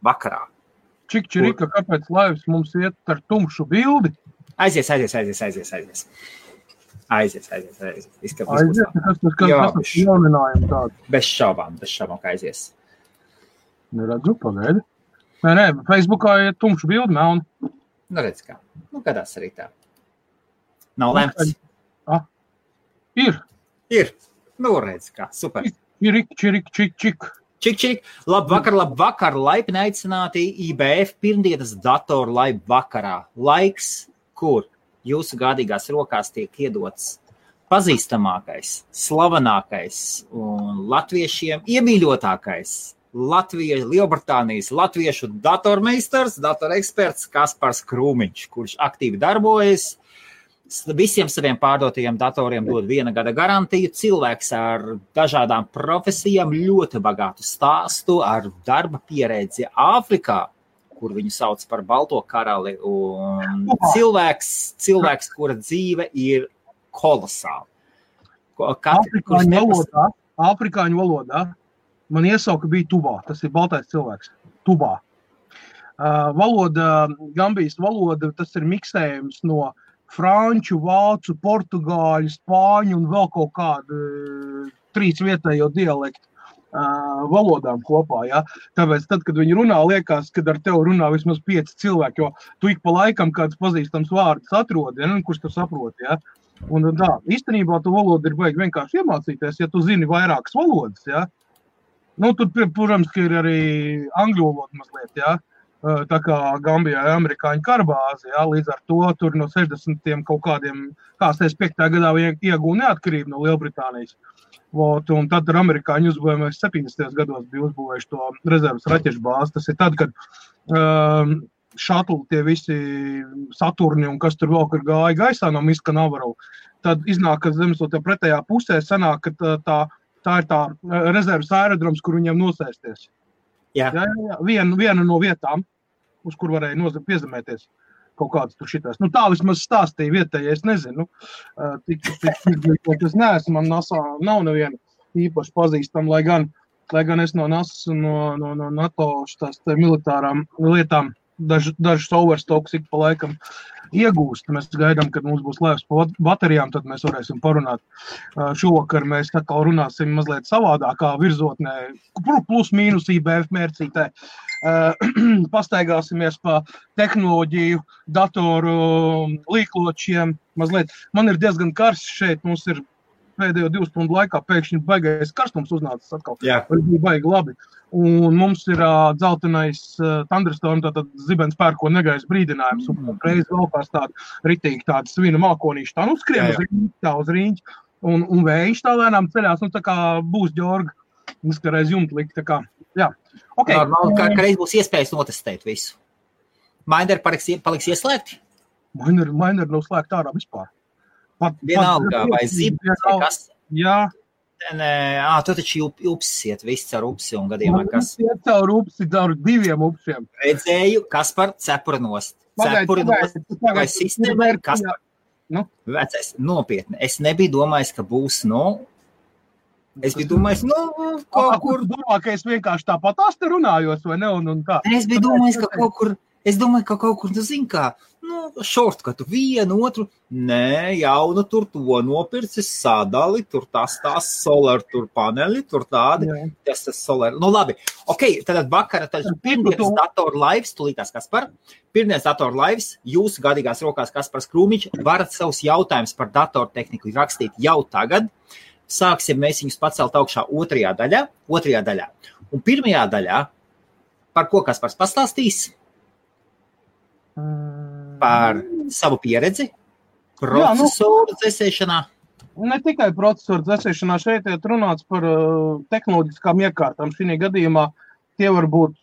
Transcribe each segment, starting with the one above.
vakarā. Čikčirika, kāpēc laivs mums iet ar tumšu bildi? Aizies. Kas jauninājumi tādi? Bez šaubām, ka aizies. Neredzu, pagaidi. Nē, Facebookā ir tumšu bildi, melni. Nu, redz kā. Nu, gadās arī tā. Nav lemts. Ir. Nu, redz kā. Super. Čik. Labvakar, laipni aicināti IBF pirmdienas datoru laivu vakarā. Laiks, kur jūsu gādīgās rokās tiek iedots pazīstamākais, slavenākais un latviešiem iemīļotākais Lielbritānijas latviešu datormeistars, datoreksperts Kaspars Krūmiņš, kurš aktīvi darbojas. Visiem saviem pārdotajiem datoriem dod 1 gada garantiju. Cilvēks ar dažādām profesijām, ļoti bagātu stāstu, ar darba pieredzi Āfrikā, kur viņu sauc par Balto karali. Un cilvēks, kura dzīve ir kolosāla. Āfrikāņu valodā man iesauka bija Tubā. Tas ir baltais cilvēks. Tubā. Gambijas valoda, tas ir miksējums no franču, vācu, portugāļu, spāņu un vēl kaut kādu 3 vietējo dialektu valodām kopā. Ja? Tāpēc tad, kad viņi runā, liekas, kad ar tevi runā vismaz 5 cilvēki, jo tu ik pa laikam kāds pazīstams vārds atrodi, ja? Kurš tu saproti. Ja? Un tā, īstenībā tu valodu ir baigi vienkārši iemācīties, ja tu zini vairākas valodas. Ja? Nu, tur, protams, ka ir arī angļu valoda mazliet, ja? Tā kā Gambijā ir amerikāņu karbāze, ja? Līdz ar to tur no 60. kaut kādiem, 5. gadā iegūja neatkarību no Lielbritānijas. Un tad ar amerikāņu uzbūvējumies 70. gados bija uzbūvējuši to rezervas raķešu bāzi. Tas ir tad, kad šatli tie visi Saturni un kas tur vēl, kur gāja gaisā no Miska Navaru, tad iznāk, ka zemeslodē pretējā pusē sanāk, ka tā ir tā rezervas aerodroms, kur viņiem nosēsties. Jā. Viena no vietām, uz kur varēja piezemēties kaut kāds tur šitās. Nu, tā vismaz stāstīja vietējais, es nezinu. Es neesmu, man NASA nav neviena īpaši pazīstama, lai gan es no NASA un no NATO tās militārām lietām dažus overstocks ik pa laikam iegūst. Mēs gaidām, kad mums būs laivs pa baterijām, tad mēs varēsim parunāt. Šovakar mēs atkal runāsim mazliet savādākā virzotnē, plus mīnus IBF mērcītē. Pastaigāsimies pa tehnoloģiju, datoru līkločiem mazliet. Man ir diezgan karsts šeit, mums ir pēdējo 2 stundu laikā pēkšņi baigais karstums uznācis atkal. Jā. Bija baigi labi. Un mums ir dzeltenais Thunderstorm, tātad zibens pērko negais brīdinājums. Un reiz vēl kāds ritīgi tāda svina mākonīša. Tā skrien uz rīņķi. Un vējš tā lēnām ceļās. Tā kā būs Ģorga. Mums kā reiz jumta likt. Tā kā, jā. Okay. Normāli, ka reiz būs iespējas notestēt visu. Miner paliks ieslēgti? Miner nav slēgt ārā vispār. Vienalga, vai zibens, vai kas? Jā. Tu taču upsis iet viss caur upsi un gadījumā kas? Iet caur upsi, caur 2 upsiem. Redzēju, Kaspar, cepura nost. Vai sistēma ir Kaspar? Vecais, nopietni. Es nebiju domājis, ka būs, es biju domājis, kaut kur. Domā, ka es vienkārši tāpat te runājos, vai ne? Un tā. Es biju domājis, ka kaut kur. Es domāju, ka kaut kur, tu zini kā, šortkatu vienu, otru, jaunu tur to nopircis, sadali, tur tas solar, tur paneli, tur tādi, tas solar. Labi, tad vakara, pirmdienas datoru laivs, tulītās Kaspar, pirmdienas datoru laivs, jūsu gadīgās rokās Kaspars Krūmiņš, varat savus jautājumus par datortehniku rakstīt jau tagad. Sāksim mēs viņus pacelt augšā otrajā daļā. Un pirmajā daļā, par ko Kaspars pastāstīs? Par savu pieredzi, procesoru dzēsēšanā? Ne tikai procesoru dzēsēšanā, šeit ir runāts par tehnoloģiskām iekārtām. Šī gadījumā tie var būt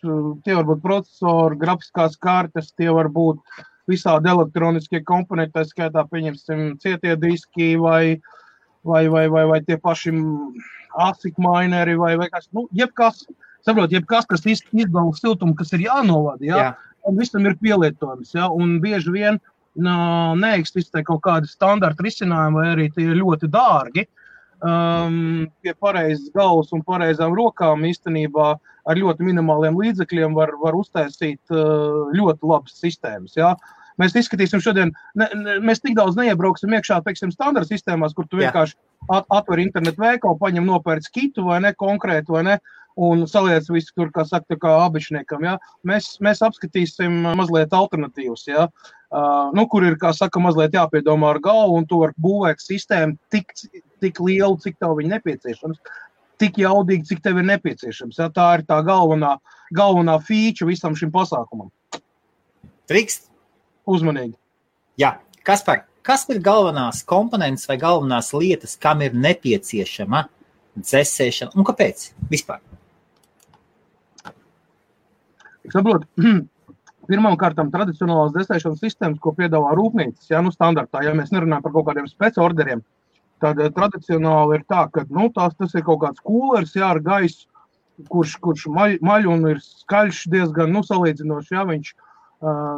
procesori, grafiskās kartes, tie var būt visādi elektroniskie komponenti, tā skaitā pieņemsim cietie diski vai tie paši ASIC mineri vai kas, jebkas, kas izdala siltumu, kas ir jānovada, jā. Un visam ir pielietojums, ja? Un bieži vien neeksistē kaut kādi standarta risinājumi, vai arī tie ir ļoti dārgi. pie pareizas galvas un pareizām rokām īstenībā ar ļoti minimāliem līdzekļiem var uztaisīt ļoti labas sistēmas. Ja? Mēs izskatīsim šodien, mēs tik daudz neiebrauksim iekšā, teiksim, standarta sistēmās, kur tu vienkārši atver internetu veikalu, paņem nopērc kitu vai ne, konkrētu vai ne, un saliec visu tur, kā saka, tā kā abišniekam, ja. Mēs apskatīsim mazliet alternatīvas, ja, kur ir, kā saka, mazliet jāpiedomā ar galvu, un tu var būvēt sistēmu tik lielu, cik tev viņa nepieciešams, tik jaudīgi, cik tev ir nepieciešams, ja. Tā ir tā galvenā feature visam šim pasākumam. Trikst? Uzmanīgi. Jā, Kaspar, kas ir galvenās komponentes vai galvenās lietas, kam ir nepieciešama dzesēšana un kāpēc vispār? Saprot, pirmām kārtām tradicionālās dzesēšanas sistēmas, ko piedāvā rūpnīcas, ja, standartā, ja mēs nerunājam par kaut kādiem spec-orderiem, tad tradicionāli ir tā, ka tas ir kaut kāds kūlers, jā, ar gaisu, kurš maļ un ir skaļš diezgan, salīdzinoši, ja, viņš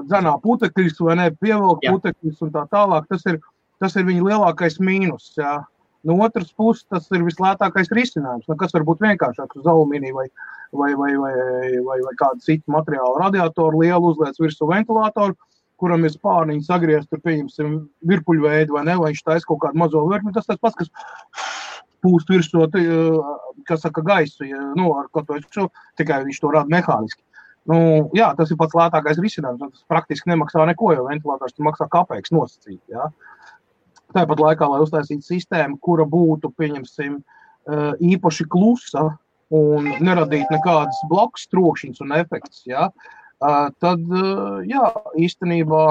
dzenā putekļus vai ne, pievelk putekļus un tā tālāk, tas ir viņa lielākais mīnus, jā. No otras puses, tas ir vislētākais risinājums, kas var būt vienkāršāks uz alumīniju vai kādu citu materiālu radiatoru, lielu uzliec virsū ventilātoru, kuram ir spārniņi sagriezt, tur pieņemsim virpuļveidu vai ne, vai viņš taisa kaut kādu mazo virpuļu, tas pats, kas pūst virsū, kas saka gaisu, ja, ar ko to tikai viņš to rada mehāniski. Jā, tas ir pats lētākais risinājums, tas praktiski nemaksā neko, jo ventilators maksā kapeiks nosacīt, jā. Tāpat laikā, lai uztaisītu sistēmu, kura būtu, pieņemsim, īpaši klusa un neradītu nekādas blakus trokšņas un efekts, jā, tad, jā, īstenībā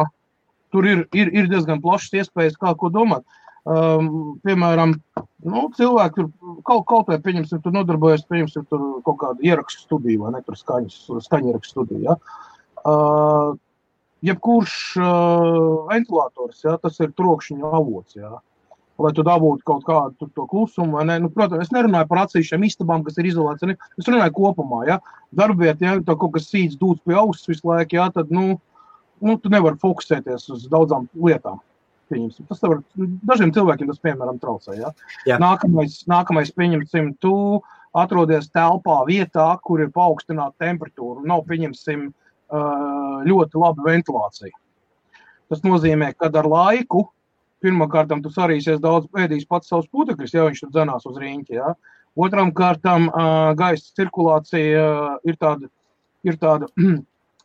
tur ir diezgan plašas iespējas, kā ko domāt. Piemēram, cilvēki tur kaut vai, pieņemsim, tur nodarbojas, pieņemsim, tur kaut kādu ierakstu studiju, vai ne, tur skaņu ierakstu studiju, ja. Jebkurš ventilators, ja, tas ir trokšņa avots, ja. Lai tu dabūtu kaut kādu to klusumu, vai ne, protams, es nerunāju par atsevišķiem istabām, kas ir izolēts, es runāju kopumā, ja. Darbiet, ja, tā kaut kas sīts dūts pie auss visu laiku, ja, tad, tu nevari fokusēties uz daudzām lietām. Tas var, dažiem cilvēkiem tas, piemēram, traucē, ja? Jā. Nākamais, pieņemsim, tu atrodies telpā vietā, kur ir paaugstināta temperatūra, nav, pieņemsim, ļoti laba ventilācija. Tas nozīmē, ka ar laiku, pirmkārtam, tu sarīsies daudz ēdīs pats savus putekļus, ja viņš tur dzenās uz riņķi, ja? Otram kārtam gaisa cirkulācija ir tāda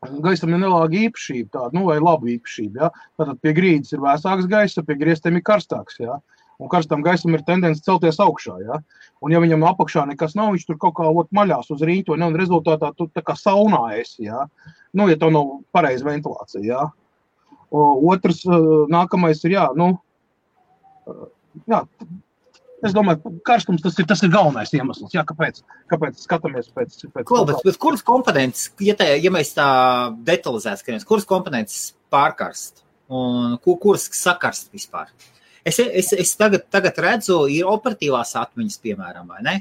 gaisam ir nelāga īpašība, tāda, vai laba īpašība, ja? Tātad pie grīdas ir vēsāks gaisa, pie griestiem ir karstāks, ja? Un karstam gaisam ir tendence celties augšā, ja? Un ja viņam apakšā nekas nav, viņš tur kaut kā maļās uz rīņķi, un rezultātā tu tā kā saunā esi, ja? Ja tev nav pareiza ventilācija, ja? Otrs, nākamais ir, es domāju, karstums tas ir galvenais iemesls, jā, kāpēc skatāmies pēc bet kuras komponentes, ja mēs tā detalizēt skatāmies, kuras komponentes pārkarst un kuras sakarst vispār? Es tagad redzu, ir operatīvās atmiņas, piemēram, vai ne?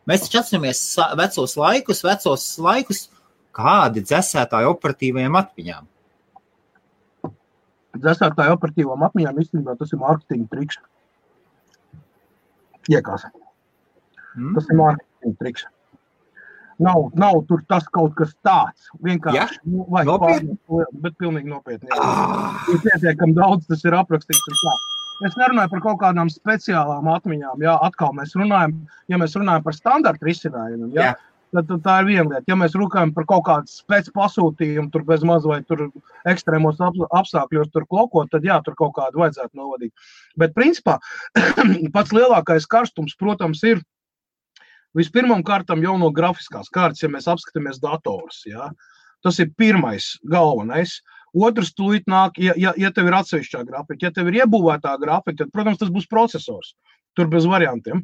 Mēs taču atceramies vecos laikus, kādi dzesētāji operatīvajām atmiņām? Dzesētāji operatīvām atmiņām īstenībā tas ir mārketinga triks. Iekās. Tas ir mārketinga triks. Nav tur tas kaut kas tāds. Vienkārši. Ja? Nopietni? Bet pilnīgi nopietni. Ir pietiekami daudz, tas ir aprakstīts. Es nerunāju par kaut kādām speciālām atmiņām. Jā, atkal mēs runājam par standarta risinājumiem. Jā. Tad tā ir viena lieta. Ja mēs runājam par kaut kādu spec pasūtījumu, tur bez maz vai tur ekstrēmos apstākļos tur klokot, tad jā, tur kaut kādu vajadzētu novadīt. Bet principā pats lielākais karstums, protams, ir vispirmām kārtām jau no grafiskās kārtas, ja mēs apskatāmies datorus. Jā. Tas ir pirmais galvenais. Otrs tūlīt nāk, ja tev ir atsevišķā grafika. Ja tev ir iebūvētā grafika, tad, protams, tas būs procesors. Tur bez variantiem.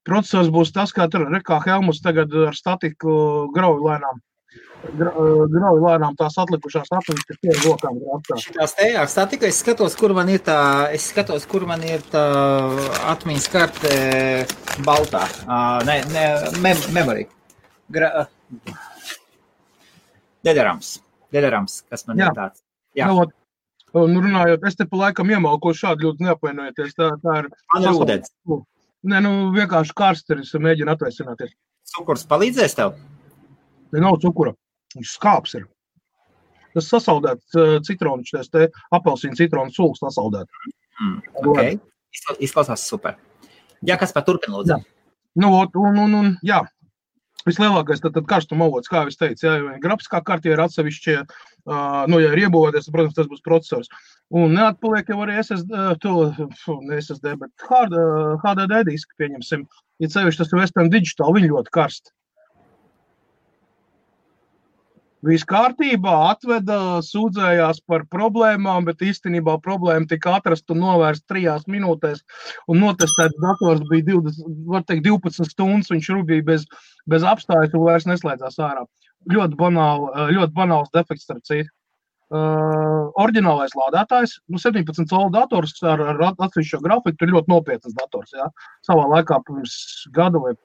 Procesors būs tas, kā Helmuts tagad ar statiku grauj lēnām tās atlikušās atmiņas, kas tie ir lokām grāmatā. Šitās te ar statiku es skatos, kur man ir tā atmiņas karte baltā. Memory. Dedarams, kas man ir tāds. Jā. Runājot, es te pa laikam iemalko šādi ļoti neapvainojieties. Tā ir man ir ūdens. Nē, nu vienkārši karsteris mēģina atvēsināties. Cukurs palīdzēs tev? Ne nav cukura. Viņš skāps ir. Tas sasaldēts citronu, šis te apelsīnu citronu sulas sasaldēt. Ok. Izklausās super. Jā, kas par turpin, lūdzu? Jā. Nu, jā. Vislielākais tad karstuma avots, kā es teicu, ja grafiskā kārtī ir atsevišķie, ja ir iebūvēties, protams, tas būs procesors. Un neatpaliek jau arī SSD, bet HDD diski, pieņemsim. Ja sevišķi tas ir Western Digital, viņi ļoti karsti. Viss kārtībā, atveda, sūdzējās par problēmām, bet īstenībā problēma tika atrast un novērst 3 minūtēs. Un notestēts dators bija 12 stundas, viņš rubīja bez apstājas un vairs neslēdzās ārā. Ļoti banāls defekts starp citu. Oriģinālais lādētājs, 17 colu dators ar atsevišķo grafiku, ir ļoti nopietnas dators. Ja? Savā laikā pirms gada vai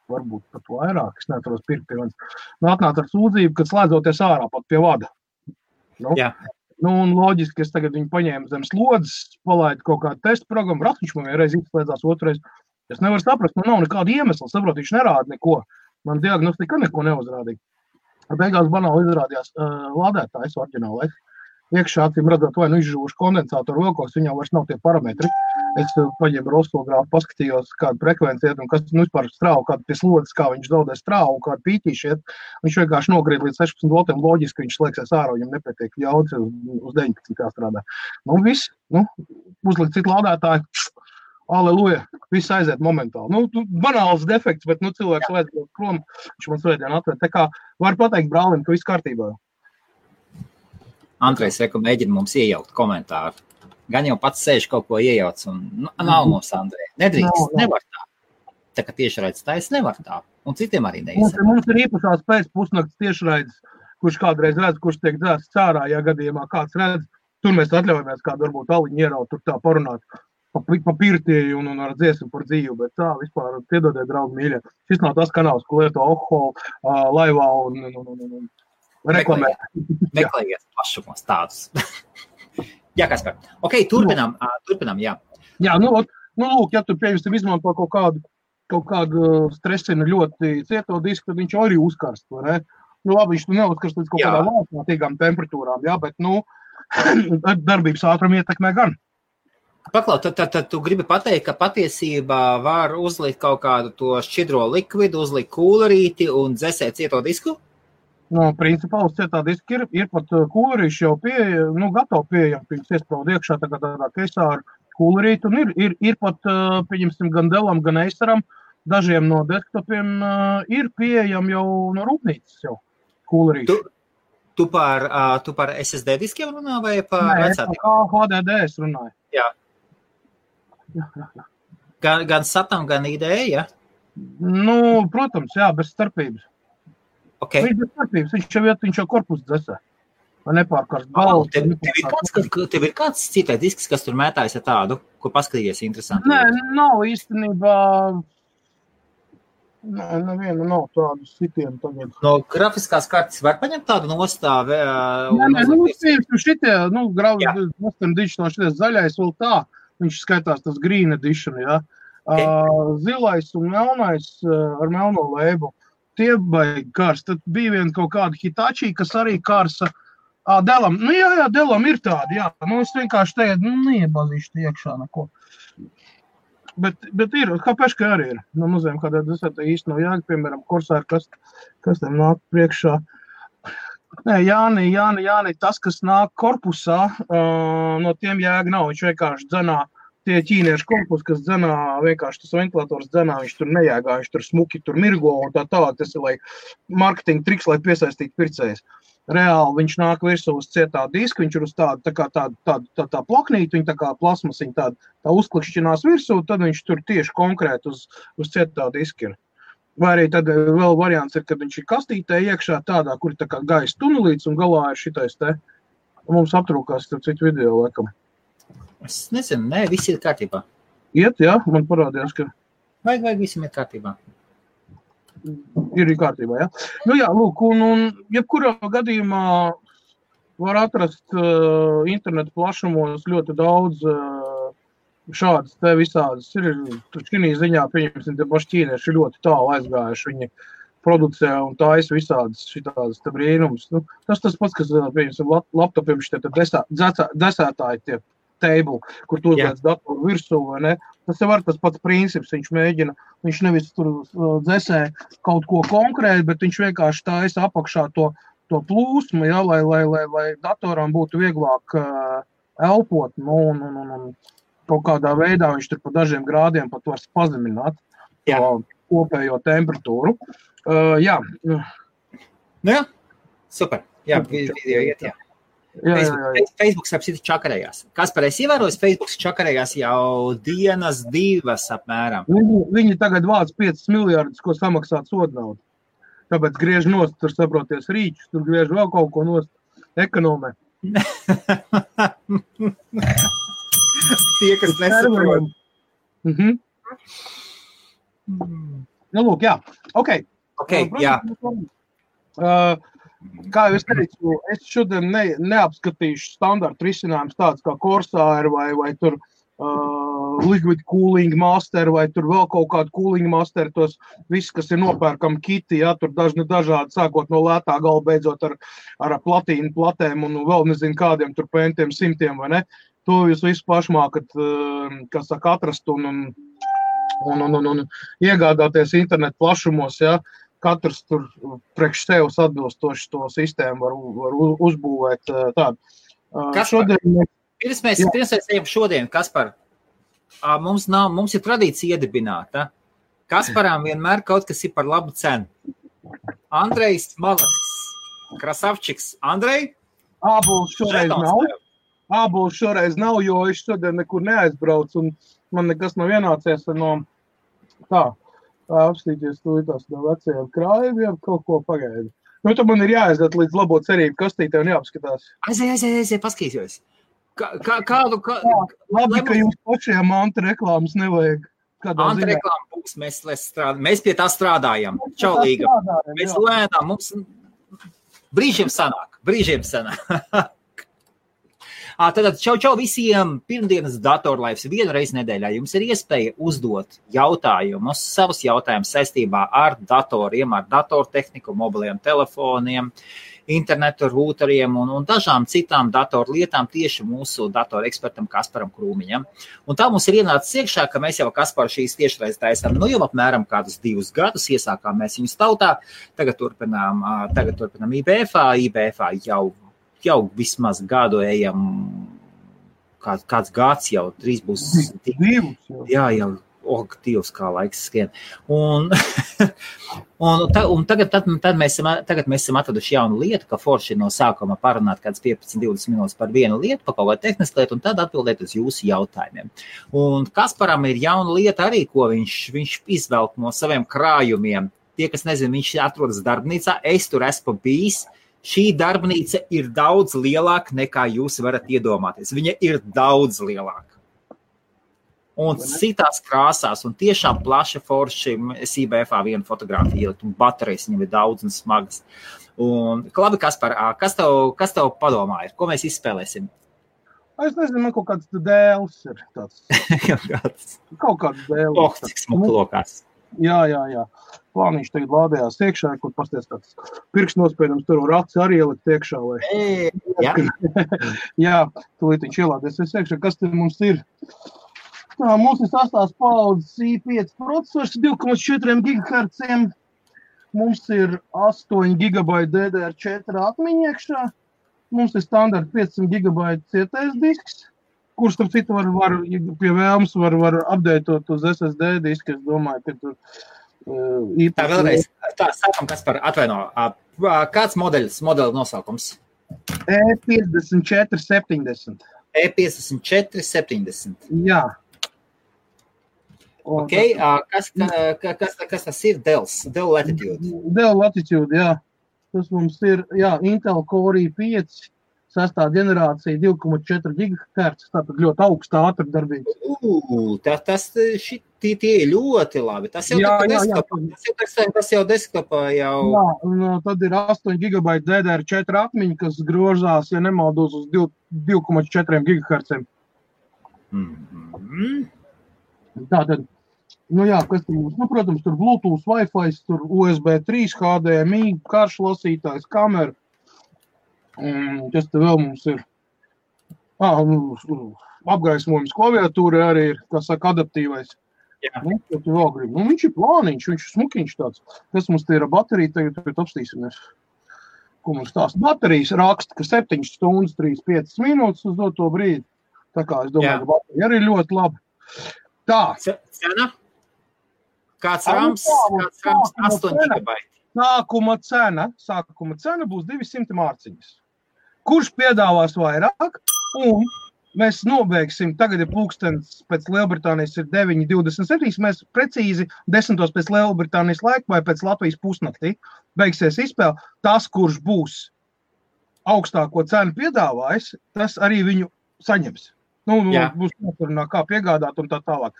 varbūt pat vairāk, es neatceros pirkt pie manis. Atnāca ar sūdzību, kad slēdzoties ārā pat pie vada. Un loģiski, es tagad viņu paņēmu zem slodzes, palaidu kaut kādu testu programmu, viņš man vienreiz izslēdzās, otrais. Es nevaru saprast, man nav nekāda iemesla, saprot, viņš nerāda neko. Man diagnostika neko neuzrādīja. Beigās banāli izrādījās lādētājs oriģinālais. Iekšā acīm redzot, vai izžūšu kondensātoru vilkos, viņam vairs nav tie parametri. Es paņēmu rostogrāfu, paskatījos, kādu frekvenci iet un kas vispār strāvu, kādu pie slodzes, kā viņš zaudē strāvu, kādu pītīši iet. Viņš vienkārši nogrīd līdz 16 voltiem, loģiski viņš slēgsies ārā, viņam nepietiek jaudas uz 19 kā strādā. Viss, uzlikt citu lādētāju, aleluja, viss aiziet momentāli. Banāls defekts, bet cilvēks vajadzētu prom, viņš man svētdien atved. Tā kā var pateikt brālim, ka viss kārtībā. Andrejs mēģina mums iejaukt komentāru. Gan jau pats sēž kaut ko iejauc un nav mums, Andrej. Nedrīkst, nevar tā. Tā kā tiešraides taisa nevar tā. Un citiem arī neizsaka. Mums ir īpašās pēc pusnakts tiešraides, kurš kādreiz redz, kurš tiek dzēsts cārā, ja gadījumā kāds redz. Tur mēs atļaujamies kādu varbūt aliņu ieraut, tur tā parunāt pa pirtī un ar dziesmu par dzīvu, bet tā vispār piedodiet, draugi mīļie. Šis nav tas kanāls, ko lieto Ohol, laivā un reklamē. Meklējiet plašumos tādus. Jā, Kaspar. Ok, turpinām, jā. Jā, lūk, ja tu pieņemsim izmanto kaut kādu stresinu ļoti cieto disku, tad viņš arī uzkarst, vai ne? Labi, viņš neuzkarst līdz kaut kādām vārdsmātīgām temperatūrām, jā, bet, darbības ātrumu ietekmē gan. Paklau, tad tu gribi pateikt, ka patiesībā var uzlikt kaut kādu to šķidro likvidu, uzlikt kūlerīti un dzesēt cieto disku? Principā uz cietā diska ir pat kūlerīši jau gatavi pieejami, pirms iesprauda iekšā tādā keisā ar kūlerīti, un ir pat, pieņemsim, gan Dellam, gan Aceram, dažiem no desktopiem ir pieejami jau no rūpnīcas jau kūlerīši. Tu par SSD diskiem runā vai par vecākiem? Nē, HDD es runāju. Jā. Gan SATam, gan IDE, ja? Protams, jā, bez starpības. Okay. Viņš jau korpus dzesē. Vai nepārkārst balvu. Tev ir kāds citais disks, kas tur mētājas ar tādu, ko paskatījies interesanti? Nē, nav īstenībā. Nevienu nav tādu sitienu tagad. No grafiskās kartes var paņemt tādu nostāvi? Šitie, Western Digital, šities zaļais vēl tā. Viņš skaitās tas Green Edition, jā. Zilais un melnais ar melno lēbu. Tie baigi kārs. Tad bija viena kaut kāda Hitachi, kas arī kārsa. Dellam. Jā, Dellam ir tādi, jā. Es vienkārši tagad, neiebazīšu te iekšā neko. Bet ir, Hapeška arī ir. No muzējiem kādā desētā īsti nav jāga, piemēram, Corsair, kas tam nāk priekšā. Nē, Jāni, tas, kas nāk korpusā, no tiem jāga nav. Viņš vienkārši dzenā. Tie ķīniešu korpus, kas dzenā, vienkārši tas ventilators dzenā, viņš tur nejāgā, viņš tur smuki, tur mirgo un tā tālāk. Tas ir, lai marketinga triks, lai piesaistītu pircējus. Reāli viņš nāk virsū uz cietā diska, viņš ir uz tā plaknīti, viņa tā kā plasmasiņa tā uzklikšķinās virsū, tad viņš tur tieši konkrēti uz cietā diska ir. Vai arī tad vēl variants ir, kad viņš ir kastītē iekšā tādā, kur ir tā kā gaisa tunelīts un galā ir šitais te. Mums aptrūkās citu video laikam. Es nezinu, viss ir kārtībā. Iet, jā, man parādījās, ka... Vajag visam ir kārtībā. Ir kārtībā, jā. Jā, lūk, un jebkurā gadījumā var atrast internetu plašumos ļoti daudz šādas te visādas ir. Šī ziņā, pieņemsim, te paši ķīnieši ir ļoti tālu aizgājuši. Viņi producē un taisa visādas šitādas te brīnumus. Nu, tas pats, kas, pieņemsim, laptopiem šitie desētāji tie table, kur tu uzliec datoru virsū, vai ne? Tas jau var tas pats princips, viņš nevis tur dzesē kaut ko konkrēti, bet viņš vienkārši taisa apakšā to plūsmu, ja, lai datoram būtu vieglāk elpot, un kaut kādā veidā viņš tur pa dažiem grādiem pat var pazemināt kopējo temperatūru. Jā. Nu jā, super. Jā, video iet, jā. Facebook apsita čakarējās. Kaspar, es ievēroju, Facebook čakarējās jau dienas 2 apmēram. Viņi tagad vāc 5 miljardus, ko samaksāt sodnaudu. Tāpēc griež nost, tur saproties rīčus, tur griež vēl kaut ko nost ekonomē. Tie, kas nesaprot. Nu, lūk, jā. Ok, jā. Kā jau es teicu, es šodien neapskatīšu standartu risinājums tāds kā Corsair vai tur Liquid Cooling Master vai tur vēl kaut kādu Cooling Master, tos viss, kas ir nopērkam kiti, ja, tur dažādi, sākot no lētā gala, beidzot ar platīnu platēm un vēl nezinu kādiem tur pentiem simtiem, vai ne? To jūs visu pašmākat, kas saka, atrast un iegādāties internetu plašumos, ja. Katrs tur priekš sevs atbilstoši to sistēmu var uzbūvēt tādu. Kaspar, pirms mēs ejam šodien, Kaspar, mums ir tradīcija iedibināta. Kasparam vienmēr kaut kas ir par labu cenu. Andrejs Malacis, Krasavčiks. Andrej? Ābols šoreiz nav, jo es šodien nekur neaizbraucu un man nekas nav ienācies no apstīties tās no vecajiem krājumiem, kaut ko pagaidu. Nu, tad man ir jāaiziet līdz labo cerību kastītē un jāapskatās. Aiziet, paskatīsies. Labi, ka jums pašiem antireklāmas nevajag. Antireklāma būs, mēs pie tā strādājam. Čaulīga. Mēs lēnām, mums brīžiem sanāk. Tātad čau visiem pirmdienas datorlaivs vienu reizi nedēļā. Jums ir iespēja uzdot jautājumus, savus jautājumus saistībā ar datoriem, ar datortehniku, mobiliem telefoniem, internetu rūteriem un dažām citām datorlietām tieši mūsu datorekspertam Kasparam Krūmiņam. Un tā mums ir ienācis iekšā, ka mēs jau Kasparu šīs tiešreiz taisām, jau apmēram kādus 2 gadus iesākām mēs viņus tautā, tagad turpinām IBFā jau vismaz gadu ejam, kāds gads jau, 3 būs. Jā, Dievs, kā laiks skrien. Un tagad mēs esam atraduši jaunu lietu, ka forši no sākuma parunāt kāds 15-20 minūtes par vienu lietu, pa kaut vai tehnisku lietu, un tad atbildēt uz jūsu jautājumiem. Un Kasparam ir jauna lieta arī, ko viņš izvelk no saviem krājumiem. Tie, kas nezin, viņš atrodas darbnīcā, es tur esmu bijis. Šī darbnīca ir daudz lielāka nekā jūs varat iedomāties. Viņa ir daudz lielāka. Un citās krāsās, un tiešām plaša forši, es IBFā vienu fotogrāfiju ielikt, un baterijas viņam ir daudz un smagas. Un, labi, Kaspar, kas tev padomā ir? Ko mēs izspēlēsim? Es nezinu, man kaut kāds dēls ir tāds. Kaut kāds dēls. Cik smuki lokās. Jā. Plāniņš tagad lādējās iekšā, kur pasties tāds pirkstnospiedums tur un raci arī ielikt iekšā. Jā, tūlīt viņš ielādēs iekšā. Kas te mums ir? Mums ir 8. paudzes i5 procesors 2,4 GHz. Mums ir 8 GB DDR4 atmiņa iekšā. Mums ir standarta 500 GB cietais disks, kurš tam citu var pie vēlmes var updateot uz SSD disku. Es domāju, ka tur Tā vēlreiz, sākam, Kaspar, atvaino. Kāds modeļa nosaukums? E5470. E5470. Jā. Ok, kas tas ir? Dell Latitude. Dell Latitude, jā. Tas mums ir, Intel Core i5. 6. generācija 2,4 GHz, tātad ļoti augsta ātrdarbība. Tie ir ļoti labi. Tas jau desktopā jau. Jā, un tad ir 8 GB DDR4 atmiņa, kas grožās, ja nemaldos, uz 2,4 GHz. Tātad, kas tur mums, protams, tur Bluetooth, Wi-Fi, tur USB 3, HDMI, karšlasītājs, kamera. Kas te vēl mums ir? Apgaismojums klaviatūra arī ir, kā saka, adaptīvais. Jā. Ko tu vēl gribi? Viņš ir plāniņš, viņš ir smukiņš tāds. Kas mums te ir baterija, tagad apstīsimies. Ko mums tās baterijas raksta, ka 7 stundas, 3-5 minūtes uz doto brīdi. Tā kā es domāju, ka baterija arī ļoti labi. Tā. Cena? Kāds rams 8 gigabaiti. Sākuma cena būs 200 mārciņas. Kurš piedāvās vairāk? Un mēs nobeigsim, tagad ir pulkstens pēc Lielbritānijas ir 9:27, mēs precīzi 10 pēc Lielbritānijas laika vai pēc Latvijas pusnaktī beigsies izspēle. Tas, kurš būs augstāko cenu piedāvājis, tas arī viņu saņems. Būs noturunā, kā piegādāt un tā tālāk.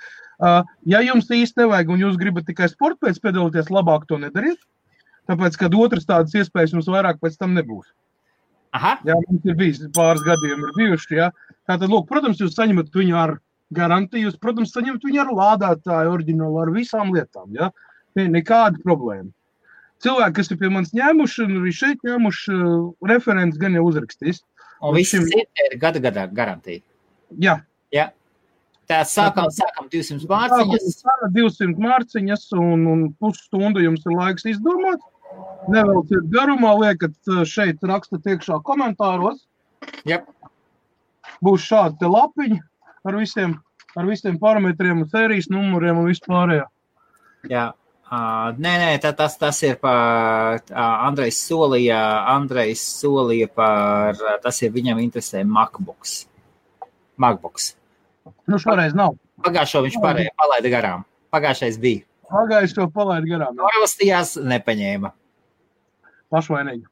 Ja jums īsti nevajag un jūs gribat tikai sporta pēc piedalīties, labāk to nedariet, tāpēc, kad otras tādas iespējas jums vairāk pēc tam nebūs. Aha. Jā, mums ir bijis pāris gadiem ir bijuši, jā. Tātad, lūk, protams, jūs saņemat viņu ar garantiju, jūs, protams, saņemat viņu ar lādētāju oriģinālu, ar visām lietām, jā. Nekāda problēma. Cilvēki, kas ir pie manis ņēmuši, un arī šeit ņēmuši, referents gan jau uzrakstīs. Un visi ir gada garantija. Jā. Jā. Tā sākam 200 mārciņas. 200 mārciņas un pusstundu jums ir laiks izdomāt. Nevelciet garumā, liekat šeit rakstat iekšā komentāros. Jep. Būs šādi te lapiņi ar visiem parametriem un sērijas numuriem un vispārējā. Jā. Nē, tas ir par Andrejs solīja par, tas ir viņam interesē MacBooks. Šoreiz nav. Pagājušo viņš palaida garām. Pagājušais bija. Pagājušo palaida garām. Norvalstījās, nepaņēma. Pašvainīgi.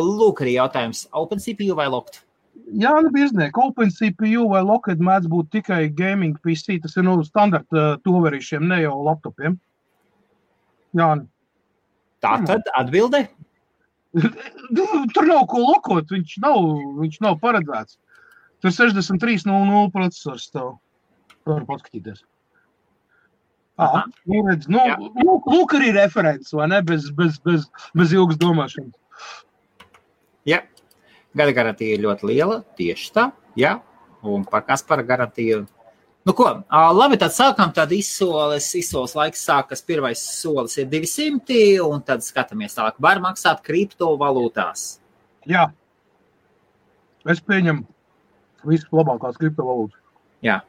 Lūk arī jautājums. OpenCPU vai Locked? Jā, bieznieki. OpenCPU vai Locked mēdz būt tikai gaming PC. Tas ir standarta toverīšiem, ne jau laptopiem. Jā. Tā tad atbilde? Tur nav ko lokot. Viņš nav paredzēts. Tur 6300 procesors tev. Var paskatīties. Lūk arī referents, vai ne? Bez ilgas domāšanas. Jā. Gada garantija ir ļoti liela, tieši tā. Jā. Un par Kaspara garantiju. Labi, tad sākam, tad izsoles laiks sākas. Pirmais solis ir 200, un tad skatāmies tālāk. Var maksāt kriptovalūtās. Jā. Es pieņemu visas labākās kriptovalūtas. Jā.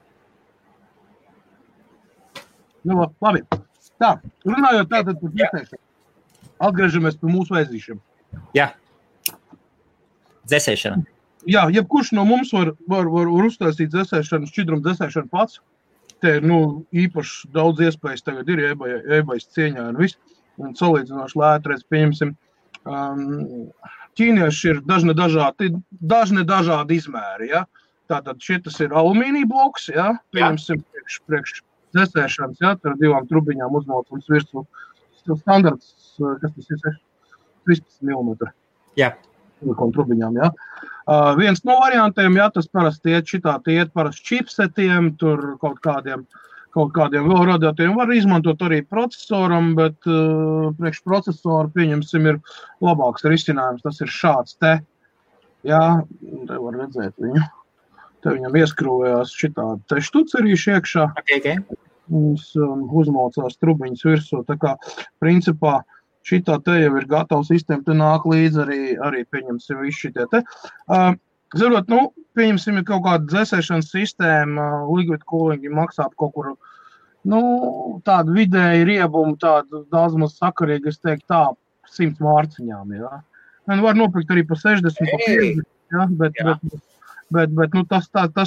Labi. Tā, runājot tātad par dzēsēšanu. Atgriežamies pie mūsu vēzīšiem. Jā. Dzēsēšana. Jā, jebkurš no mums var uztaisīt dzēsēšanu, šķidrumu dzēsēšanu pats. Te ir, īpaši daudz iespējas tagad ir eBay's cieņā un viss. Un salīdzinoši lētreiz pieņemsim. Ķīnieši ir dažne dažādi izmēri, ja? Tātad šitas ir alumīnija bloks, ja? Pieņemsim priekš dzēsēšanas, ja? Tur 2 trubiņām uzmalcums virsmu. Standarts, kas tas ir, 13 mm. Jā. Trubiņām, ja? Viens no variantiem, ja, tas parasti iet parasti čipsetiem, tur kaut kādiem vēl radiatoriem var izmantot arī procesoram, bet priekš procesoru, pieņemsim, ir labāks risinājums. Tas ir šāds te. Jā, te var redzēt viņu. Te viņam ieskrūvējās šitādi te štucerīši iekšā. Okay. Uzmaucās trubiņas virsū. Tā kā, principā, šitā te jau ir gatava sistēma, te nāk līdz arī pieņemsim visu šitie te. Zarot, pieņemsim, ir kaut kāda dzēsēšanas sistēma, liquid cooling maksā kaut kur, tādu vidēji riebumu, tādu daudz maz sakarīgi, es teiktu tā, 100 mārciņām, jā. Var nopirkt arī pa 60, pa 50, jā, bet tas tā. Tad,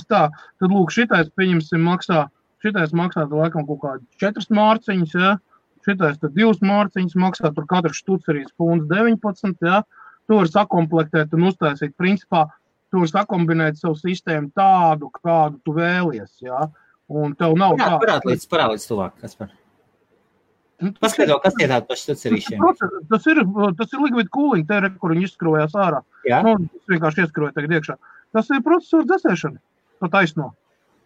lūk, šitais, pieņemsim, maksā laikam kaut kādi 4 mārciņas, jā. Šitais tad 2 mārciņas maksā, tur katrs štucerīs punds 19, jā. Tu var sakomplektēt un uztaisīt, principā, tu var sakombinēt savu sistēmu tādu, kādu tu vēlies, jā. Un tev nav tā. Parādīts tuvāk, Kaspar. Paskaidro, kas ir tāda par štucerīšiem? Tas ir liquid cooling, te kur viņi izskrūvējās ārā. Jā. Tas vienkārši ieskrūvēja tagad iekšā. Tas ir procesoru dzēsēšana. pa taisno.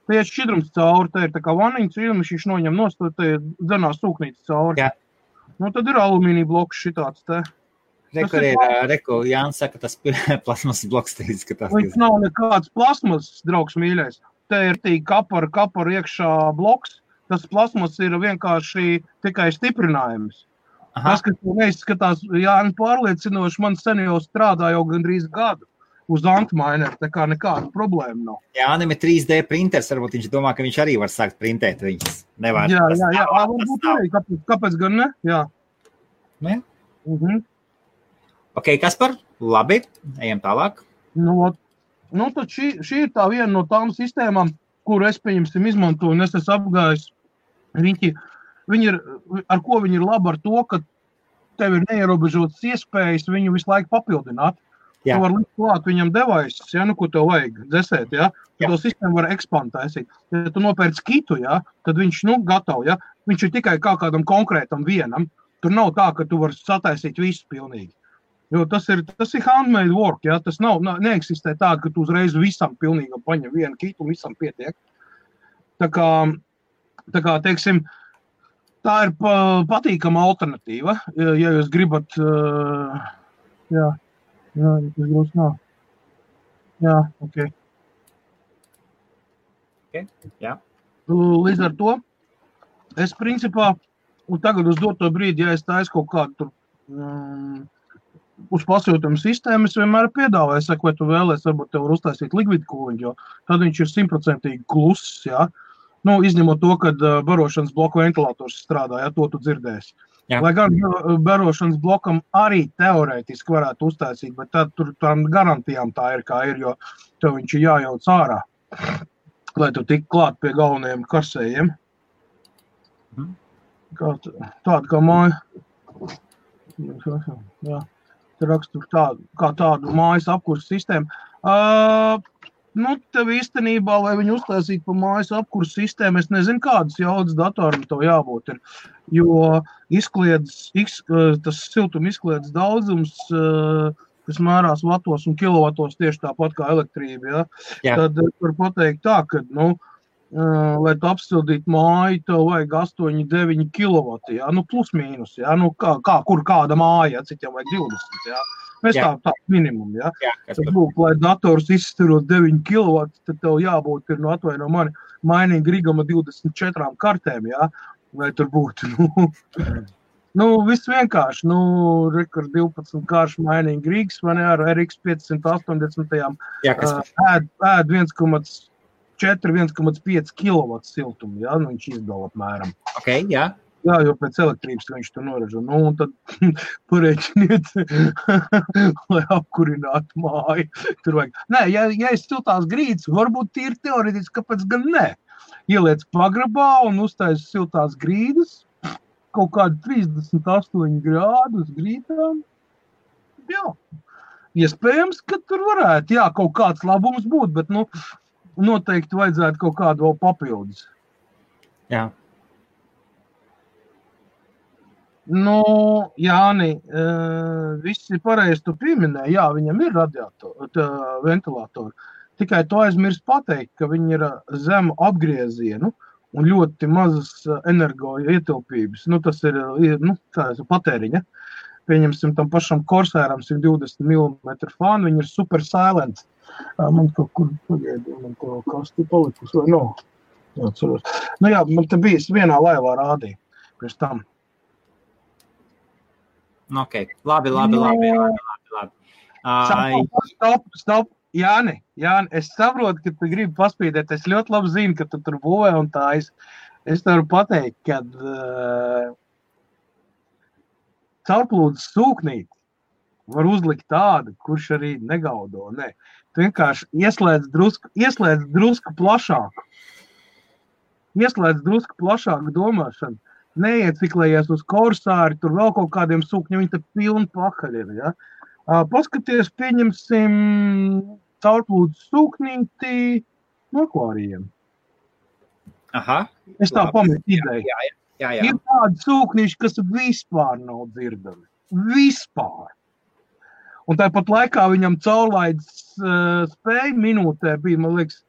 Te iet šķidrums cauri, te ir tā kā vaniņas šķidrums, viņš noņem nost, te dzenās sūknītes cauri. Jā. Nu, tad ir alumīnija bloks šitāds te. Reku, Jānis saka, tas plasmas bloks te izskatās. Viņš nav nekāds plasmas, draugs mīļais. Te ir tī kapara iekšā bloks. Tas plasmas ir vienkārši tikai stiprinājums. Aha. Tas, kas neizskatās, Jāni pārliecinoši, man sen jau strādā jau gandrīz gadu uz antmaineru, tā kā nekāda problēma nav. Jānim ir 3D printers, varbūt viņš domā, ka viņš arī var sākt printēt viņas. Nevar. Jā, varbūt arī, kāpēc gan ne? Jā. Ne? Ok, Kaspar, labi, ejam tālāk. Nu, tad šī ir tā viena no tām sistēmām, kuru es, pieņemsim, izmantoju, un es esmu apgājis. Viņi ir, ar ko viņi ir labi ar to, ka tev ir neierobežotas iespējas viņu visu laiku papildināt. Jā. Tu var likt klāt viņam devices, ja, nu, ko tev vajag dzesēt, ja. To sistēmu var ekspantēsīt. Ja tu nopērc kitu, ja, tad viņš, gatavo, ja. Viņš ir tikai kā kādam konkrētam vienam. Tur nav tā, ka tu vari sataisīt visu pilnīgi. Jo tas ir handmade work, ja. Tas neeksistē tā, ka tu uzreiz visam pilnīgi paņem vienu kitu un visam pietiek. Tā kā, teiksim, tā ir patīkama alternatīva, ja jūs gribat, jā, tas grūs nav. Jā, ok. Jā. Līdz ar to, es principā, un tagad uz doto brīdi, ja es taisu kaut kādu tur uz pasūtījumu sistēmu, es vienmēr piedāvāju, saku, vai tu vēlies, varbūt tev var uztaisīt liquid cooling, jo tad viņš ir 100% kluss, jā. Nu, izņemot to, kad barošanas bloku ventilators strādā, ja to tu dzirdēsi. Jā. Lai gan barošanas blokam arī teorētiski varētu uztaisīt, bet tad tur tām garantijām tā ir, kā ir, jo tev viņš ir jājauc ārā, lai tu tik klāt pie galvenajiem karsējiem. Tāda kā māja. Jā. Te rakstur kā tādu mājas apkursu sistēmu. Tev īstenībā, lai viņu uztaisītu pa mājas apkursu sistēmu, es nezinu, kādas jaudas datoram tev jābūt ir, jo tas siltuma izkliedz daudzums, kas mērās vatos un kilovatos tieši tāpat kā elektrība, ja? Tad var pateikt tā, ka, lai tu apsildītu māju, tev vajag 8-9 kilovati, ja? Plus mīnus, ja? Kur kāda māja, cik jau vajag 20, ja? Mēs tā minimum, ja? Tad būtu, lai dators izstarot 9 kW, tad tev jābūt ir, atvaino mani, mainīgi rigama 24 kartēm, ja? Lai tur būtu, viss vienkārši, rekord 12 kāršu mainīgi rigs, vai ne, ar RX 580, ēd 1,4-1,5 kW siltumu, ja? Viņš izdala apmēram. Ok, jā. Jā, jo pēc elektrības viņš tur noražo. Un tad pareiķiniet, lai apkurinātu māju. Tur vajag. Nē, ja ir siltās grīdas, varbūt tīri teorētiski, kāpēc gan ne? Ieliec pagrabā un uztais siltās grīdas, kaut kādi 38 grādus grīdām. Jā, iespējams, ka tur varētu, kaut kāds labums būt, bet, noteikti vajadzētu kaut kādu vēl papildus. Jā. Jāni, viss ir pareizi, tu pieminēji, jā, viņam ir ventilatori. Tikai to aizmirst pateikt, ka viņi ir zemu apgriezienu un ļoti mazas energo ietilpības. Tas ir, patēriņa. Pieņemsim tam pašam Corsairam 120 mm fānu, viņi ir super silent. Man kaut kur pagaidī, man to kasti palikus, vai nav? Jā, ceros. Man te bijis vienā laivā rādīja, pirms tam. Ok, labi. Stop. Jāni, es saprotu, ka tu gribi paspīdēt. Es ļoti labi zinu, ka tu tur būvē un tā. Es tev varu pateikt, ka caurplūdes sūknīti var uzlikt tādu, kurš arī negaudo. Nē. Tu vienkārši ieslēdz drusku plašāku. Ieslēdz drusku plašāku domāšanu. Neieciklējies uz Corsāri, tur vēl kaut kādiem sūkņiem, viņi te pilni pakaļ ir, ja? Paskaties, pieņemsim caurplūdes sūknīti no akvārijiem. Aha. Es tā pametu ideju. Jā. Ir tādi sūknīši, kas vispār nav dzirdami. Vispār. Un tāpat laikā viņam caurlaides spēja minūtē bija, man liekas,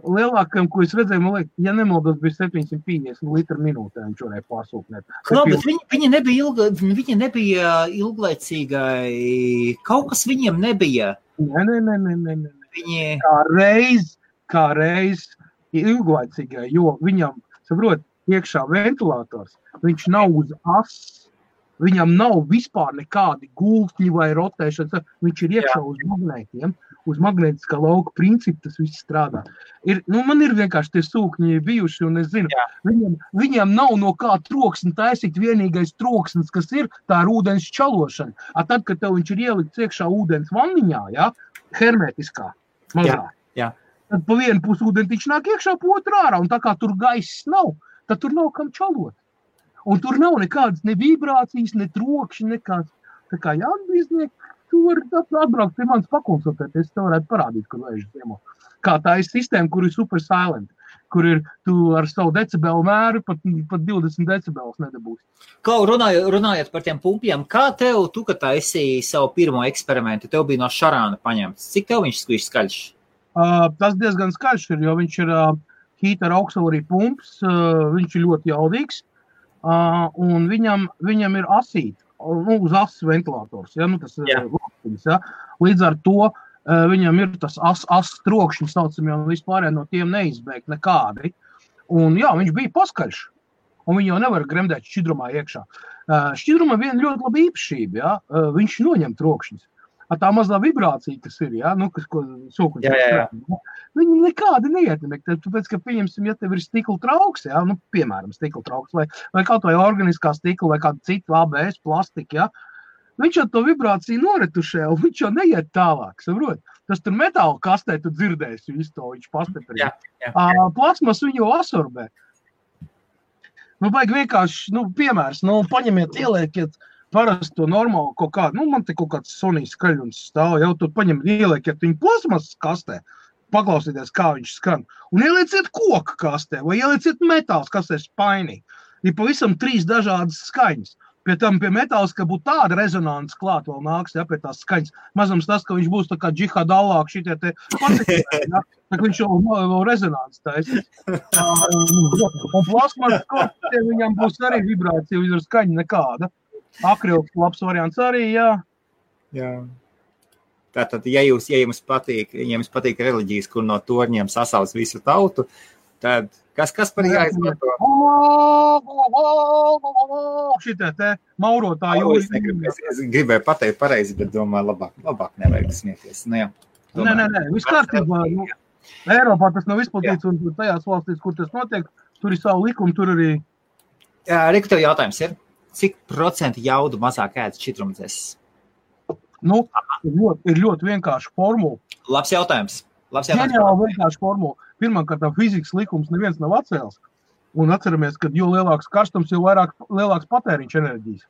lielākam, ko es redzēju, man liekas, ja nemaldos, bija 750 litru minūtē, viņš varēja pārsūknēt. Klau, bet viņi nebija ilglaicīgai, kaut kas viņiem nebija. Nē. Viņi... Kā reiz ilglaicīgai, jo viņam, saprot, iekšā ventilators, viņš nav uz asas, viņam nav vispār nekādi gultņi vai rotēšanas, viņš ir iekšā uz magnētiem, uz magnētiskā lauka principu tas viss strādā. Man ir vienkārši tie sūkņi bijuši, un es zinu, viņam nav no kā troksni taisīt, vienīgais troksnis, kas ir, tā ir ūdens čalošana. Tad, kad tev viņš ir ielikts iekšā ūdens vanniņā, hermetiskā, mazā, tad pa vienu pusi ūdentiņš nāk iekšā, pa otru ārā, un tā kā tur gaiss nav, tad tur nav kam čalot. Un tur nav nekādas ne vibrācijas, ne trokšņi, nekāds. Tā kā jāatbīznieki, tu vari atbraukt pie manis pakonsultēt, es tev varētu parādīt, kur vēžas ziemo. Kā tā ir sistēma, kur ir super silent, kur ir tu ar savu decibelu mēru pat 20 decibelus nedabūsi. Klau, runājot par tiem pumpiem, kā tev, tu, kad taisīji savu pirmo eksperimentu, tev bija no šarāna paņemts? Cik tev viņš skaļš? Tas diezgan skaļš ir, jo viņš ir heater auxiliary pumps, viņš ir ļoti jaudīgs. Un viņam ir asīt, uz asas ventilators, tas ir loktiņas, Līdz ar to viņam ir tas asas trokšņi, saucam, un vispārēj no tiem neizbēgt nekādi. Un viņš bija paskaļš, un viņi jau nevar gremdēt šķidrumā iekšā. Šķidrumā viena ļoti laba īpašība, viņš noņem trokšņus. Tā mazā vibrācija, kas ir, kas, ko sokuņš strādā, viņi nekādi neietekmē. Tāpēc, ka, pieņemsim, ja tev ir stikla trauks, piemēram, stikla trauks, vai kaut vai organiskā stikla, vai kāda cita ABS plastika, viņš jau to vibrāciju noretušē, un viņš jau neiet tālāk, saprot? Tas tur metāla kastē, tu dzirdēsi visu to, viņš pastiprina. Plasmas viņu jau absorbē. Vajag vienkārši, piemērs, paņemiet, ieliekiet, parasti to normāli kaut kādu, man te kaut kāds Sony skaļums stāv, jau tur ieliekiet viņu plasmas kastē, paklausieties, kā viņš skan, un ielieciet koka kastē, vai ielieciet metāls kastē spainī. Ir pavisam 3 dažādas skaņas. Pie tam pie metāls, ka būtu tāda rezonances klāt vēl nāks, pie tās skaņas. Mazams tas, ka viņš būs tā kā džihad allāk šitie te patikļi, tā viņš jau rezonances taisīs. Un plasmas kastē viņam būs arī vibrācija, viņam ir skaņa nekāda. Akrils labs variants arī, Jā. Tātad, ja jums patīk reliģijas, kur no torņiem sasauc visu tautu, tad kas par jāizmanto? Šitie te maurotāji jūri. Es gribēju pateikt pareizi, bet domāju, labāk nevajag smieties. Nē, viss kārtībā. Eiropā tas nav izplatīts, un tajās valstīs, kur tas notiek, tur ir savu likumu, tur arī... Reku, tev jautājums ir? Cik procenti jaudu mazāk ēd šķidrumdzēs? Ir ļoti vienkārši formula. Labs jautājums. Ģeniāli vienkārši formula. Pirmkārt, fizikas likums neviens nav atcēlis. Un atceramies, ka jo lielāks karstums, jo lielāks patēriņš enerģijas.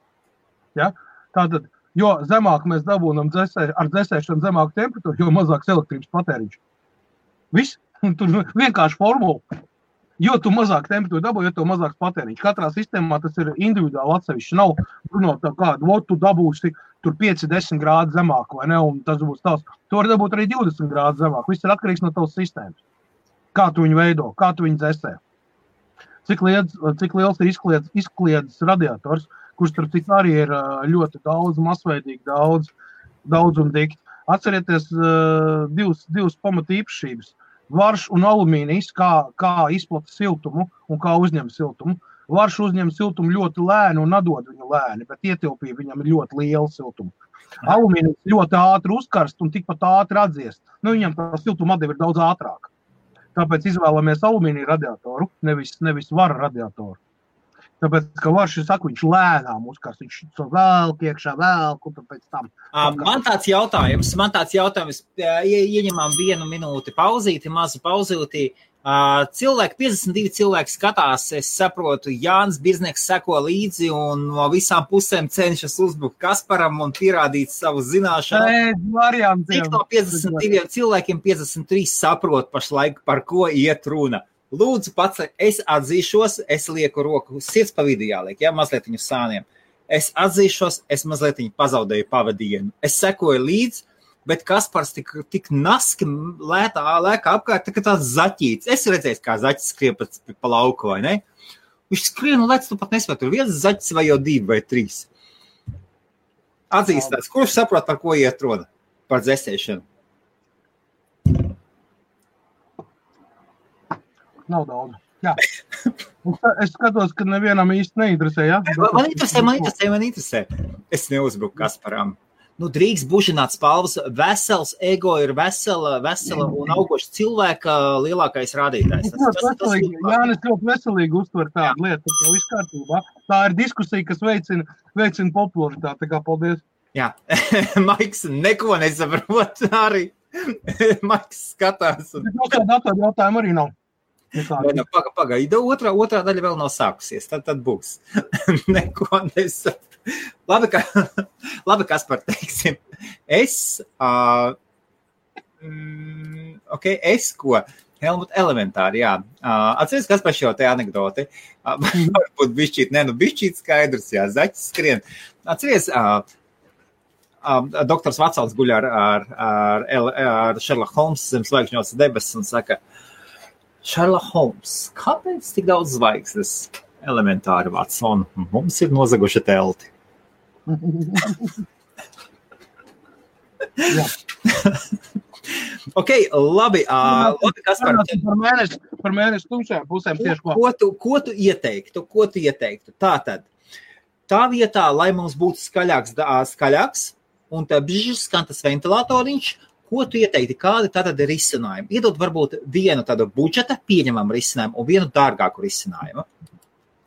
Tātad, jo zemāk mēs dabūnam ar dzēsēšanu zemāku temperatūru, jo mazāks elektrības patēriņš. Viss. Tur vienkārši formula. Jo tu mazāk temperatūru dabū, jo tu mazāks patēriņš. Katrā sistēmā tas ir individuāli atsevišķi. Nav runāt tā kādu, tu dabūsi tur 5-10 grādu zemāk, vai ne, un tas būs tavs. Tu vari dabūt arī 20 grādu zemāk. Viss ir atkarīgs no tavas sistēmas. Kā tu viņu veido, kā tu viņu dzēsē. Cik liels ir izkliedzis radiators, kurš starp citu arī ir ļoti daudz, masveidīgi daudz un dikti. Atcerieties divas pamata īpašības. Varš un alumīnijs, kā izplata siltumu un kā uzņem siltumu. Varš uzņem siltumu ļoti lēni un atdod viņu lēni, bet ietilpība viņam ir ļoti liela siltuma. Alumīnijs ļoti ātri uzkarst un tikpat ātri atdziest. Viņam tā siltuma atdeva ir daudz ātrāk. Tāpēc izvēlamies alumīnija radiatoru, nevis vara radiatoru. Tāpēc, ka varš, viņš lēnām uzkarst, viņš velk iekšā, un pēc tam. Man tāds jautājums, ieņemām 1 minūti pauzīti, mazu pauzīti. 52 cilvēki skatās, es saprotu, Jānis Birznieks seko līdzi un no visām pusēm cenšas uzbrukt Kasparam un pierādīt savu zināšanu. Cik no 52 cilvēkiem 53 saprot pašlaik, par ko iet runa. Lūdzu, pats, es atzīšos, es lieku roku, sirds pa vidu jāliek, mazliet viņu sāniem. Es atzīšos, es mazliet viņu pazaudēju pavadienu. Es sekoju līdz, bet Kaspars tik naski lēkā apkārt, tā kā tāds zaķīts. Es redzēju, kā zaķis skrien pa lauku, vai ne? Viņš skrien un lec, tu pat nespēj, tur viens zaķis vai jau 2 vai 3. Atzīstās, kurš saprot, par ko iet runa? Par dzēsēšanu. Nav daudz. Jā. Es skatos, ka nevienam īsti neinteresē, ja? Man interesē. Es neuzbruku Kasparam. Nu, drīkst bužināt spalvas. Vesels ego ir vesela un augoša cilvēka lielākais rādītājs. Jānis ļoti veselīgi uztver tādu lietu, tā viss kārtībā. Tā ir diskusija, kas veicina popularitāti. Tā kā paldies. Jā, Maiks neko nesaprot arī. Maiks skatās. Nekā datoru jautājumu arī nav. Pagaida, otrā daļa vēl nav sākusies, tad būs. Neko nesaprot. Labi, Kaspar, teiksim. Es ko? Helmut, elementāri, jā. Atceries, Kaspar, šo te anekdoti. Varbūt bišķīt skaidrs, jā, zaķis skrien. Atceries, doktors Vatsons guļ ar Sherlock Holmes zem zvaigžņos debesis un saka, Sherlock Holmes, kāpēc tik daudz zvaigznes? Elementāri, Watson, mums ir nozaguši telti. Ok, labi, Kaspar. Par mēnesi tumšajām pusēm tieši ko. Ko tu ieteiktu? Tātad, tā vietā, lai mums būtu skaļāks, un tā bžs skan tas ventilatoriņš, ko tu ieteikti, kādi tātad ir risinājumi? Iedod varbūt vienu tādu budžeta pieņemamu risinājumu un vienu dārgāku risinājumu.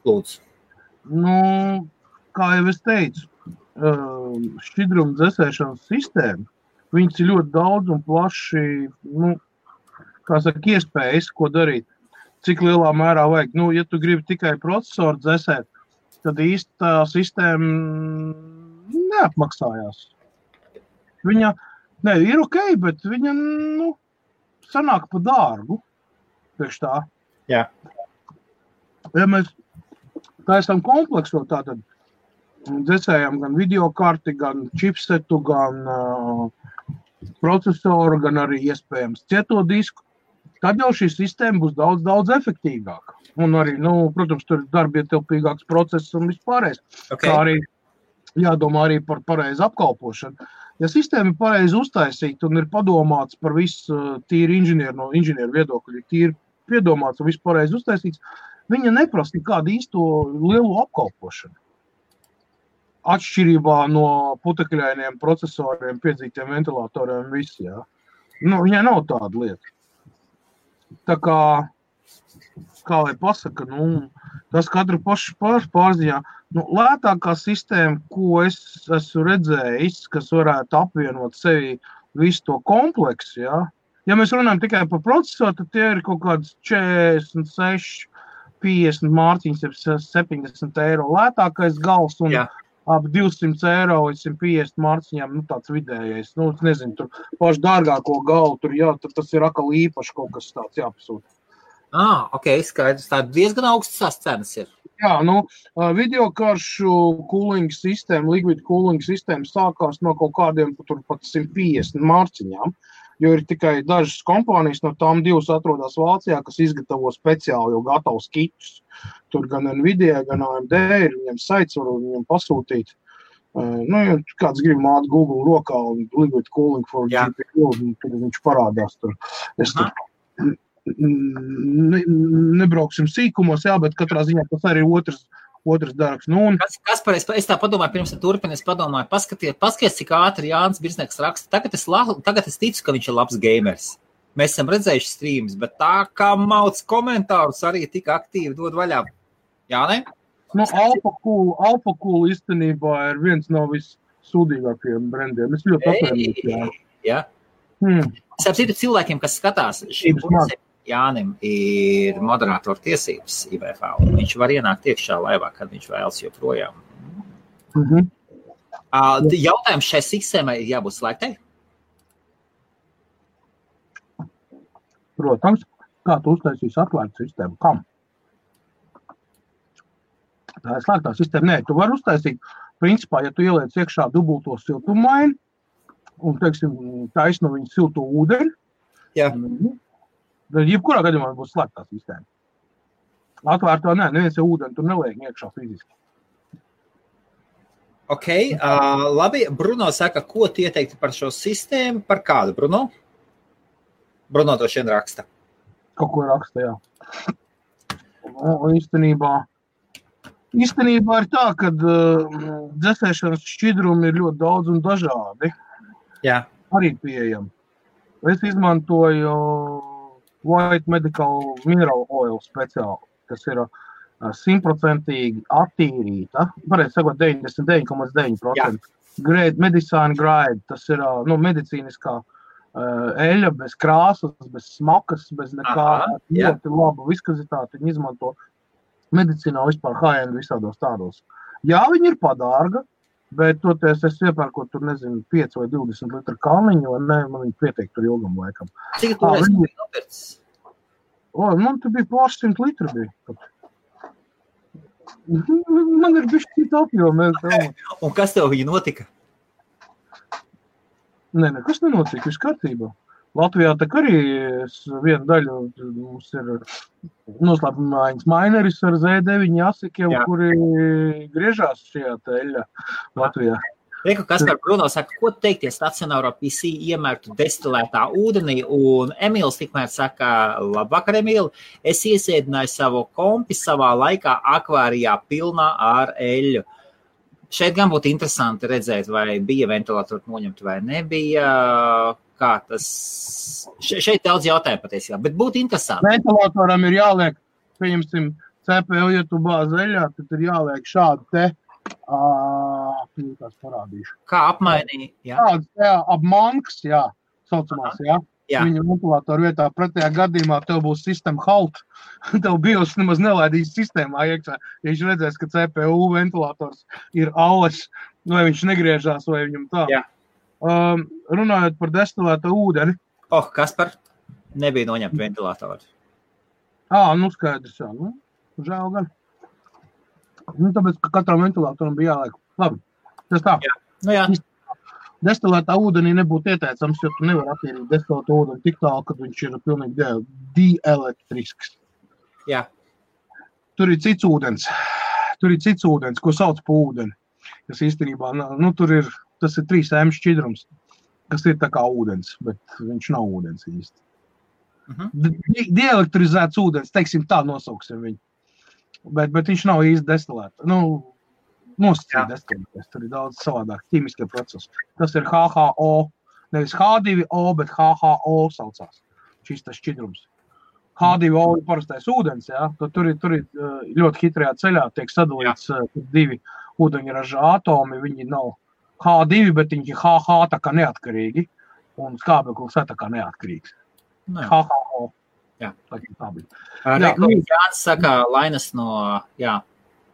Lūdzu. Nu, kā jau es teicu, šķidrumu dzēsēšanas sistēma, viņas ir ļoti daudz un plaši, iespējas, ko darīt, cik lielā mērā vajag. Ja tu gribi tikai procesoru dzēsēt, tad īsti tā sistēma neapmaksājās. Viņa ir ok, bet viņa, sanāk pa dārgu. Priekš tā. Jā. Ja mēs taisām kompleksu, tātad dzēsējam gan videokarti, gan chipsetu, gan procesoru, gan arī iespējams cieto disku, tad jau šī sistēma būs daudz, daudz efektīvāka. Un arī, protams, tur ir darbietilpīgāks process un vispārējais. Okay. Kā arī jādomā arī par pareizu apkalpošanu. Ja sistēma ir pareizi uztaisīta un ir padomāts par visu tīri no inženieru viedokļa, tīri piedomāts un visu pareizi uztaisīts, viņa neprasa nekādu īsto lielu apkalpošanu. Atšķirībā no putekļainiem procesoriem, piedzītiem ventilatoriem, visi, jā. Viņai nav tāda lieta. Tā kā lai pasaka, tas katru pašu pārziņā. Lētākā sistēma, ko es esmu redzējis, kas varētu apvienot sevi visu to kompleksu, jā. Ja mēs runājam tikai par procesoru, tad tie ir kaut kāds 46, 50 mārciņas, 70 eiro lētākais gals un ap 200 eiro līdz 150 mārciņām, tāds vidējais. Es nezinu, tur pašu dārgāko galu, tur tas ir akal īpaši kaut kas tāds jāpasūta. Ok, skaidrs. Tā diezgan augstas cenas ir. Jā, videokaršu cooling sistēma, liquid cooling sistēma sākās no kaut kādiem pat 150 mārciņām, jo ir tikai dažas kompānijas, no tām 2 atrodas Vācijā, kas izgatavo speciāli jau gatavus kitus. Tur gan Nvidia, gan AMD ir viņiem saits, var viņiem pasūtīt. Ja kāds grib māt Google rokā un liquid cooling for GPU, tad viņš parādās tur. Es tur nebrauksim sīkumos, bet katrā ziņā tas arī otrs darbs. Kaspar, es tā padomāju, pirms turpinu, es padomāju, paskaties, cik ātri Jānis Birznieks raksta. Tagad es ticu, ka viņš ir labs gamers. Mēs esam redzējuši streams, bet tā kā mauc komentārus arī tik aktīvi dod vaļā. Jā, ne? Alpha Cool īstenībā ir viens no vissūdīgākajiem brendiem. Es ļoti atvainojos. Jā. Es citu cilvēkiem, kas skatās, Jānim ir moderātora tiesības IBF, un viņš var ienākt iekšā laivā, kad viņš vēlas joprojām. Jautājums šai sistēmai ir jābūt slēgtai? Protams, kā tu uztaisīsi atvērtu sistēmu? Kam? Tā ir slēgtā sistēma. Nē, tu vari uztaisīt, principā, ja tu ieliec iekšā dubulto siltummaini, un, teiksim, taisno viņu silto ūdeni. Jā. Tad jebkurā gadījumā būs slēgtā sistēma. Atvērtā neviens jau ūdeni tur neliek iekšā fiziski. Ok, labi. Bruno saka, ko tu ieteikti par šo sistēmu? Par kādu, Bruno? Bruno to šeit raksta. Kaut ko raksta, jā. Īstenībā ir tā, ka dzēsēšanas šķidrumi ir ļoti daudz un dažādi. Jā. Arī pieejami. Es izmantoju White Medical Mineral Oil speciāli, kas ir 100% attīrīta, varētu sakot 99,9%. Grade, medicine grade, tas ir medicīniskā eļļa, bez krāsas, bez smakas, bez nekā, ļoti laba viskazitāte, viņi izmanto medicīnā vispār high-end visādos tādos. Jā, viņi ir padārga, bet toties es iepērkot tur, 5 vai 20 litru kalniņu, un man viņi pietiek tur ilgam laikam. Cik tu esi nopircis? Man tur bija pāris 100 litru bija. Man ir bišķi cita apjoma. Un kas tev viņa notika? Nekas nenotika, viss kārtībā. Latvijā tak arī viena daļa mums ir noslēpumājiņas maineris ar Z9 asikiem, kuri griežās šajā teļā Latvijā. Reku, Kaspar Bruno saka, ko teiktie stacionāro PC iemērtu destilētā ūdenī, un Emīls tikmēr saka, labvakar, Emīli, es iesēdināju savu kompi savā laikā akvārijā pilnā ar eļļu. Šeit gan būtu interesanti redzēt, vai bija ventilatori noņemti vai nebija, kā tas... Šeit daudz jautājumu patiesībā, bet būtu interesanti. Ventilatoram ir jāliek, pieņemsim, CPU, ja tu bāz eļļā, tad ir jāliek šādu te, tās parādīšu. Kā apmainīja? Jā, apmanks, jā, saucamās, jā. Viņa ventilatoru vietā pretējā gadījumā tev būs sistēma halt. Tev BIOS nemaz nelaidīs sistēmā iekšā. Ja viņš redzēs, ka CPU ventilators ir alles, vai viņš negriežās, vai viņam tā. Jā. Runājot par destilēto ūdeni. Kaspar, nebija noņemt ventilatoru. Skaidrs, jā. Žēl gan. Tāpēc, ka katram ventilatoram bija jāliek. Labi, tas tā. Jā. Destilētā ūdenī nebūtu ieteicams, jo tu nevar attīrīt destilētu ūdeni tik tālu, kad viņš ir pilnīgi dielektrisks. Jā. Tur ir cits ūdens, ko sauc pa ūdeni. Kas īstenībā, tas ir 3M šķidrums, kas ir tā kā ūdens, bet viņš nav ūdens īsti. Dielektrizēts ūdens, teiksim tā nosauksim viņu, bet viņš nav īsti destilēts. Nosacīt destilēties, tur ir daudz savādāk ķīmiskie procesi. Tas ir HHO, nevis H2O, bet HHO saucās, šis tas šķidrums. H2O ir parastais ūdens, jā, tur ir ļoti hitrajā ceļā, tiek sadalīts divi ūdeņraža atomi, viņi nav H2, bet viņi HH tā kā neatkarīgi, un skābeklis tā kā neatkarīgs. HHO. Jā. Tā bija. Jānis saka, Lainas no,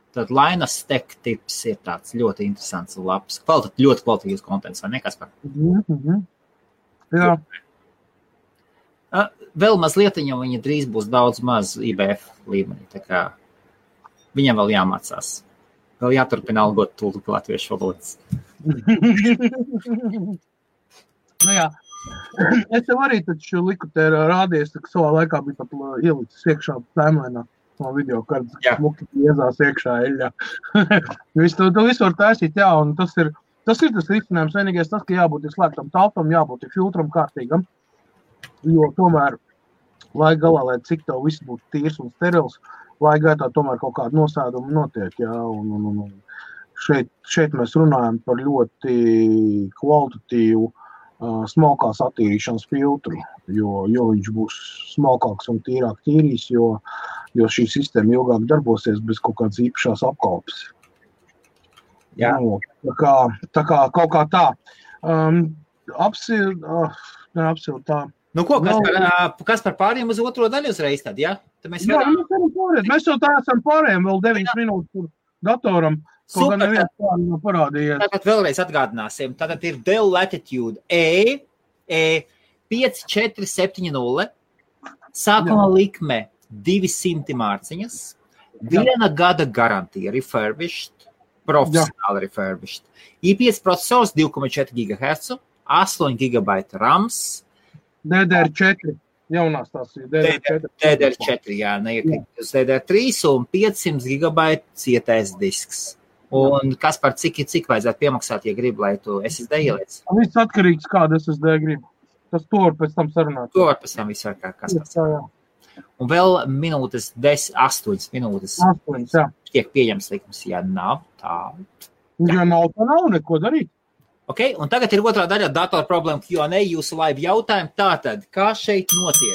tad Lainas Tech tips ir tāds ļoti interesants un labs. Ļoti kvalitīvs kontents, vai ne, Kaspar? Jā. Vēl mazliet, viņa drīz būs daudz maz IBF līmenī, tā kā viņam vēl jāmācās. Vēl jāturpina algot tulku latviešu valodas. Jā. Es tev arī taču liku te rādījies, ka savā laikā bija pat ielicis iekšā tēmlēnā no video, kad smuki iezās iekšā eļļā. Tu visu var taisīt, jā, un tas ir tas risinājums. Vienīgais tas, ka jābūt slēgtam telpam, jābūt filtram kārtīgam, jo tomēr, lai galā, lai cik tev viss būtu tīrs un sterils, lai gaitā tomēr kaut kāda nosēduma notiek, jā, un šeit mēs runājam par ļoti kvalitatīvu smalkās attīrīšanas filtru, jo viņš būs smalkāks un tīrāk tīrīs, jo šī sistēma ilgāk darbosies bez kaut kādas īpašās apkalpes. Jā. Tā kā kaut kā tā. Apsilt tā. Kas par pāriem uz otro daļu uzreiz tad, jā? Mēs jau tā esam pārējiem vēl 9 minūtes tur datoram. Super, tātad vēlreiz atgādināsim. Tātad ir Dell Latitude E5470, sākuma likme 200 mārciņas, 1 gada garantija refurbished, profesionāli refurbished, i5 procesors 2,4 GHz, 8 GB RAMs. DDR4. Jaunās tās ir DDR4. DDR4, jā, neiekrīt uz DDR3 un 500 GB cietais disks. Un kas par cik vajadzētu piemaksāt, ja gribi, lai tu SSD ieliec? Viss atkarīgs, kādu SSD gribi. Tas to var pēc tam sarunāt. To var pēc tam visu var kas pēc tam. Un vēl minūtes, 8 minūtes. 8, jā. Tiek pieņems likums, ja nav tā. Ja nav, tā nav neko darīt. Ok, un tagad ir otrā daļa datora problēma Q&A, jūsu live jautājumi. Tātad, kā šeit notiek?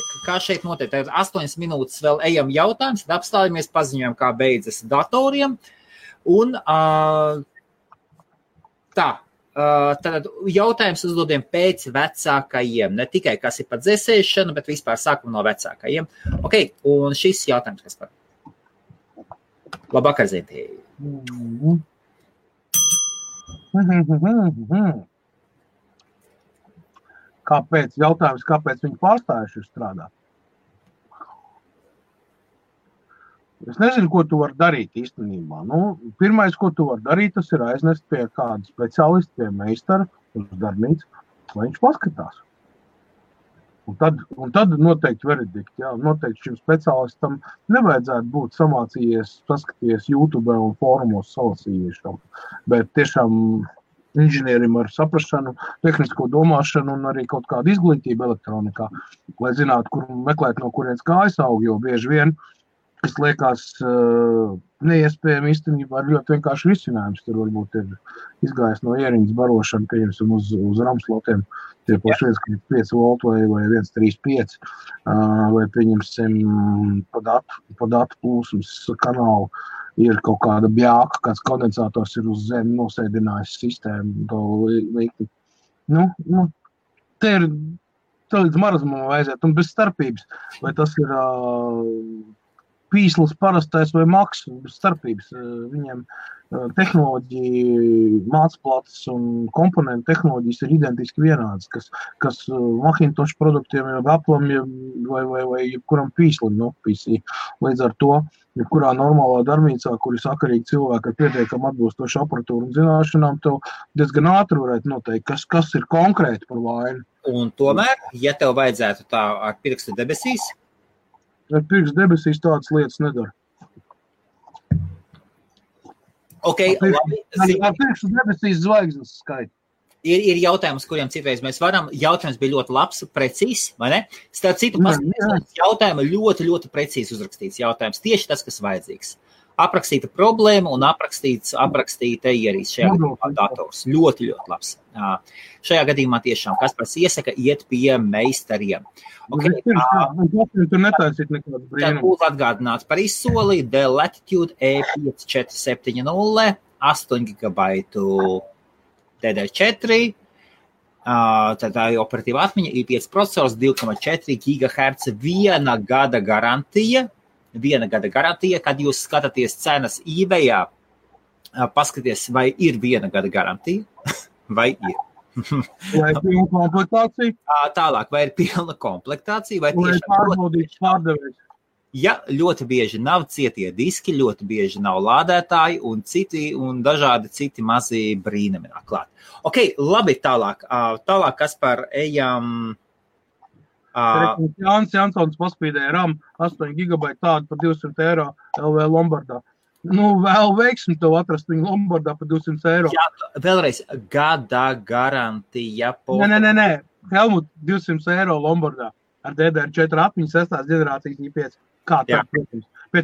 Tagad 8 minūtes vēl ejam jautājums, tad apstājamies, paziņojam, kā beidzas datoriem. Un tad jautājums uzdodiem pēc vecākajiem. Ne tikai, kas ir pa dzēsēšanu, bet vispār sākam no vecākajiem. Ok, un šis jautājums, kas par? Labvakar, Zinti. Kāpēc viņi pārstājuši strādāt? Es nezinu, ko tu vari darīt īstenībā. Pirmais, ko tu vari darīt, tas ir aiznest pie kāda speciālista, pie meistara uz darbnīcu, lai viņš paskatās. Un tad noteikti veredikti, jā, noteikti šim speciālistam nevajadzētu būt samācījies, paskatījies YouTube un fórumos salasījiešam, bet tiešām inženierim ar saprašanu, tehnisko domāšanu un arī kaut kādu izglītību elektronikā, lai zinātu, kur meklēt, no kurienes kājas aug, jo bieži vien, kas liekas neiespējami īstenībā ir ļoti vienkārši risinājums. Tur varbūt ir izgājis no ieriņas barošana, pieņemsim uz ramslotiem, tie paši 1,5 volt vai 1,35, vai pieņemsim pa datu plūsmas kanālu ir kaut kāda bjāka, kāds kondensators ir uz zemi nosēdinājis sistēmu, to likti. Te līdz marazumam vajadzētu, un bez starpības, vai tas ir pīslis parastais vai maks, bez starpības. Viņiem tehnoloģija, mācplates un komponentu tehnoloģijas ir identiski vienādas, kas Macintosh produktiem, Apple'am vai jebkuram pīslim, PC. Līdz ar to, jebkurā normālā darbnīcā, kur ir sakarīgi cilvēki ar pietiekam atbilstošu aparatūru un zināšanām, tev diezgan ātri varētu noteikt, kas ir konkrēti par vainu. Un tomēr, ja tev vajadzētu tā ar pirkstu debesīs? Ar pirkstu debesīs tādas lietas nedara. Okay, ar pirkstu debesīs zvaigznes skaita. Ir jautājums, kuriem citreiz mēs varam. Jautājums bija ļoti labs, precīzs, vai ne? Starp citu, jautājumu ļoti, ļoti precīzi uzrakstīts jautājums. Tieši tas, kas vajadzīgs. Aprakstīta problēma un aprakstīta ierīce šajā gadījumā dators. Ļoti, ļoti labs. Šajā gadījumā tiešām Kaspars iesaka iet pie meistariem. Okay, tur netaisīt nekādu brīnumu. Tad būtu atgādināts par izsoli Dell Latitude E5470, 8 GB DDR4, tad tā ir operatīva atmiņa, i5 procesors, 2,4 GHz, 1 gada garantija. 1 gada garantija, kad jūs skatāties cenas eBayā, paskaties, vai ir 1 gada garantija, vai ir. Vai ir pilna komplektācija? Tālāk, vai ir pilna komplektācija, vai tiešām pārbaudīts pārdevējs. Ja ļoti bieži nav cietie diski, ļoti bieži nav lādētāji un dažādi citi mazi brīnumi nāk klāt. Ok, labi, tālāk. Tālāk, kas par ejam... Jānis Jansons paspīdēja RAM 8 GB tādu par 200 eiro LV Lombardā. Vēl veiksim tev atrast viņu Lombardā par 200 eiro. Jā, vēlreiz, gada garantija. Nē. Helmut, 200 eiro Lombardā ar DDR4 atmiņu 6. ģenerācijas i5. Kā tā, protams. Pie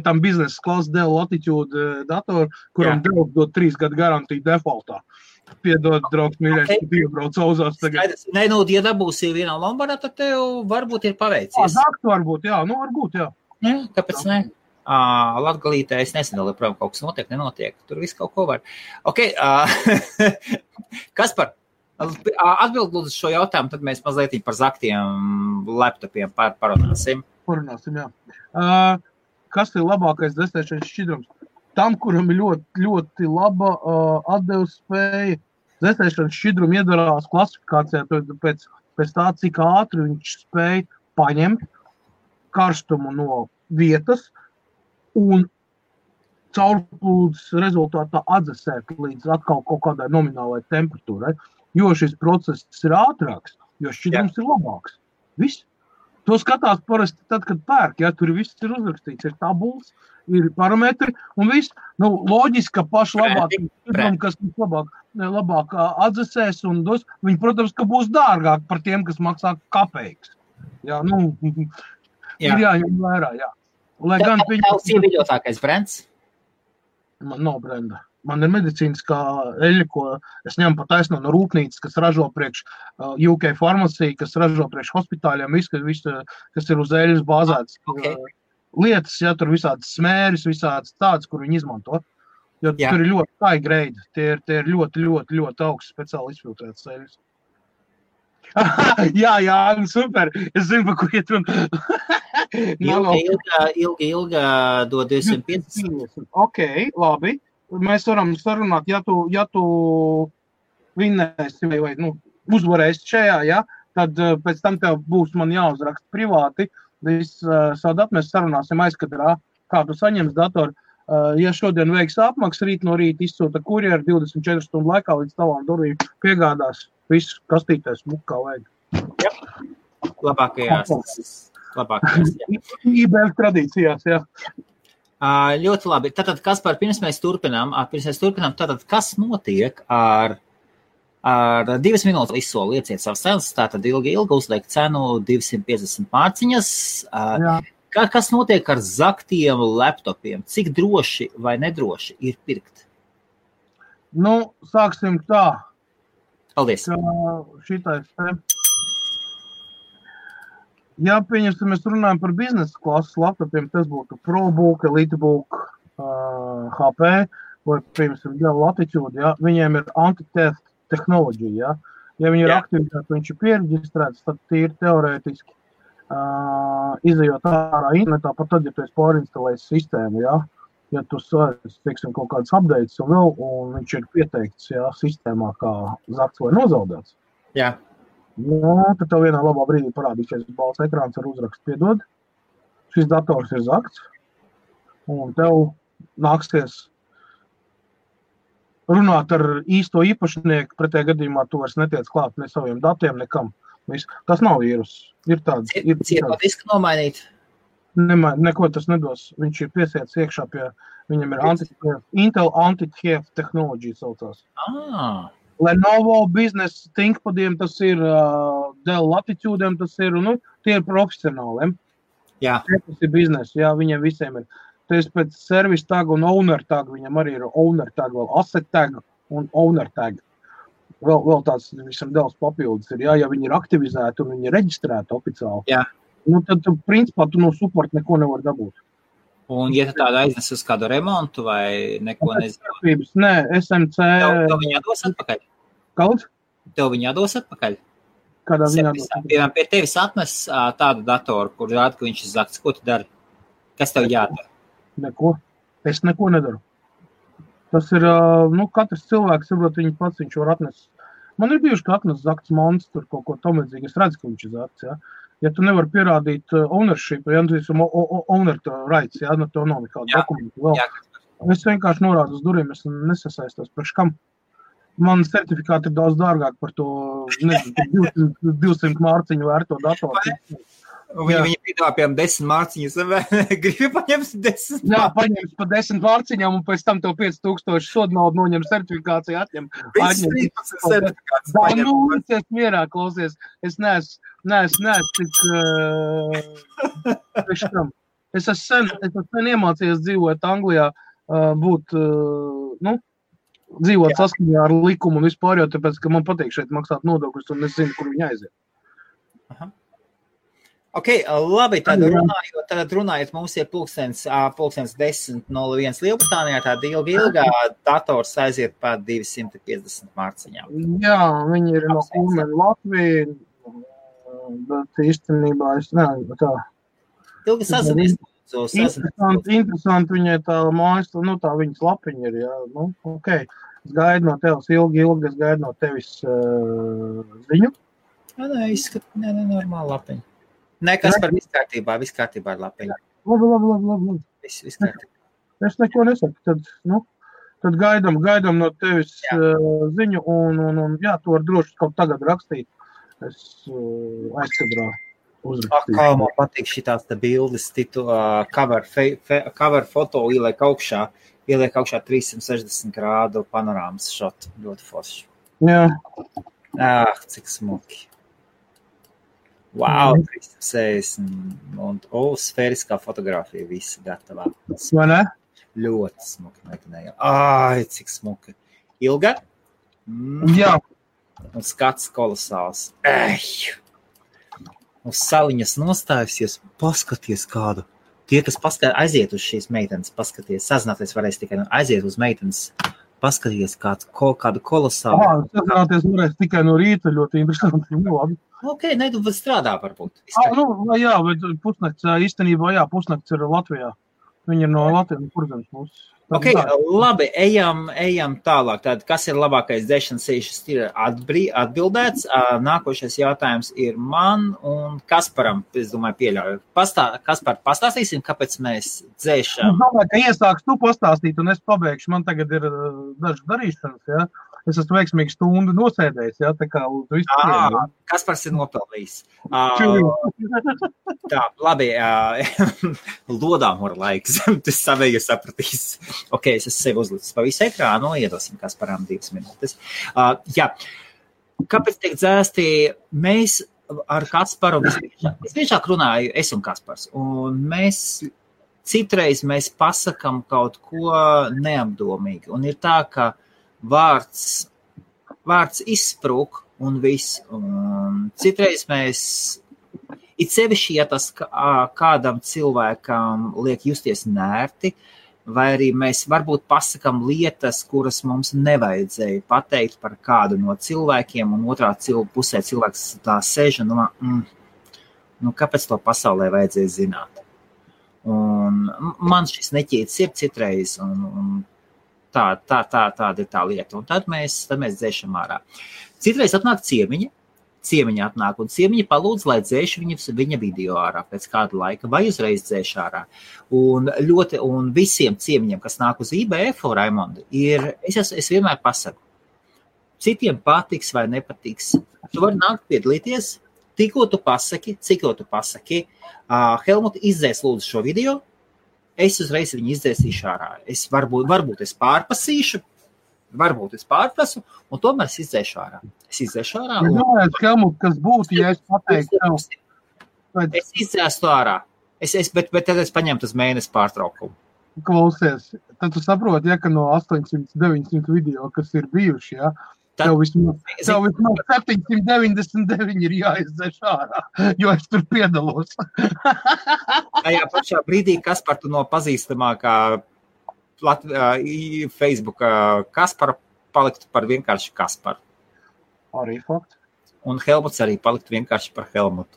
tam biznesa klasa Dell Latitude datoru, kuram Dell dod 3 gadu garantiju defaultā. Piedod, draugs, mīļais, ka iebrauc auzās tagad. Nē, ja dabūsi vienā Lombardā, tad tev varbūt ir paveicies. Varbūt, jā. Varbūt, jā. Kāpēc ne? Latgalītē es nezinu, joprojām kaut kas notiek, nenotiek. Tur viss kaut ko var. Ok, Kaspar, atbild lūdzu šo jautājumu, tad mēs mazliet par zaktiem laptopiem parunāsim. Parunāsim, jā. Kas ir labākais dzēsēšanas šķidrums? Tam, kuram ir ļoti, ļoti laba atdevas spēja, dzēsēšanas šķidrumu iedarās klasifikācijā pēc tā, cik ātri viņš spēja paņemt karstumu no vietas un caurplūdes rezultātā atdzesēt līdz atkal kaut kādai nominālai temperatūrai. jo šis process ir ātrāks, jo šķidrums ir labāks. Viss. To skatās parasti tad, kad pērk, ja tur viss ir uzrakstīts, ir tabulas, ir parametri un viss. Nu, loģiski, ka paši labāk, kas labāk atdzesēs un dos, viņi, protams, ka būs dārgāk par tiem, kas maksā kapeikas. Jā, nu, ir jāņem vērā, jā. Lai gan tavs ieviļotākais brands? Man nav brenda. Man ir medicīniskā eļļa, ko es ņemu pa taisno no rūpnīcas, kas ražo priekš UK farmacija, kas ražo priekš hospitāļiem, visu, kas ir uz eļļas bāzēts. Lietas, ja tur visādas smēris, visādas tādas, kur viņi izmanto. Jo tur ir ļoti high grade. Tie ir ļoti augsts speciāli izfiltrētas eļļas. jā, super. Es zinu, pa kur iet runa. Ilga dod 250. Ok, labi. Mēs varam sarunāt, ja tu vinnēsi vai uzvarēsi šajā, ja, tad pēc tam tev būs man jāuzraksta privāti. Savu datu mēs sarunāsim aizkadrā, kā tu saņems datoru. Ja šodien veiks apmaksu, rīt no rīta izsūta kurjeri 24 stundu laikā līdz tavām durvīm piegādās visu kastītēs kā vajag. Jā, labākajās. IBF tradīcijās, jā. Ļoti labi. Tātad, Kaspar, pirms mēs turpinām, tātad, kas notiek ar 2 minūtes izsolu lieciet savas cenas, tātad ilgi uzliek cenu 250 mārciņas. Kas notiek ar zaktiem laptopiem? Cik droši vai nedroši ir pirkt? Nu, sāksim tā. Paldies. Šitais te. Ja, pieņemsim, mēs runājam par biznesa klases laptopiem, tas būtu ProBook, EliteBook, HP, vai, pieņemsim, Latitude, ja, viņiem ir anti-theft tehnoloģija, ja. Ja viņi ir aktivitāti, viņš ir piereģistrēts, tad tīri teorētiski izejot ārā internetā, pat tad, ja tu esi pārinstalējis sistēmu, ja. Ja tu teiksim, kaut kādas updates un viņš ir pieteikts, ja, sistēmā kā zakts vai nozaudēts. Jā. Jā, tad tev vienā labā brīdī parādīsies balts ekrāns ar uzrakstu piedod. Šis dators ir zakts, un tev nāksies runāt ar īsto īpašnieku, pretējā gadījumā tu vairs netiec klāt ne saviem datiem, nekam. Tas nav vīrus. Ir tāds. Ciet disku nomainīt? Neko tas nedos. Viņš ir piesiets iekšā pie, viņam ir Intel anti-theft tehnoloģija saucās. Lenovo Business ThinkPadiem tas ir, Dell Latitude'iem tas ir, tie ir profesionāliem. Jā. Tas ir biznes, jā, viņiem visiem ir. Tas pēc service tag un owner tag, viņam arī ir owner tag, vēl asset tag un owner tag. Vēl tāds visam Dells papildus ir, jā, ja viņi ir aktivizēti un viņi ir reģistrēti oficiāli. Jā. Tad, principā, tu no support neko nevar dabūt. Un, ja tu tādu aiznes uz kādu remontu vai neko nezinu? Nē, SMC... Tev viņi jādos atpakaļ? Kaut? Tev viņi jādos atpakaļ? Kādā viņi jādos atpakaļ? Piemēram, pie tevis atnes tādu datoru, kur rāda, ka viņš ir zakts. Ko tu dari? Kas tev jādara? Neko. Es neko nedaru. Tas ir, katrs cilvēks, saprot, viņš var atnest. Man ir bijuši, ka atnes zakts monstru, kaut ko tamlīdzīgi. Es redzu, ka viņš ir zakts, jā. Ja tu nevar pierādīt ownership, ja tu esi owner rights, ja, tev nav nekāda dokumenta vēl. Jā. Es vienkārši norādu uz durvīm, es nesasaistos priekš kam. Man certifikāti ir daudz dārgāk par to, 200 mārciņu vērto datoru. Viņi piedāvā, piemēram, 10 mārciņas, vai gribi paņemt 10? Jā, paņems pa 10 mārciņām un pēc tam tev 5000 sodu naudu noņem certifikāciju, atņem. Es mierā klausies. Es neesmu tik... Es esmu sen iemācījies dzīvot Anglijā, dzīvot saskaņā ar likumu un vispār, jo tāpēc, ka man patīk šeit maksāt nodokļus un es zinu, kur viņi aiziet. Aha. Ok, labi, tad runājot, mums ir pulkstens 10:01 Lielbritānijā, tāda ilgā dators aiziet pār 250 mārciņām. Jā, viņi ir no Kulmena Latvija, bet īstenībā es nevaru tā. Ilgi sazinies. Interesanti viņai tā mājas, tā viņas lapiņa ir, jā, ok. Es gaidu no tevis ilgi, es gaidu no tevis ziņu. Nē, normāli lapiņa. Nekas par viss kārtībā ar lapiņu. Labi. Viss kārtībā. Es neko nesaku, tad Tad gaidām no tevis ziņu, un jā, tu vari droši kaut tagad rakstīt. Es aizkadrā uzrakstīšu. Kā man patīk šitās te bildes, cover foto ieliek augšā 360 grādu panorāmas šot, ļoti forši. Jā. Cik smuki. Wow, 360 un sfēriskā fotografija visi gatavā. Vai ne? Ļoti smuki meklējām. Cik smuki. Ilga? Jā. Un skats kolosāls. Uz saliņas nostājusies, paskaties kādu. Tie, kas aiziet uz šīs meitenes, paskaties, sazināties varēs tikai aiziet uz meitenes, paskaties kādu kolosālu. Sazināties varēs tikai no rīta, ļoti interesanti. Labi. Ok, tu strādā varbūt. Jā, bet pusnakts, īstenībā, pusnakts ir Latvijā. Viņi ir no Latvijas, kurzems mūsu. Ok, labi, ejam tālāk. Tātad, kas ir labākais dzēšanas sīšas ir atbildēts. Nākošais jautājums ir man un Kasparam, es domāju, pieļauju. Kaspar, pastāstīsim, kāpēc mēs dzēšam? Es domāju, ka iesāks tu pastāstīt, un es pabeigšu. Man tagad ir dažas darīšanas, jā. Es esmu veiksmīgi stundu nosēdējis, jā, tā kā uz visu. Kaspars ir nopelnījis. Tā, labi, lodām var laiks, tas savēji sapratīs. Ok, es esmu sevi uzlicis pa visu ekrānu, iedosim Kasparam 2 minūtes. Jā, kāpēc tiek dzēsti? Mēs ar Kasparu visbiežāk runāju, es un Kaspars, un citreiz mēs pasakam kaut ko neapdomīgi, un ir tā, ka vārds izsprūk un viss. Un citreiz mēs, it sevišķi, ja tas kādam cilvēkam liek justies nērti, vai arī mēs varbūt pasakam lietas, kuras mums nevajadzēja pateikt par kādu no cilvēkiem, un otrā pusē cilvēks tā sēž un domā, kāpēc to pasaulē vajadzēja zināt? Un man šis neķīts ir citreiz, un tāda ir tā lieta. Un tad mēs dzēšam ārā. Citreiz atnāk ciemiņa atnāk, un ciemiņa palūdz, lai dzēšu viņa video ārā pēc kāda laika, vai uzreiz dzēšu ārā. Un visiem ciemiņiem, kas nāk uz IBF, Raimonda, es vienmēr pasaku, citiem patiks vai nepatiks. Tu vari nākt piedalīties, tikko tu pasaki, Helmut, izdzēs lūdzu šo video, es uzreiz viņu izdzēsīšu ārā. Varbūt es pārpasīšu, varbūt es pārprasu, un tomēr es izdzēšu ārā. Helmut, kas būtu, ja es pateiktu tev? Es izdzēstu ārā, bet tad es paņemtu uz mēnesi pārtraukumu. Klausies, tad tu saproti, ja, ka no 800-900 video, kas ir bijuši, ja, tev vismaz 799 ir jāizdzēš ārā, jo es tur piedalos. Tajā pašā brīdī Kaspar tu no pazīstamākā Facebook Kaspara paliktu par vienkārši Kasparu. Arī fakts. Un Helmuts arī paliktu vienkārši par Helmutu.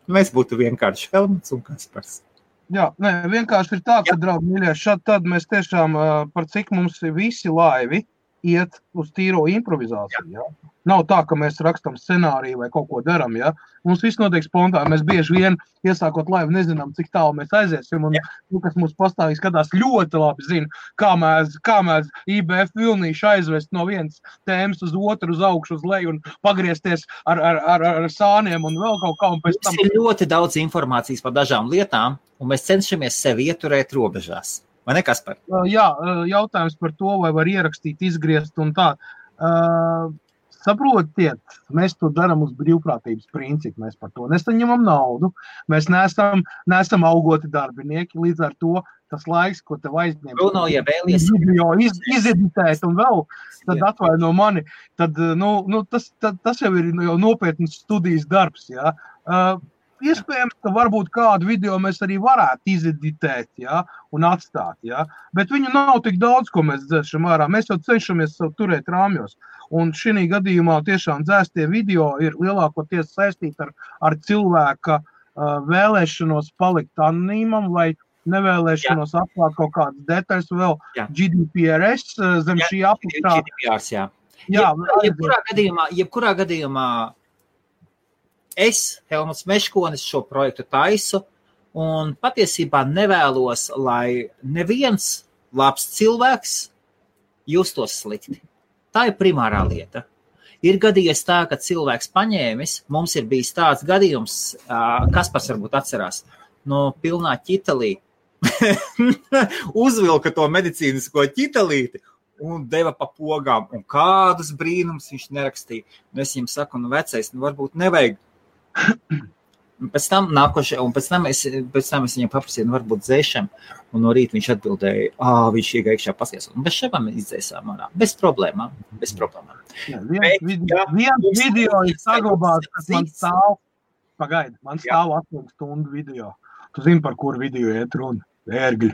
Mēs būtu vienkārši Helmuts un Kaspars. Jā, vienkārši ir tā, ka, draugi, mīļie, šad tad mēs tiešām par cik mums visi laivi iet uz tīro improvizāciju. Ja? Nav tā, ka mēs rakstam scenāriju vai kaut ko daram. Ja? Mums viss notiek spontāni. Mēs bieži vien, iesākot laivu, nezinām, cik tālu mēs aiziesim. Un kas mums pastāvīgi skatās ļoti labi zina, kā mēs IBF vilnīšu aizvest no vienas tēmas uz otru, uz augšu, uz leju un pagriezties ar sāniem un vēl kaut kā. Un pēc tam... Ir ļoti daudz informācijas par dažām lietām, un mēs cenšamies sevi ieturēt robežās. Vai ne, Kaspar? Jā, jautājums par to, vai var ierakstīt, izgriezt un tā. Saprotiet, mēs to darām uz brīvprātības principu, mēs par to nesaņemam naudu, mēs neesam augoti darbinieki, līdz ar to tas laiks, ko tev aizņem, video izeditēt un vēl, tad atvaino mani, tad, tas jau ir jau nopietnas studijas darbs, jā. Iespējams, ka varbūt kādu video mēs arī varētu izeditēt, ja, un atstāt, ja, bet viņu nav tik daudz, ko mēs dzēšam ārā. Mēs jau cenšamies turēt rāmjos, un šī gadījumā tiešām dzēstie video ir lielākoties saistīti ar cilvēka vēlēšanos palikt anonīmam vai nevēlēšanos atklāt kaut kādas detaļas vēl GDPRS zem šī apakšā. GDPRs, jā. Jebkurā gadījumā es, Helmuts Meškonis, šo projektu taisu un patiesībā nevēlos, lai neviens labs cilvēks justos slikti. Tā ir primārā lieta. Ir gadījies tā, ka cilvēks paņēmis, mums ir bijis tāds gadījums, Kaspars varbūt atcerās, no pilnā ķitalī uzvilka to medicīnisko ķitalīti un deva pa pogām. Un kādus brīnums viņš nerakstīja. Un es viņam saku, vecais, varbūt nevajag. Un pēc tam es viņam paprasīju, varbūt dzēšam. Un no rīta viņš atbildēja, viņš iekšā pasies. Un bez šabām izdzēsām ārā. Bez problēmām. Viens video ir saglabāts, kas man stāv. Pagaidi, man stāv 8 stundu video. Tu zini, par kuru video iet runa? Ērgļi.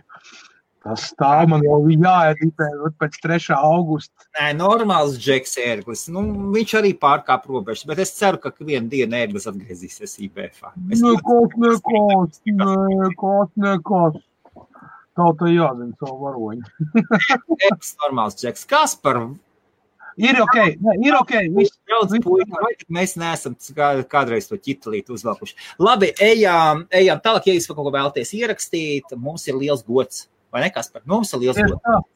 Tas stāv man jau jāeditē pēc 3. augusta. Nē, normāls Džeks Ērglis. Viņš arī pārkāp robežas, bet es ceru, ka vienu dienu Ērglis atgriezīsies IBF-ā. Nekas. Tautai jāzina savu varoņu. Normāls Džeks. Kaspar? Ir ok. Mēs neesam kādreiz to ķitalīti uzvelkuši. Labi, ejam tālāk, ja jūs kaut ko vēlaties ierakstīt, mums ir liels gods. Vai ne, Kaspar? Mums ir liels gods.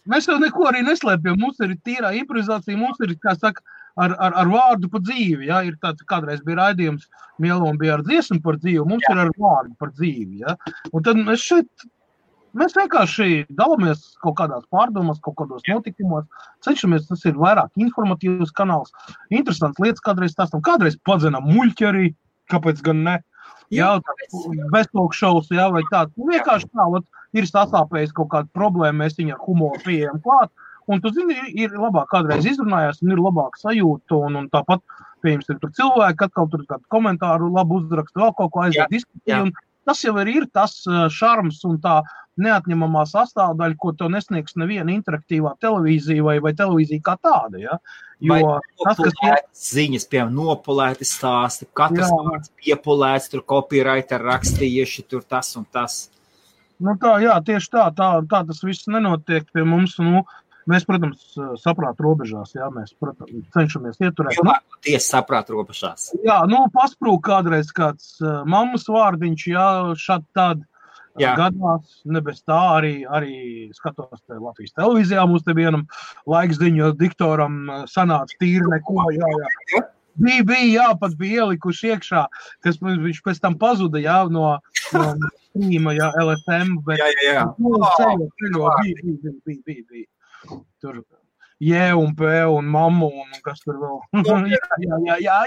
Mēs jau neko arī neslēpjam. Mums ir tīrā improvizācija, mums ir, kā saka, ar vārdu pa dzīvi. Ja? Ir tāds, kādreiz bija raidījums, Mielom bija ar dziesmu par dzīvi, mums ir ar vārdu par dzīvi. Ja? Un tad mēs vienkārši dalāmies kaut kādās pārdomās, kaut kādos notikumos, cenšamies, tas ir vairāk informatīvs kanāls, interesants lietas kādreiz stāstam, kādreiz padzenam muļķi arī, kāpēc gan ne, beztalkšovs, vai tāds, vienkārši tā, ir sasāpējis kaut kāda problēma, mēs viņu ar humoru pieejam klāt, un tu zini, ir labāk kādreiz izrunājās, un ir labāk sajūta, un tāpat, pieņems, ir tur cilvēki, atkal tur kādu komentāru labu uzrakstu, vēl kaut ko aiziet diskutēt, un tas jau ir tas šarms un tā neatņemamā sastāvdaļa, ko to nesniegs neviena interaktīvā televīzija vai televīzija kā tāda. Ja? Jo tas, kas ziņas, piemēram, nopulēti stāsti, katrs vārds piepulēts, tur copywriter rakstījuši, tur tas un tas. Tieši tā tas viss nenotiek pie mums. Mēs, protams, saprāta robežās, mēs, protams, cenšamies ieturēt. Tiesa saprāta robežās. Pasprūk kādreiz kāds mammas vārdiņš, šādi tādi gadās, ne bez tā arī skatos te Latvijas televīzijā, mums te vienam laikziņu diktoram sanāca tīri neko, Bija, pat bija ielikuši iekšā, kas viņš pēc tam pazuda, no streama, LFM, bet bija. Tur un P un mammu un kas tur vēl. Jā.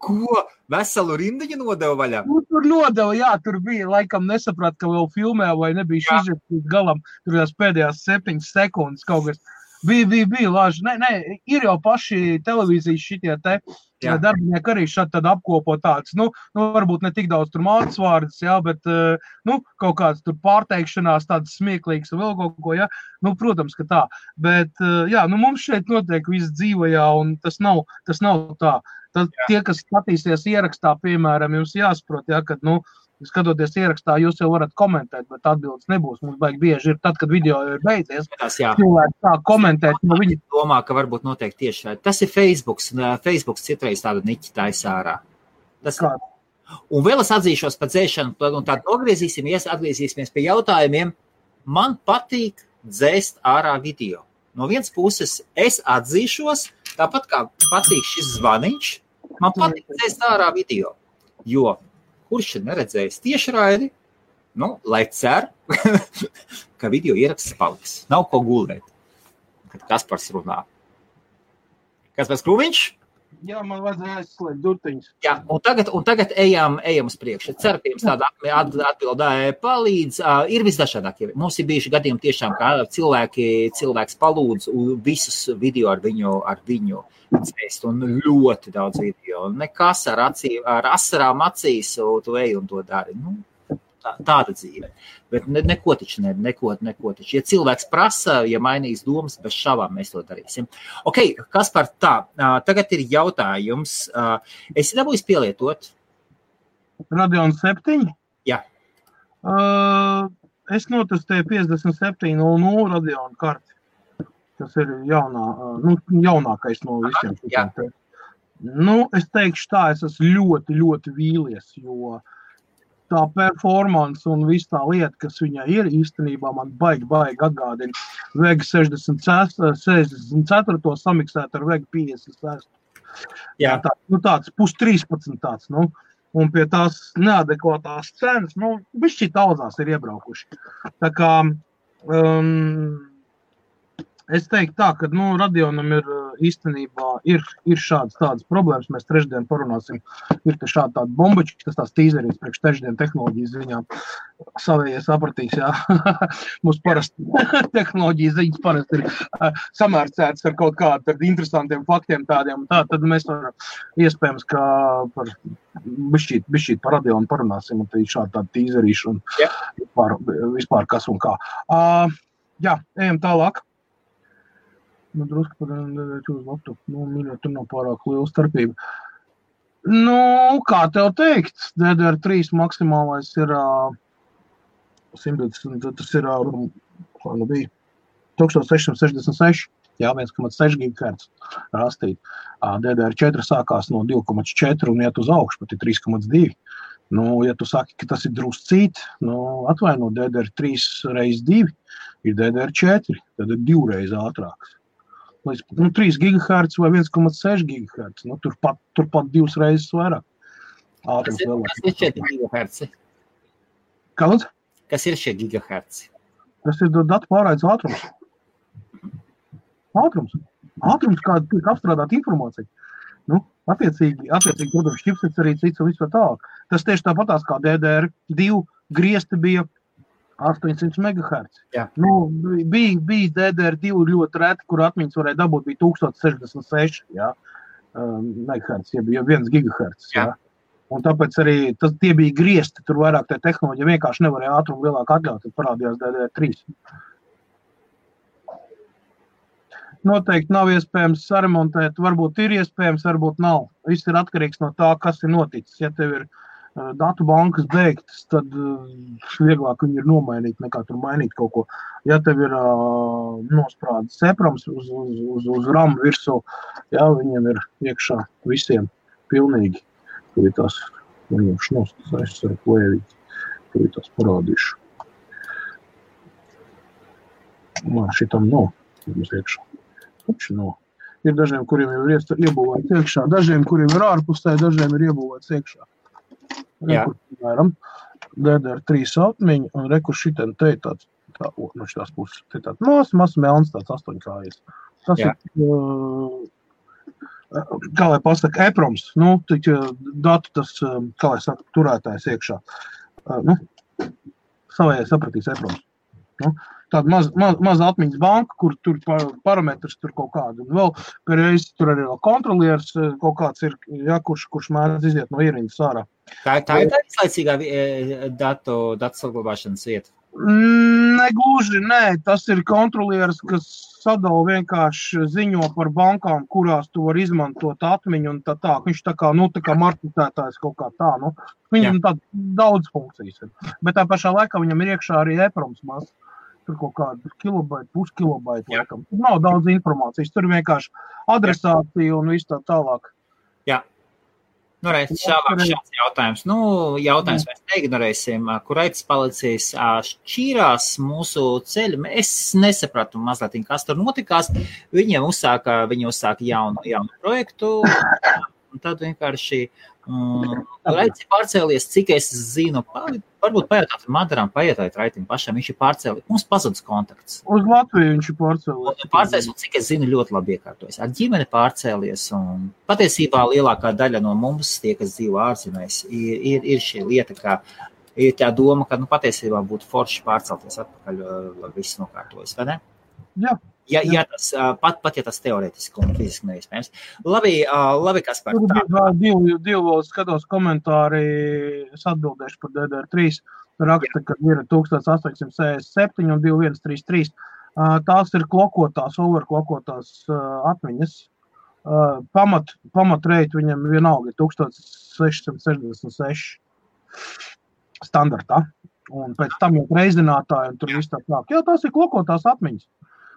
Ko? Veselu rindiņu nodeva vaļā? Tur nodeva, tur bija, laikam nesaprat, ka vēl filmē vai nebija izžēptīt galam, tur jās pēdējās 7 sekundes kaut kas. Bija lāži. Nē, ir jau paši televīzijas šitie te darbinieki arī šādi tad apkopo tāds, varbūt ne tik daudz tur mācas vārdas, bet, kaut kāds tur pārteikšanās tāds smieklīgs un vēl kaut ko, protams, ka tā. Bet, mums šeit notiek viss dzīvajā un tas nav tā. Tad tie, kas skatīsies ierakstā, piemēram, jums jāsaprot, kad, skatoties ierakstā, jūs jau varat komentēt, bet atbildes nebūs. Mums baigi bieži ir tad, kad video ir beidzies. Cilvēki tā komentēt. Viņi domā, ka varbūt noteikti tieši tas ir Facebooks. Facebooks citreiz tādu niķi taisa ārā. Un vēl es atzīšos par dzēšanu, un tādu atgriezīsimies pie jautājumiem. Man patīk dzēst ārā video. No vienas puses es atzīšos, tāpat kā patīk šis zvaniņš, man patīk dzēst ārā video. Jo kurš ir neredzējis tiešraidi, lai cer, ka video ieraksts paliks. Nav ko gulēt, kad Kaspars runā. Kaspars Krūmiņš? Jā, man vajadzēja aizslēgt durtiņus. Jā, un tagad ejam uz priekšu. Ceru, ka jums tāda atbildē palīdz. Ir visdažādākie. Mums ir bijuši gadījumi tiešām, kā cilvēks palūdz visus video ar viņu dzēst, un ļoti daudz video. Nekas ar asarām acīs, tu ej un to dari. Tāda dzīve. Bet neko taču. Ja cilvēks prasa, ja mainīs domas, bez šāvām mēs to darīsim. Ok, Kaspar, tagad ir jautājums. Esi dabūjis pielietot? Radeon 7? Jā. Es notestēju 5700 Radeon karti. Tas ir jaunākais no visiem. Jā. Es teikšu tā, es esmu ļoti, ļoti vīlies, jo tā performance un viss tā lieta, kas viņai ir, īstenībā man baigi atgādina Vega 64 samiksēt ar Vega 56. Jā. Tāds +13 tāds, un pie tās neadekvātās cenas, bišķi daudzās ir iebraukuši. Tā kā, es teiktu tā, ka, Radionam ir īstenībā ir šādas tādas problēmas, mēs trešdien parunāsim, ir te šādi tādi bombači, tas tās tīzerīs priekš trešdien tehnoloģijas ziņām, savējie sapratīs, jā, mums parasti tehnoloģijas ziņas parasti ir samērcētas ar kaut kādu interesantiem faktiem tādiem, tad mēs varam iespējams, ka par bišķīt par Radionu parunāsim, un te ir šādi tādi tīzerīši un vispār kas un kā. Jā, ejam tālāk. Drusku par uz laptopu, mīļot, tur nav pārāk liela starpība. Kā tev teikt, DDR3 maksimālais ir 120, tas ir, bija 1666, jā, 1,6 GHz rastīt. DDR4 sākās no 2,4 un iet uz augšu, pat ir 3,2. Ja tu saki, ka tas ir druscīt, atvaino, DDR3 reiz 2 ir DDR4, tad ir 2 reiz ātrāks. 3 GHz vai 1,6 GHz, turpat 2 reizes vairāk. Kas ir šie GHz? Kāds? Kas ir šie GHz? Tas ir datu pārraides ātrums. Ātrums, kā tiek apstrādāt informāciju. Attiecīgi, protams, čipsets arī cits un viss vēl tālāk. Tas tieši tāpatās kā DDR2 griezti bija 800 MHz. Jā. Bija DDR2 ļoti reti, kur atmiņas varēja dabūt, bija 1066 MHz, ja bija 1 GHz. Jā. Un tāpēc arī tie bija griezti, tur vairāk tie tehnoloģija vienkārši nevarēja ātrumu lielāk atļaut, tad parādījās DDR3. Noteikti nav iespējams saremontēt, varbūt ir iespējams, varbūt nav. Viss ir atkarīgs no tā, kas ir noticis. Ja tev ir datu bankas beigtas, tad vieglāk viņi ir nomainīt, nekā tur mainīt kaut ko. Ja tev ir nosprādes seprams uz RAM virsū, jā, viņiem ir iekšā visiem pilnīgi. Tur ir tās, es ar plēvīt, tur ir tās parādīšu. Šitam nav, mums iekšā. Ir dažiem, kuriem jau ir iebūvēts iekšā, dažiem, kuriem ir ārpusē, dažiem ir iebūvēts iekšā. Rekur, piemēram, DDR3 atmiņa, un rekur šitien te tāds, no šitās puses, te tāds mazs melns, tāds 8 kājas. Tas ir, kā lai pasaka, EPROMs, datu tas, kā lai saka, turētājs iekšā. Savējai sapratīs EPROMs. Tāda maza atmiņas banka, kur tur parametrs tur kaut kādu. Un vēl pēreiz tur arī vēl kontrolieris kaut kāds ir, kurš mēdz iziet no ierindas ārā. Tā ir tā izlaicīgā datu saglabāšanas vieta? Negluži, nē. Tas ir kontrolieris, kas sadala vienkārši ziņo par bankām, kurās tu var izmantot atmiņu un tā. Viņš tā kā marketētājs kaut kā tā. Viņam tā daudz funkcijas ir. Bet tā pašā laikā viņam ir iekšā arī EPROMs maz. Tur kaut kādu kilobaita, puskilobaita laikam. Tur nav daudz informācijas. Tur vienkārši adresācija un viss tā tālāk. Jā. Šāds jautājums. Jautājums mēs neignorēsim. Kur aitas palicis šķīrās mūsu ceļu. Es nesapratu mazliet, kas tur notikās. Viņi uzsāka jaunu projektu. Un tad vienkārši Raits ir pārcēlies, cik es zinu, varbūt pajautāt Madaram, pajautāt Raitim pašam, viņš ir pārcēlies, mums pazudis kontakts. Uz Latviju viņš ir pārcēlies. Un cik es zinu, ļoti labi iekārtojas. Ar ģimeni pārcēlies, un patiesībā lielākā daļa no mums, tie, kas dzīvo ārzemēs, ir šī lieta, ka ir tā doma, ka patiesībā būtu forši pārcelties atpakaļ, lai viss nokārtojas, vai ne? Jā. Ja tas, pat ja tas teorētiski un fiziski neiespējams. Labi, Kaspar. Tur bija divi skatos komentāri, es atbildēšu par DDR3. Raksta, ka ir 1867 un 2133. Tās ir klokotās, overklokotās atmiņas. Pamatreiti viņam vienalga ir 1666 standartā. Un pēc tam jau reizinātāji un tur viss tā klāk. Jā, tās ir klokotās atmiņas.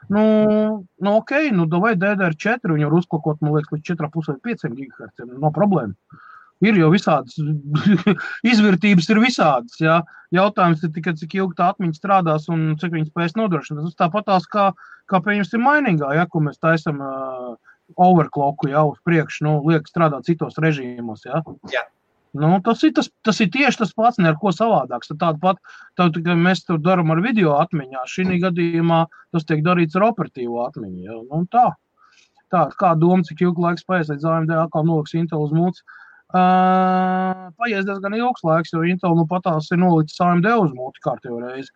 Davai DDR4, viņu var uzklokot, man liekas, līdz 4,5 GHz, no problēma. Ir jau visādas, izvērtības ir visādas, jā. Jautājums ir tikai, cik ilgi tā atmiņa strādās un cik viņi spēs nodrošināt. Tas tāpatās kā pieņemsim mainīgā, ja, ko mēs taisam overclocku, jā, uz priekšu, nu, liek strādāt citos režīmos, jā. Jā. Nu, tas ir tieši tas pats, ne ar ko savādāks. Tāpat mēs tur daram ar video atmiņā. Šī gadījumā tas tiek darīts ar operatīvo atmiņu, jā. Nu, tā, kā doma, cik ilgu laiku spējas, līdz AMD atkal noliks Intel uz mūci. Paies diezgan ilgs laiks, jo Intel nu patās ir nolicis AMD uz mūti kārtējo reizi.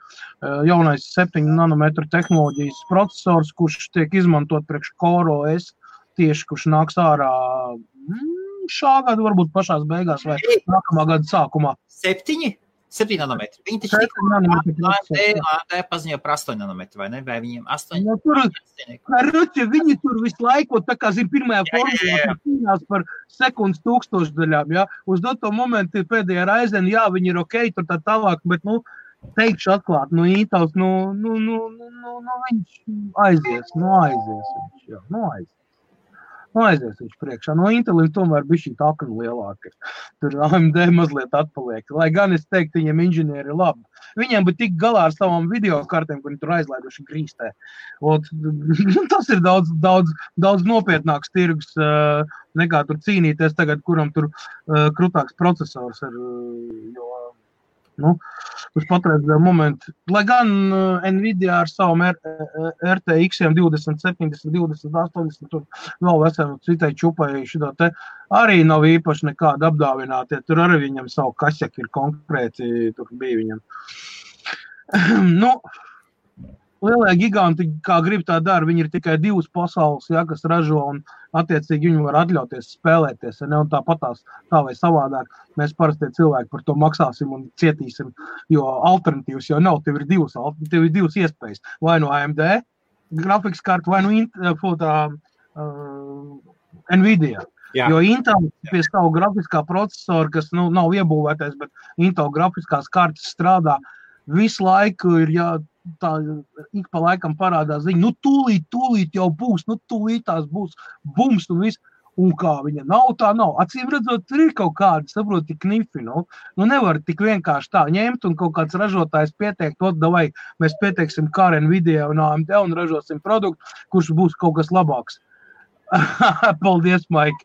Jaunais 7 nanometru tehnoloģijas procesors, kurš tiek izmantot priekš Core OS, tieši kurš nāks ārā šā gada, varbūt pašās beigās vai nākamā gada sākumā. 7 nanometri. Viņi taču AMD paziņoja par 8 nanometru, vai ne? Vai viņiem 8? Nu, viņi tur visu laiku, tā kā zin, pirmajā formulā cīnās par sekundes tūkstošdaļām, jā. Uz doto momentu pēdējā Ryzen, jā, viņi ir ok, tur tā tālāk, bet, nu, teikšu atklāt, nu, Intels, viņš aizies viņš, jā, aizies viņš priekšā. No Intelim tomēr bija šī akna lielāka. Tur AMD mazliet atpaliek. Lai gan es teiktu, viņiem inženieri ir labi. Viņiem bija tik galā ar savām videokartēm, kur viņi tur aizlaiduši grīstē. Tas ir daudz nopietnāks tirgus nekā tur cīnīties tagad, kuram tur krutāks procesors ir. Nu, uz patreizējo momentu. Lai gan Nvidia ar savam RTX-iem 20, 70, 20, 80, tur vēl veselu citai čupai šitā te arī nav īpaši nekāda apdāvinātie. Tur arī viņam savu kašeki ir konkrēti, tur bija viņam. Nu, lielie giganti, kā grib tā dara, viņi ir tikai divas pasaules, ja, kas ražo un attiecīgi viņi var atļauties spēlēties, ja ne, un tāpatās tā vai savādāk. Mēs parasti cilvēki par to maksāsim un cietīsim, jo alternatīvas jau nav, tev ir divas iespējas. Vai no AMD grafikas karta, vai no Nvidia. Jā. Jo Intel pie savu grafiskā procesora, kas nav iebūvētais, bet Intel grafiskās kartas strādā, visu laiku ir tā ik pa laikam parādās ziņa, nu tūlīt jau būs, nu tūlīt tās būs bums un viss, un kā viņa nav, tā nav. Acīm redzot, tur ir kaut kādi, saproti, knifi, nu nevar tik vienkārši tā ņemt un kaut kāds ražotājs pieteikt, davai, mēs pieteiksim kā Nvidia un AMD un ražosim produktu, kurš būs kaut kas labāks. Paldies, Maik.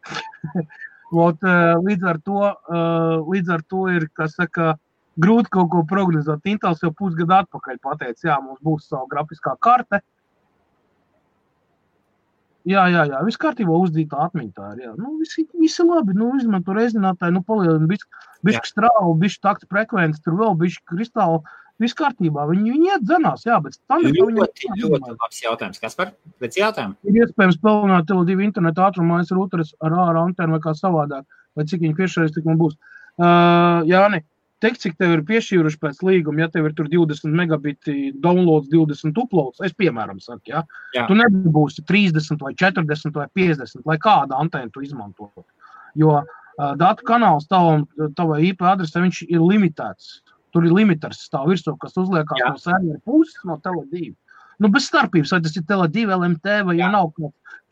Līdz ar to ir, kas saka, grūti kaut ko prognozēt. Intels jau pusgadu atpakaļ pateica, jā, mums būs savu grafiskā karte. Jā, viss kārtībā uzdītā atmiņa tā ir, jā. Nu, visi labi, nu, izmanto rezinātāju, nu, palielina bišķi strāvu, bišķi takta frekvenci, tur vēl bišķi kristāli, viss kārtībā. Viņi iet dzenās, jā, bet ļoti labs jautājums. Kaspar, pēc jautājumu? Ir iespējams pelnāt Tele2 internetu ātrumais rūteres ar ārā antenu vai kā savādāk, vai cik viņi piešķirais, tik man būs. Jāni, teikt, cik tev ir piešķīruši pēc līguma, ja tev ir tur 20 megabiti downloads, 20 uploads, es piemēram saku, ja? Tu nebūsi 30 vai 40 vai 50, lai kāda antēna tu izmanto. Jo datu kanāls tavai IP adresē, viņš ir limitēts. Tur ir limiters stāv virsū, kas uzliekās no servera puses, no Tele2. Nu, bez starpības, vai tas ir Tele2, LMT, vai ja nav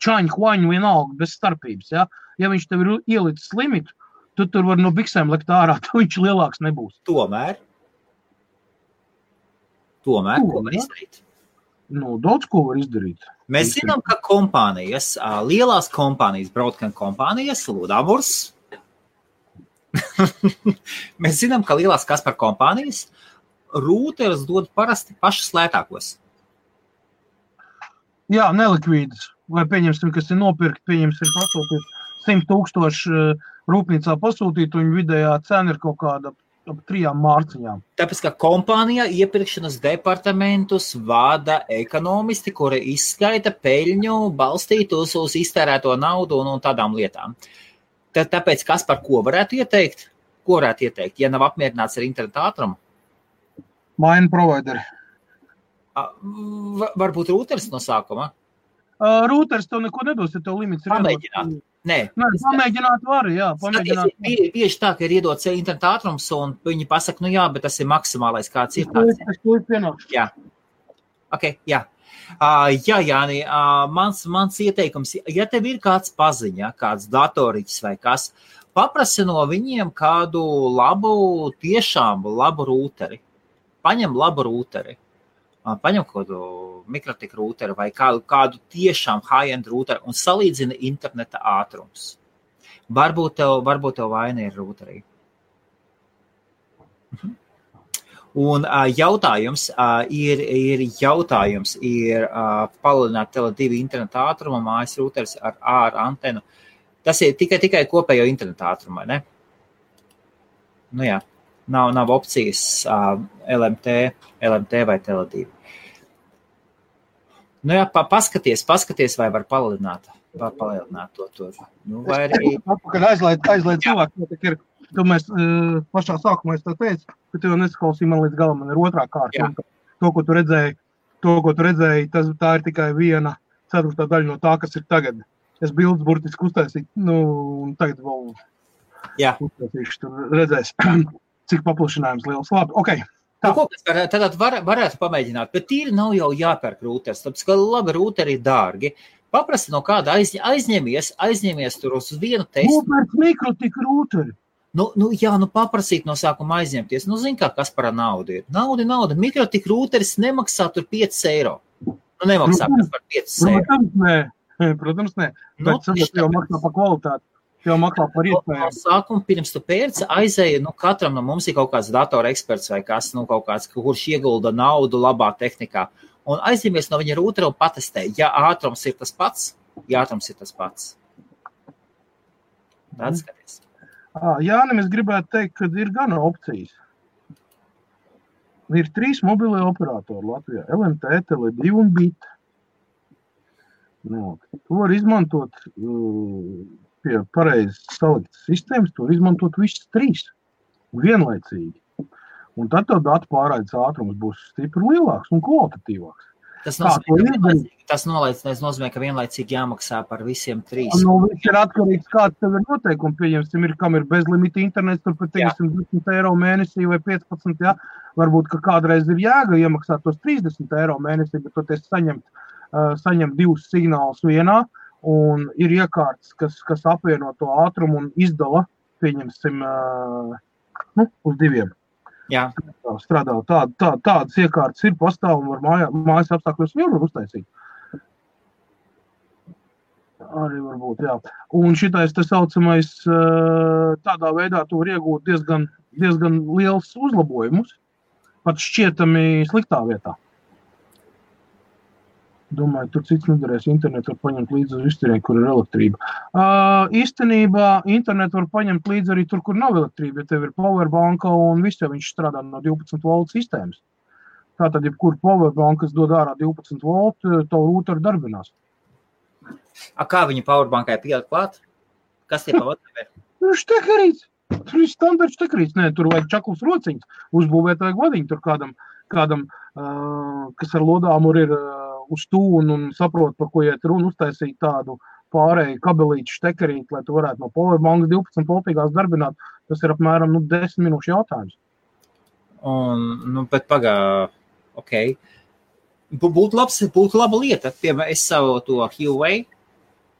čaņu, huaņu, vienalga, bez starpības, ja? Ja viņš tev ir ielicis limitu, tu tur var no biksēm likt ārā, tu viņš lielāks nebūs. Tomēr, ko var izdarīt? Nu, daudz ko var izdarīt. Mēs zinām, ka kompānijas, lielās kompānijas, broadband kompānijas, Ludamurs, mēs zinām, ka lielās Kaspar kompānijas rūteres dod parasti pašas lētākos. Jā, nelikvīdas. Vai pieņemsim, kas ir nopirkt, pieņemsim pasūtīt 100,000 rūpnīcā pasūtīt, un vidējā cena ir kaut kāda ap 3 mārciņām. Tāpēc, ka kompānijā iepirkšanas departamentus vada ekonomisti, kuri izskaita peļņu balstītos uz iztērēto naudu un tādām lietām. Tāpēc, kas par ko varētu ieteikt? Ko varētu ieteikt, ja nav apmierināts ar internetu ātrumu? Maina provideri. Varbūt rūteris no sākuma? Rūteris tev neko nedos, ja tev limits ir pamēģināt. Nē, pamēģināt var, jā. Bieži tā, ka ir iedots internetu ātrums, un viņi pasaka, nu jā, bet tas ir maksimālais, kāds ir tāds. Es to pienākšu. Jā. Ok, jā. Jā, Jāni, mans ieteikums, ja tev ir kāds paziņa, kāds datoriķis vai kas, paprasi no viņiem kādu tiešām labu rūteri. Paņem labu rūteri. Paņem kādu mikrotik rūteri vai kādu tiešām high-end rūteri un salīdzina interneta ātrums. Varbūt tev vaina ir rūterī. Un jautājums ir palielināt Tele2 interneta ātrumu mājas rūteris ar antenu. Tas ir tikai kopējo interneta ātrumu, ne? Nu jā, nav opcijas LMT vai Tele2. Nu jā, paskaties, vai var palielināt to. Nu, vai arī... Kad aizlaid cilvēku, tu mēs pašā sākumā es tā teicu, ka tu jau nesaklausīji man līdz galam, man ir otrā kārta. To, ko tu redzēji, tā ir tikai 1/4 daļa no tā, kas ir tagad. Es bildes burtiski uztaisīju, un tagad vēl uztaisīšu, tur redzēs, cik paplašinājums liels. Labi, okei. Tad varētu pamēģināt, bet tīri nav jau jāpērk rūteris, tāpēc, ka labi rūteri ir dārgi. Paprasti no kāda aizņemies tur uz vienu testu. Nopērk mikrotik rūteri. Paprasīt no sākuma aizņemties. Zin kā, kas par naudu ir. Nauda. Mikrotik rūteris nemaksā tur 5 eiro. Nemaksā par 5 eiro. Protams, nē. Bet jau maksā par kvalitāti. Jau maksā par iespējām. Sākuma pirms tu pērci aizēja, katram no mums ir kaut kāds datora eksperts vai kas, kaut kāds, kurš iegulda naudu labā tehnikā. Un aizņemies no viņa rūtera un patestē. Ja ātrums ir tas pats. Tad skaties. Jānim, es gribētu teikt, ka ir gana opcijas. Ir 3 mobilie operatori Latvijā. LMT, Tele2 un BIT. To var izmantot pie pareizi saliktas sistēmas, to var izmantot visas 3 vienlaicīgi. Un tad tev datu pārraides ātrums būs stipri lielāks un kvalitatīvāks. Tas nozīmē, ka vienlaicīgi jāmaksā par visiem 3. Viss ir atkarīgs, kāds tev ir noteikumi. Pieņemsim, kam ir bezlimita internets, tur pat 10 eiro mēnesī vai 15, jā. Varbūt, ka kādreiz ir jēga iemaksāt tos 30 eiro mēnesī, bet toties saņem 2 signālus vienā, un ir iekārtas, kas apvieno to ātrumu un izdala, pieņemsim, uz 2. Jā. Strādā. Tādas iekārtas ir pastāv un var mājas apstākļos var uztaisīt. Arī varbūt, jā. Un šitais te saucamais, tādā veidā tu var iegūt diezgan liels uzlabojumus, pat šķietami sliktā vietā. Domāju, tur cits nedarēs. Internetu var paņemt līdzi uz izturiem, kur ir elektrība. Īstenībā internetu var paņemt līdzi arī tur, kur nav elektrība, ja tev ir powerbanka un viss, ja viņš strādā no 12 volt sistēmas. Tātad, ja kur powerbanka, kas dod ārā 12 volt, tavu rūteru darbinās. Kā viņa powerbankai pielikt klāt? Kas tie powerbankai ir? Štekerīts. Tur ir standarts štekerīts. Nē, tur vajag čaklus rociņus. Uzbūvēt vajag vadiņu tur kādam, kas ar lodāmuru ir uz tūnu un saprot, par ko iet runa, uztaisīt tādu pārēju kabelīšu štekerīti, lai tu varētu no powerbankas 12 voltīgās darbināt. Tas ir apmēram 10 minūšu jautājums. Bet ok. Būtu laba lieta. Piemēram, es savu to Huawei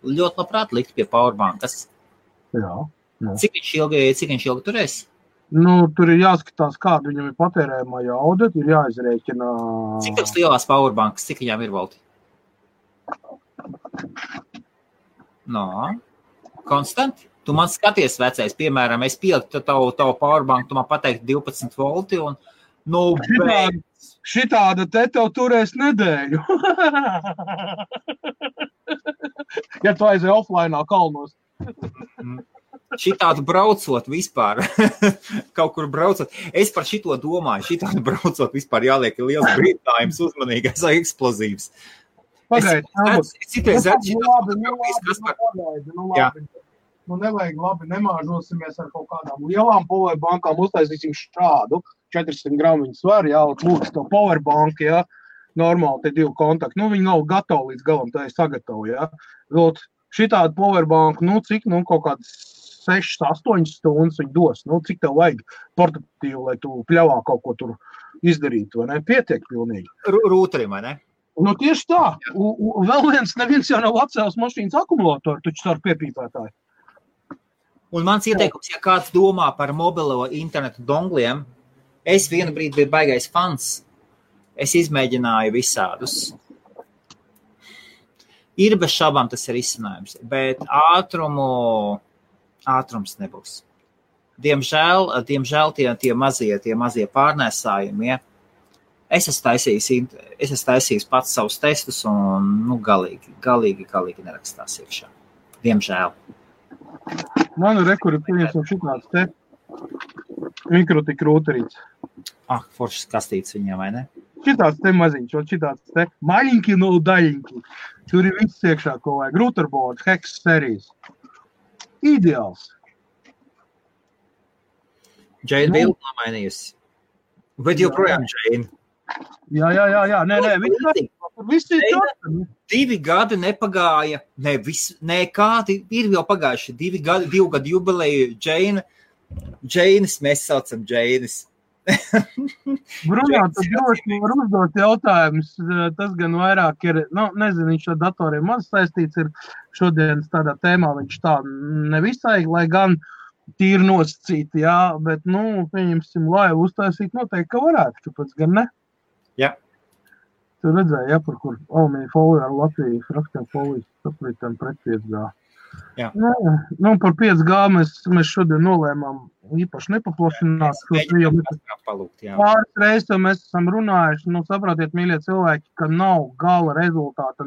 ļoti labprāt likt pie powerbankas. Jā. Cik viņš ilgi turēs? Tur ir jāskatās, kāda viņam ir patērējumā jauda, ir jāizrēķina. Cik tas lielās powerbankas, cik viņām ir volti? Konstanti. Tu man skaties, vecais, piemēram, es pieliktu tavu powerbanku, tu man pateiktu 12 volti un, šitāda te tev turēs nedēļu. Ja tu aizēji offlineā kalnos. Šitādu braucot vispār, kaut kur braucot. Es par šito domāju, šitādu braucot vispār jāliek liels brīdinājums, uzmanīgais, eksplozīvs. Pagaid, nevajag labi, nemāžosimies ar kaut kādām lielām powerbankām, uztaisīsim šādu 400 gramu viņu svaru, jā, lūdzu to powerbanku, jā, normāli te 2 kontakti. Viņi nav gatavi līdz galam, tā ir sagatavo, jā. Šitādu powerbanku, cik, kaut kādas 6-8 stundas viņi dos. Cik tev vajag portatīvu, lai tu pļavā kaut ko tur izdarītu, vai ne? Pietiek pilnīgi. Rūterim, vai ne? Tieši tā. Vēl neviens jau nav atcēlis mašīnas akumulātoru, taču ar piepīpētāju. Un mans ieteikums, ja kāds domā par mobilo internetu dongliem, es vienu brīdi biju baigais fans. Es izmēģināju visādus. Ir bez šaubām tas ir izcinājums, bet ātrums nebūs. Diemžēl tie mazie pārnēsājumi, ja. Es esmu taisījis pats savus testus un galīgi nerakstās iekšā. Diemžēl. Man rekuri pieņemsim šitāds te mikrotik rūterīts. Foršas kastītes viņiem, vai ne? Šitāds te maziņš, šitāds te maļinki no daļinki. Tur ir viss iekšā, ko vajag. Routerboards, Hex serijas. Ideāls. Džeina bildi nomainījusi. Bet joprojām Džeina. Jā. Nē, viss ir tāds. 2 gadi nepagāja. Kādi ir jau pagājuši. 2 gadu jubileju Džeinas, mēs saucam Džeinas. Brunā, tad droši var uzdot jautājumus. Tas gan vairāk ir, nezinu, viņš ar datoriem maz saistīts ir šodienas tādā tēmā. Viņš tā nevisai, lai gan tīri nosacīti, jā, bet, pieņemsim, lai uztaisīt noteikti, ka varētu, kāpēc gan ne? Jā. Tu redzēji, ja, par kur alumīnija folija ar Latviju rakstiem folijas saplītēm pret 5G. Jā. Par 5G mēs šodien nolēmām īpaši nepaplašināt. Pāris reizes mēs esam runājuši, saprotiet, mīļie cilvēki, ka nav gala rezultāta,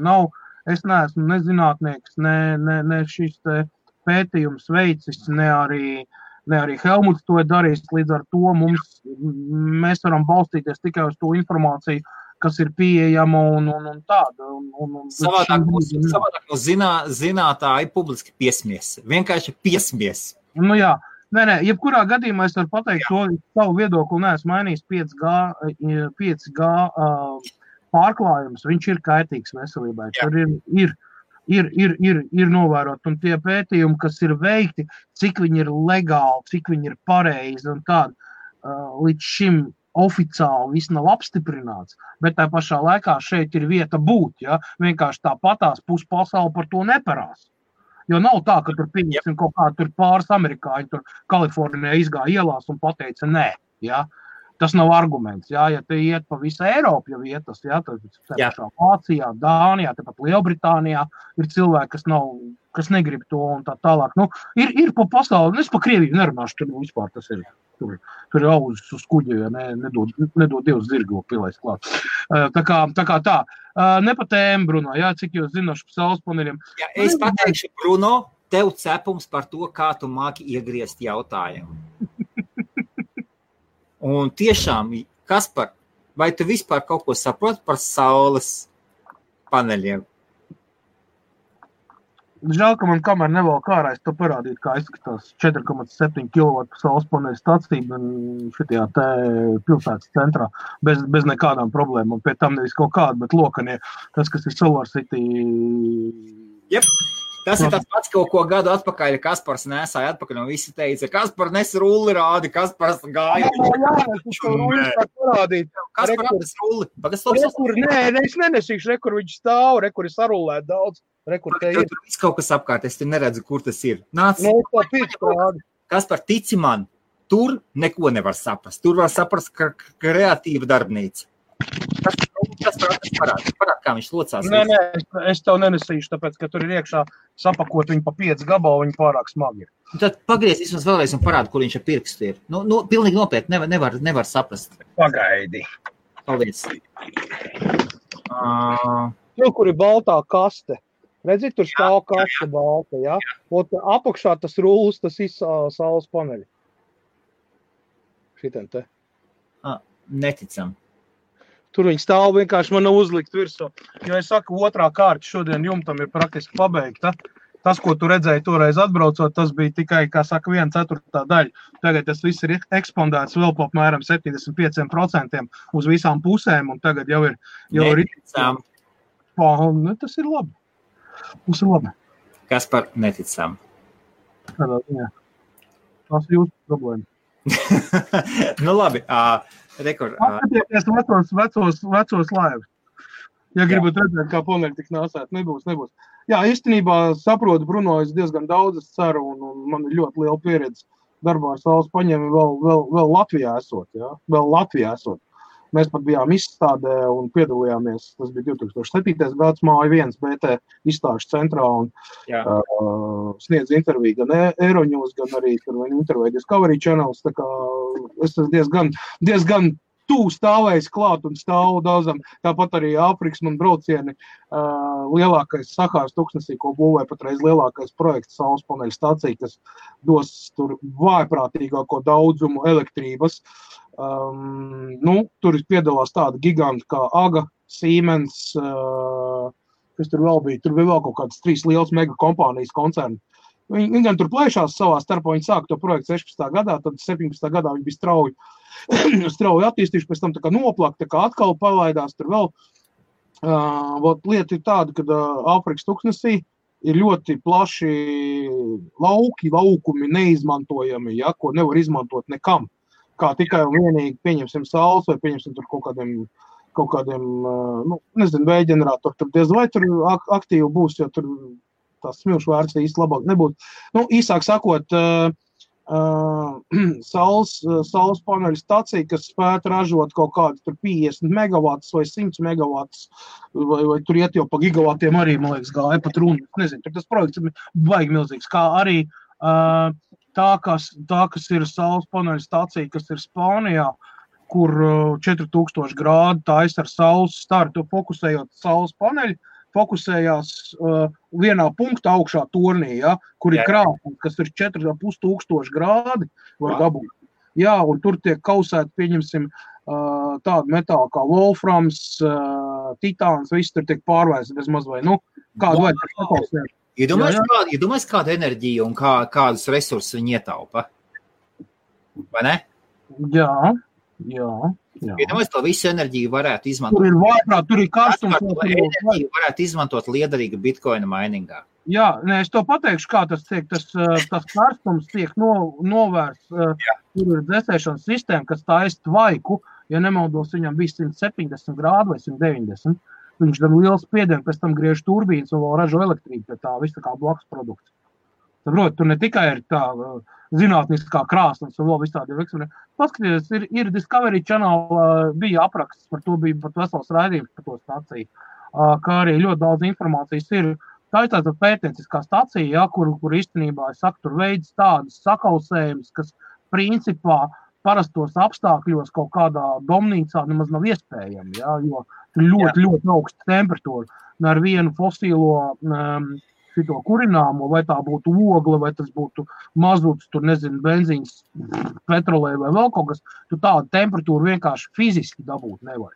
es neesmu ne zinātnieks, ne šis te pētījums veicis, ne arī Helmuts to ir darījis, līdz ar to mēs varam balstīties tikai uz to informāciju, kas ir pieejama un tāda. Savādāk no zinātāji publiski piesmies. Vienkārši piesmies. Jā. Nē, jebkurā gadījumā es varu pateikt to savu viedokli, neesmu mainījis 5G pārklājums. Viņš ir kaitīgs veselībai. Jā. Tur ir novērot, un tie pētījumi, kas ir veikti, cik viņi ir legāli, cik viņi ir pareizi un tādi, līdz šim oficiāli viss nav apstiprināts, bet tā pašā laikā šeit ir vieta būt, ja? Vienkārši tāpatās puspasauli par to neparās. Jo nav tā, ka tur pieņemsim kaut kā tur pāris amerikāņi, tur Kalifornijā izgāja ielās un pateica nē, ja? Tas nav arguments, ja te iet pa visu Eiropu, ja vietas, ja, tad pašā Vācijā, Dānijā, tepat Lielbritānijā ir cilvēki, kas negrib to un tā tālāk. Ir pa pasauli, es pa Krieviju nerunāšu, tur vispār tas ir, tur ir auzis uz kuģi, ja nedod Dievs zirgo pilēs klāt. Tā kā tā. Ne pa tēmu, Bruno, jā, cik jūs zinoši pa saules paneļiem. Jā, es pateikšu, Bruno, tev cepums par to, kā tu māki iegriezt jautājumu. Un tiešām, Kaspar, vai tu vispār kaut ko saproti par saules paneļiem? Žēl, ka man kamēr nevēl kārā, es to parādītu, kā izskatās 4,7 kW saules paneļu stacija šitajā te pilsētas centrā, bez nekādām problēmām. Pie tam nevis kaut kāda, bet lokanie, tas, kas ir Solar City. Jep. Tas ir tāds pats, ko gadu atpakaļ Kaspars nesāja atpakaļ, un visi teica, Kaspar nes rulli rādi, Kaspars gāja. Kaspar atnes rulli. Es nenesīšu, rekur viņš stāv, rekur ir sarulēt daudz. Tur viss kaut kas apkārt, es te neredzu, kur tas ir. Kaspar, tici man, tur neko nevar saprast. Tur var saprast, ka kreatīva darbnīca. Tas parāda, kā viņš locās. Nē, es tev nenesīšu, tāpēc, ka tur ir iekšā sapakot viņu pa 5 gabalu, viņi pārāk smagi ir. Tad pagriez vismaz vēlreiz un parāda, kur viņš ar pirkstu ir. Pilnīgi nopietni, nevar saprast. Pagaidi. Paldies. Tur, kur ir baltā kaste. Redzi, tur stāv kaste balta, ja? Apakšā tas rullis, tas ir saules paneļi. Šitien te. Neticam. Tur viņi stāv vienkārši man uzlikt virsū. Jo es saku, otrā kārta šodien jumtam ir praktiski pabeigta. Tas, ko tu redzēji toreiz atbraucot, tas bija tikai, kā saka, 1/4 daļa. Tagad tas viss ir ekspandēts vēl pa apmēram 75% uz visām pusēm, un tagad jau ir... Neticam. Tas ir labi. Tas ir labi. Kaspar, neticam. Tādā ziņā. Tas ir jūsu problēma. Labi. Atskatieties vecos laivus. Ja gribat redzēt, kā paneļi tik nāsēt, nebūs. Jā, īstenībā saprotu, Bruno, es diezgan daudz ceru, un man ir ļoti liela pieredze darbā ar saules paņēmi vēl Latvijā esot, jā, vēl Latvijā esot. Mēs pat bijām izstādē un piedalījāmies, tas bija 2007. gads, Māja 1 BT izstāžu centrā un sniedz interviju gan Euronews, gan arī tur interviju Discovery Channels, tā kā es diezgan tuvu stāvējis klāt un stāvu daudzam, tāpat arī Āfrikas man braucieni, lielākais Sahāras tuksnesī, ko būvē patreiz lielākais projekts saules paneļu stacija, kas dos tur vājprātīgāko daudzumu elektrības. Tur piedalās tāda giganti kā AGA, Siemens, kas tur vēl bija. Tur bija vēl kaut kādas 3 lielas mega kompānijas koncerni. Viņi gan tur plēšās savā starpā, viņi sāka to projektu 16. gadā, tad 17. gadā viņi bija strauji attīstījuši, pēc tam tā kā noplaka, tā kā atkal palaidās tur vēl. Lieta ir tāda, ka Āfrikas tuksnesī ir ļoti plaši laukumi neizmantojami, ja, ko nevar izmantot nekam. Kā tikai un vienīgi pieņemsim saules vai pieņemsim tur kaut kādiem nezinu, vēja ģeneratoru, tur diez vai tur aktīvi būs, jo tur tās smilšu vērts īsti labāk nebūs. Īsāk sakot, saules paneļu stacija, kas spētu ražot kaut kādu tur 50 megavatus vai 100 megavatus, vai tur iet jau pa gigavatiem arī, man liekas, gāja pat runa. Nezinu, tur tas projekts ir baigi milzīgs, kā arī tā, kas ir saules paneļu stacija, kas ir Spānijā, kur 4000 grādu taisa ar saules startu, fokusējot saules paneļu, fokusējās vienā punktā augšā tornī, ja, kur ir krāpums, kas ir 4500 grādi var dabūt. Jā, un tur tiek kausēti, pieņemsim, tādu metālu kā wolframs, titāns, viss tur tiek pārvērsts bez maz vai, kādu vajag par sakausēt. Iedomājies kādu enerģiju un kādus resursus viņi ietaupa? Vai ne? Jā. Iedomājies, to visu enerģiju varētu izmantot. Tur ir vājprāt, tur ir karstums. Enerģiju varētu izmantot liederīga bitcoina miningā. Jā, es to pateikšu, kā tas tiek, tas karstums tiek novērsts. Tur ir dzēsēšanas sistēma, kas taisa tvaiku, ja nemaldos, viņam bija 170 grādu vai 190. Viņš dara lielu spiedienu, pēc tam griež turbīnas un vēl ražo elektrību, pie tā viss tā kā blakus produkts. Saprot, tur ne tikai ir tā zinātniskā krāsnes un vēl viss tādi eksperimenti. Paskatieties, ir Discovery Channel, bija apraksts, par to bija pat vesels raidījums par to staciju, kā arī ļoti daudz informācijas ir. Tā ir tāda pētnieciskā stacija, ja, kur īstenībā, es saku, tur veids tādas sakausējumus, kas principā parastos apstākļos kaut kādā domnīcā nemaz nav iespējami, ja, jo ļoti augsta temperatūra. Ar vienu fosīlo šito kurināmo, vai tā būtu ogle, vai tas būtu mazuts, tur nezinu, benzīns, petrolē vai vēl kaut kas, tu tādu temperatūru vienkārši fiziski dabūt nevar.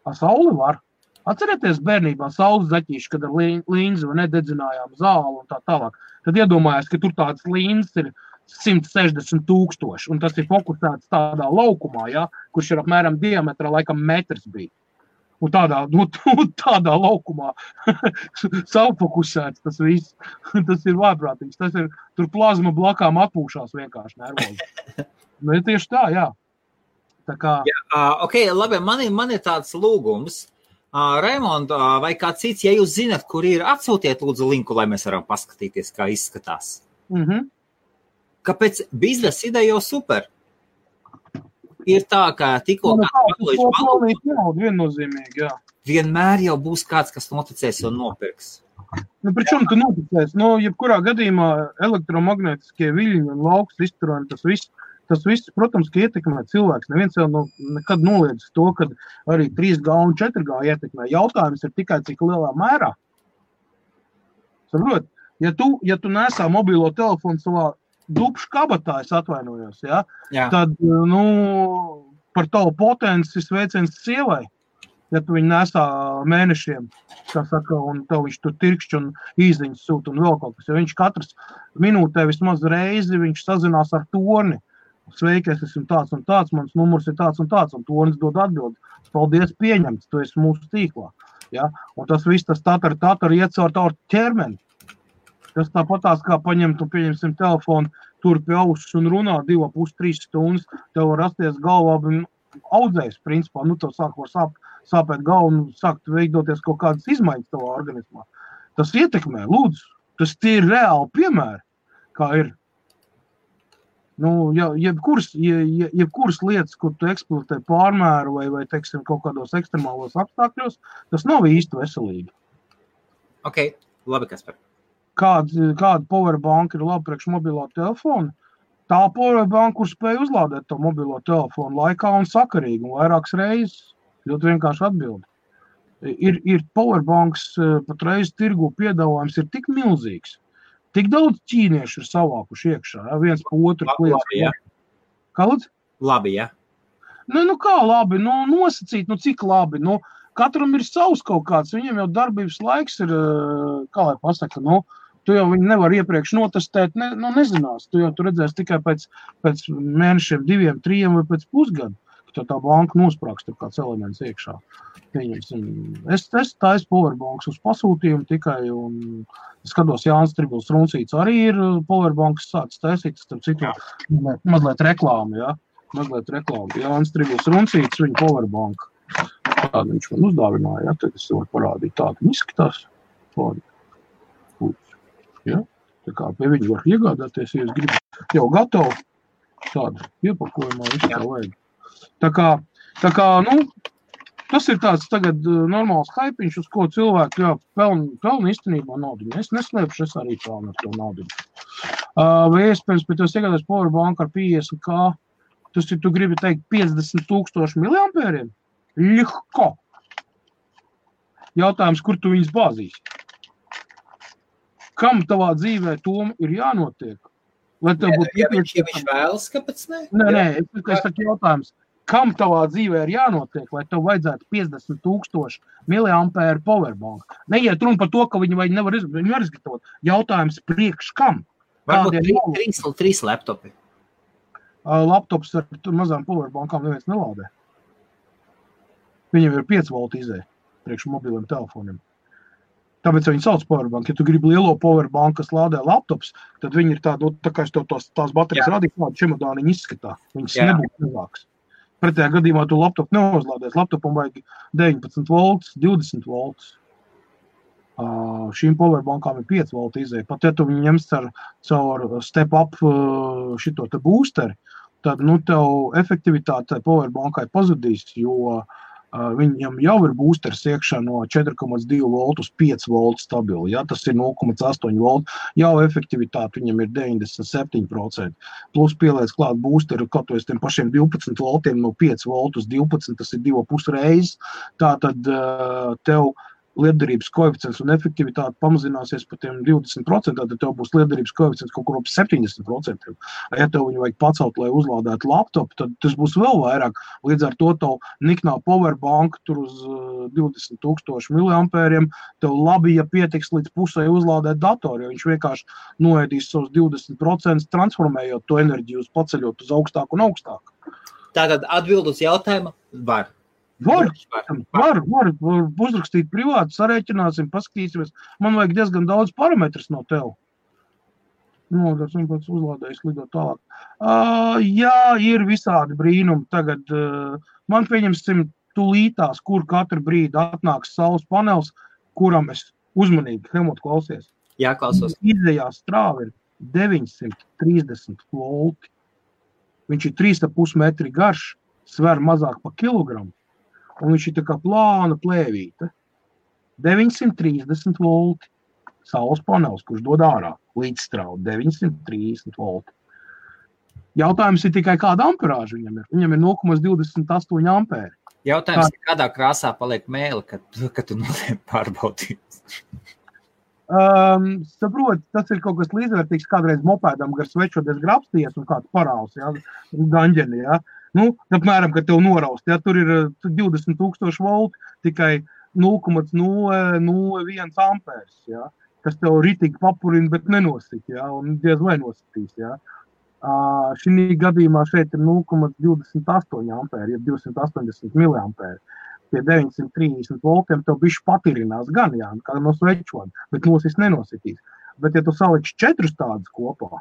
Ar sauli var. Atcerieties bērnībā saules zaķīši, kad ar līnzi vai nededzinājām zāli un tā tālāk. Tad iedomājās, ka tur tāds līnzes ir 160 000, un tas ir fokusēts tādā laukumā, ja, kurš ir apmēram diametrā laikam metrs bija. Un tādā laukumā savfokusēts tas viss. Tas ir vājprātīgs. Tas ir, tur plazma blakām atpūšās vienkārši nervozi. Ir tieši tā, jā. Tā kā... Ok, labi, man ir tāds lūgums. Raimond, vai kā cits, ja jūs zinat, kur ir, atsūtiet lūdzu linku, lai mēs varam paskatīties, kā izskatās. Kāpēc biznesa ideja jau super? Ir tā, ka tikko viennozīmīgi, jā. Vienmēr jau būs kāds, kas noticēs un nopirks. Pričom tu noticēs? Jebkurā gadījumā elektromagnetiskie viļņi un lauks izturēni, tas viss, protams, ka ietekmē cilvēks. Neviens jau nekad noliedz to, ka arī 3G un 4G ietekmē. Jautājums ir tikai cik lielā mērā. Saprot, ja tu nesā mobilo telefonu savā dupšu kabatā, es atvainojos, ja? Tad, par tavu potenci sveiciens sievai, ja tu viņu nesā mēnešiem, kā saka, un tev viņš tur tirkšķi un īziņas sūta un vēl kaut kas, jo viņš katras minūtē vismaz reizi, viņš sazinās ar torni. Sveiki, es esmu tāds un tāds, mans numurs ir tāds un tāds, un tornis dod atbildi. Paldies, pieņemts, tu esi mūsu tīklā. Ja? Un tas viss, tas tatar iet caur tavu ķermeni. Tas tāpatās, kā paņemt un pieņemsim telefonu, tur pie ausis un runā 2,5–3 stundas, tev var rasties galvā audzējs, principā, tev sāk var sāpēt galvu un sākt veidoties kaut kādas izmaiņas tavā organismā. Tas ietekmē, lūdzu. Tas tie ir reāli piemēri, kā ir. Nu, jebkuras lietas, kur tu eksploatē pārmēru vai teiksim, kaut kādos ekstremālos apstākļos, tas nav īsti veselīgi. Ok, labi, Kaspar. Kāda powerbank ir labi priekš mobilo telefonu? Tā powerbank, kur spēj uzlādēt to mobilo telefonu laikā un sakarīgi un vairākas reizes. Ļoti vienkārši atbildi. Ir powerbanks patreiz tirgu piedāvājums ir tik milzīgs. Tik daudz ķīnieši ir savākuši iekšā, ja? Viens pa otru kliedz. Labi, ja. Kāds? Labi, ja. Nu kā labi, nosacīt, cik labi. Katram ir savs kaut kāds, viņiem jau darbības laiks ir, kā lai pasaka, tu jau viņi nevar iepriekš notestēt, nezinās. Tu jau tu redzēsi tikai pēc mēnešiem, 2, 3 vai pēc pusgadu, ka tā banka nosprāks tur kāds elements iekšā. Es taisu powerbanks uz pasūtījumu tikai, un skatos, Jānis Tribils Runcīts arī ir powerbanks sācis taisīt, starp citu, mazliet reklāmu, ja? Mazliet reklāmu. Jānis Tribils Runcīts, viņa powerbank. Tādu viņš man uzdāvināja, ja? Tad es varu parādīt tādu izskatās. Ja? Tā kā pie viņu var iegādāties, ja es gribu jau gatavu tādu iepakojumā, visu tā vajag. Tā kā, tas ir tāds tagad normāls haipiņš, uz ko cilvēki pelna īstenībā naudu. Es neslēpšu, es arī pelnu ar to naudu. Vai iespējams, pēc tos iegādās powerbank ar 50K, tas ir, tu gribi teikt, 50,000 miliampēriem? Ļihko! Jautājums, kur tu viņus bāzīsi? Kam tavā dzīvē tom ir jānotiek? Lai tev būtu ja viņš vēlas, kāpēc ne? Nē, es saku jautājums. Kam tavā dzīvē ir jānotiek, lai tev vajadzētu 50,000 miliampēru powerbank? Neiet runa par to, ka viņi nevar izgatavot. Jautājums priekš kam? Varbūt 3 laptopi. Laptops ar mazām powerbankām neviens nelādē. Viņam ir 5 volt izēja priekš mobiliem telefoniem. Tāpēc viņi sauc powerbank. Ja tu gribi lielo powerbank, kas lādē laptops, tad viņi ir tāda, tā kā es tās baterijas radīju, kādu čemodāniņu izskatā. Viņas nebūtu mazāks. Pretējā gadījumā tu laptopu neuzlādēs. Laptopam vajag 19 volts, 20 volts. Šīm powerbankām ir 5 volti izēja. Pat ja tu viņu ņems caur step up šito te boosteri, tad tev efektivitāte powerbankai pazudīs, jo viņam jau ir boosters iekšā no 4,2 voltu uz 5 voltu stabili. Ja? Tas ir 0,8 voltu. Jau efektivitāte viņam ir 97%. Plus pieliec klāt boosteru kaut uz tiem pašiem 12 voltiem no 5 voltu uz 12, tas ir 2,5 reizes. Tātad tev lietderības koeficients un efektivitāte pamazināsies par tiem 20%, tad tev būs lietderības koeficients kaut kur ap 70%. Ja tev viņu vajag pacelt, lai uzlādētu laptopu, tad tas būs vēl vairāk. Līdz ar to tev niknā powerbank tur uz 20,000 miliampēriem, tev labi, ja pietiks līdz pusē uzlādēt datoru, jo viņš vienkārši noēdīs savus 20%, transformējot to enerģiju, paceļot uz augstāku un augstāku. Tātad atbild uz jautājumu var. Var uzrakstīt privāti, sarēķināsim, paskatīsimies. Man vajag diezgan daudz parametrus no tev. Tas un pēc uzlādējis lidot tālāk. Jā, ir visādi brīnumi. Tagad man pieņemsim tūlītās, kur katru brīdi atnāks saules panels, kuram es uzmanīgi, Helmut, klausies. Jā, klausos. Izējā strāva ir 930 volti. Viņš ir 3,5 metri garš, sver mazāk pa kilogramu. Un viņš ir tā kā plāna plēvīte. 930 volti. Saules panels, kurš dod ārā līdzstrāvu. 930 volti. Jautājums ir tikai kāda amperāža viņam ir. Viņam ir 0,28 ampēri. Jautājums ir, kādā krāsā paliek mēle, kad tu noliek pārbaudīt? Saprot, tas ir kaut kas līdzvērtīgs kādreiz mopēdam gar svečoties grapsties un kāds parāls, ja, gaņģeni, ja. Apmēram, kad tev noraust, ja, tur ir 20,000 volti, tikai 0,001 ampērs, ja, kas tev ritīgi papurina, bet nenosit, ja, un diez vai nositīs, ja. Šī gadījumā šeit ir 0,28 ampēri, ja 280 miliampēri. Pie 930 voltiem tev bišķi patirinās gan, jā, kā no svečoda, bet nosis nenositīs. Bet ja tu saliksi 4 tādas kopā,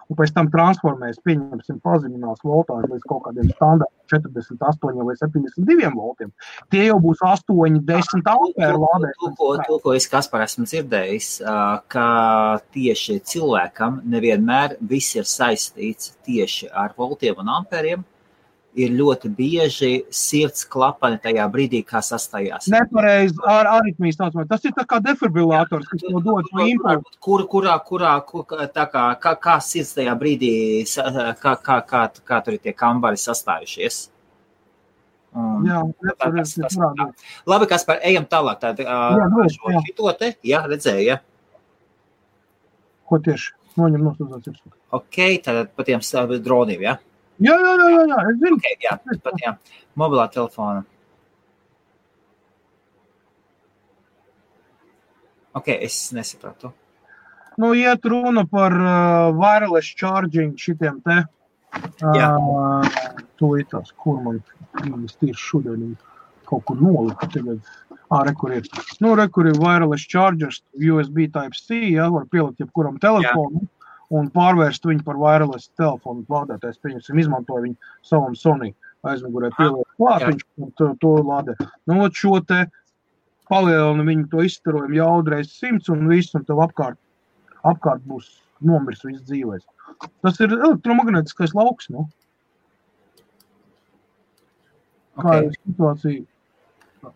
un pēc tam transformēs, pieņemsim, pazeminās voltāžu līdz kaut kādiem standartiem 48 vai 72 voltiem. Tie jau būs 8, 10 ampēru lādēšanas. To, ko es, Kaspar, esmu dzirdējis, ka tieši cilvēkam nevienmēr viss ir saistīts tieši ar voltiem un ampēriem. Ir ļoti bieži sirds klapani tajā brīdī, kā sastājās. Nepareizi ar aritmijas saucamā. Tas ir tā kā defibrillators, kas jau dod šo impulsu. Kā sirds tajā brīdī, kā tur ir tie kambari sastājušies? Jā, Labi, Kaspar, ejam tālāk. Jā, redzēju, ja? Ko tieši? Noņem nosūdzēt sirds. Ok, tad pa tiem droniem, ja? Jā, es zinu. Okay, jā, mobilā telefona. Ok, es nesapratu. Nu, iet runa par wireless charging šitiem te. Tūlītās, kur man tieši šodien kaut kur nolika tagad. Rekur ir. Nu, rekur ir wireless chargers, USB Type-C, ja, var pielikt jebkuram telefonu. Un pārvērst viņu par wireless telefonu lādētājs, pieņemsim, izmantoja viņu savam Sony aizmugurē pieliek klāt, viņš to lādē. Nu, šo te palielina viņu to izstarojumu jaudreiz 100 un viss, un tev apkārt būs nomirs viss dzīvēs. Tas ir elektromagnētiskais lauks, nu. Kā ir situācija,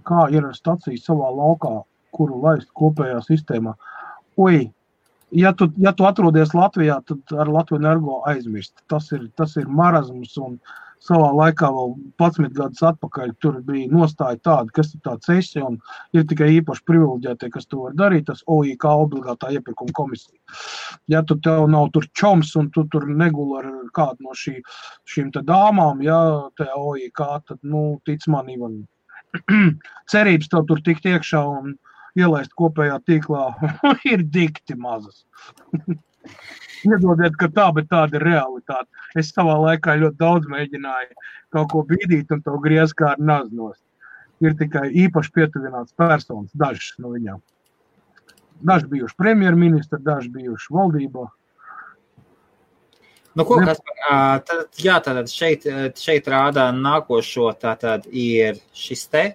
kā ir stacija savā laukā, kuru laist kopējā sistēmā. Ja tu atrodies Latvijā, tad ar Latviju Energo aizmirst. Tas ir marazms, un savā laikā vēl 11 gadus atpakaļ tur bija nostāja tāda, kas ir tāds esi, un ir tikai īpaši privileģētie, kas to var darīt, tas OIK obligātā iepirkuma komisija. Ja tu tev nav tur čoms, un tu tur neguli ar kādu no šīm te dāmām, ja te OIK, tad, tic man, Ivan, cerības tev tur tikt iekšā un ielaist kopējā tīklā ir dikti mazas. Iedodiet, ka tā, bet tāda ir realitāte. Es savā laikā ļoti daudz mēģināju kaut ko bīdīt un to griez kā ar naznost. Ir tikai īpaši pietuvināts personas, dažas no viņām. Daži bijuši premjerministri, daži bijuši valdībā. Nu, ko, Kaspar, tad šeit rādā nākošo, tātad ir šis te?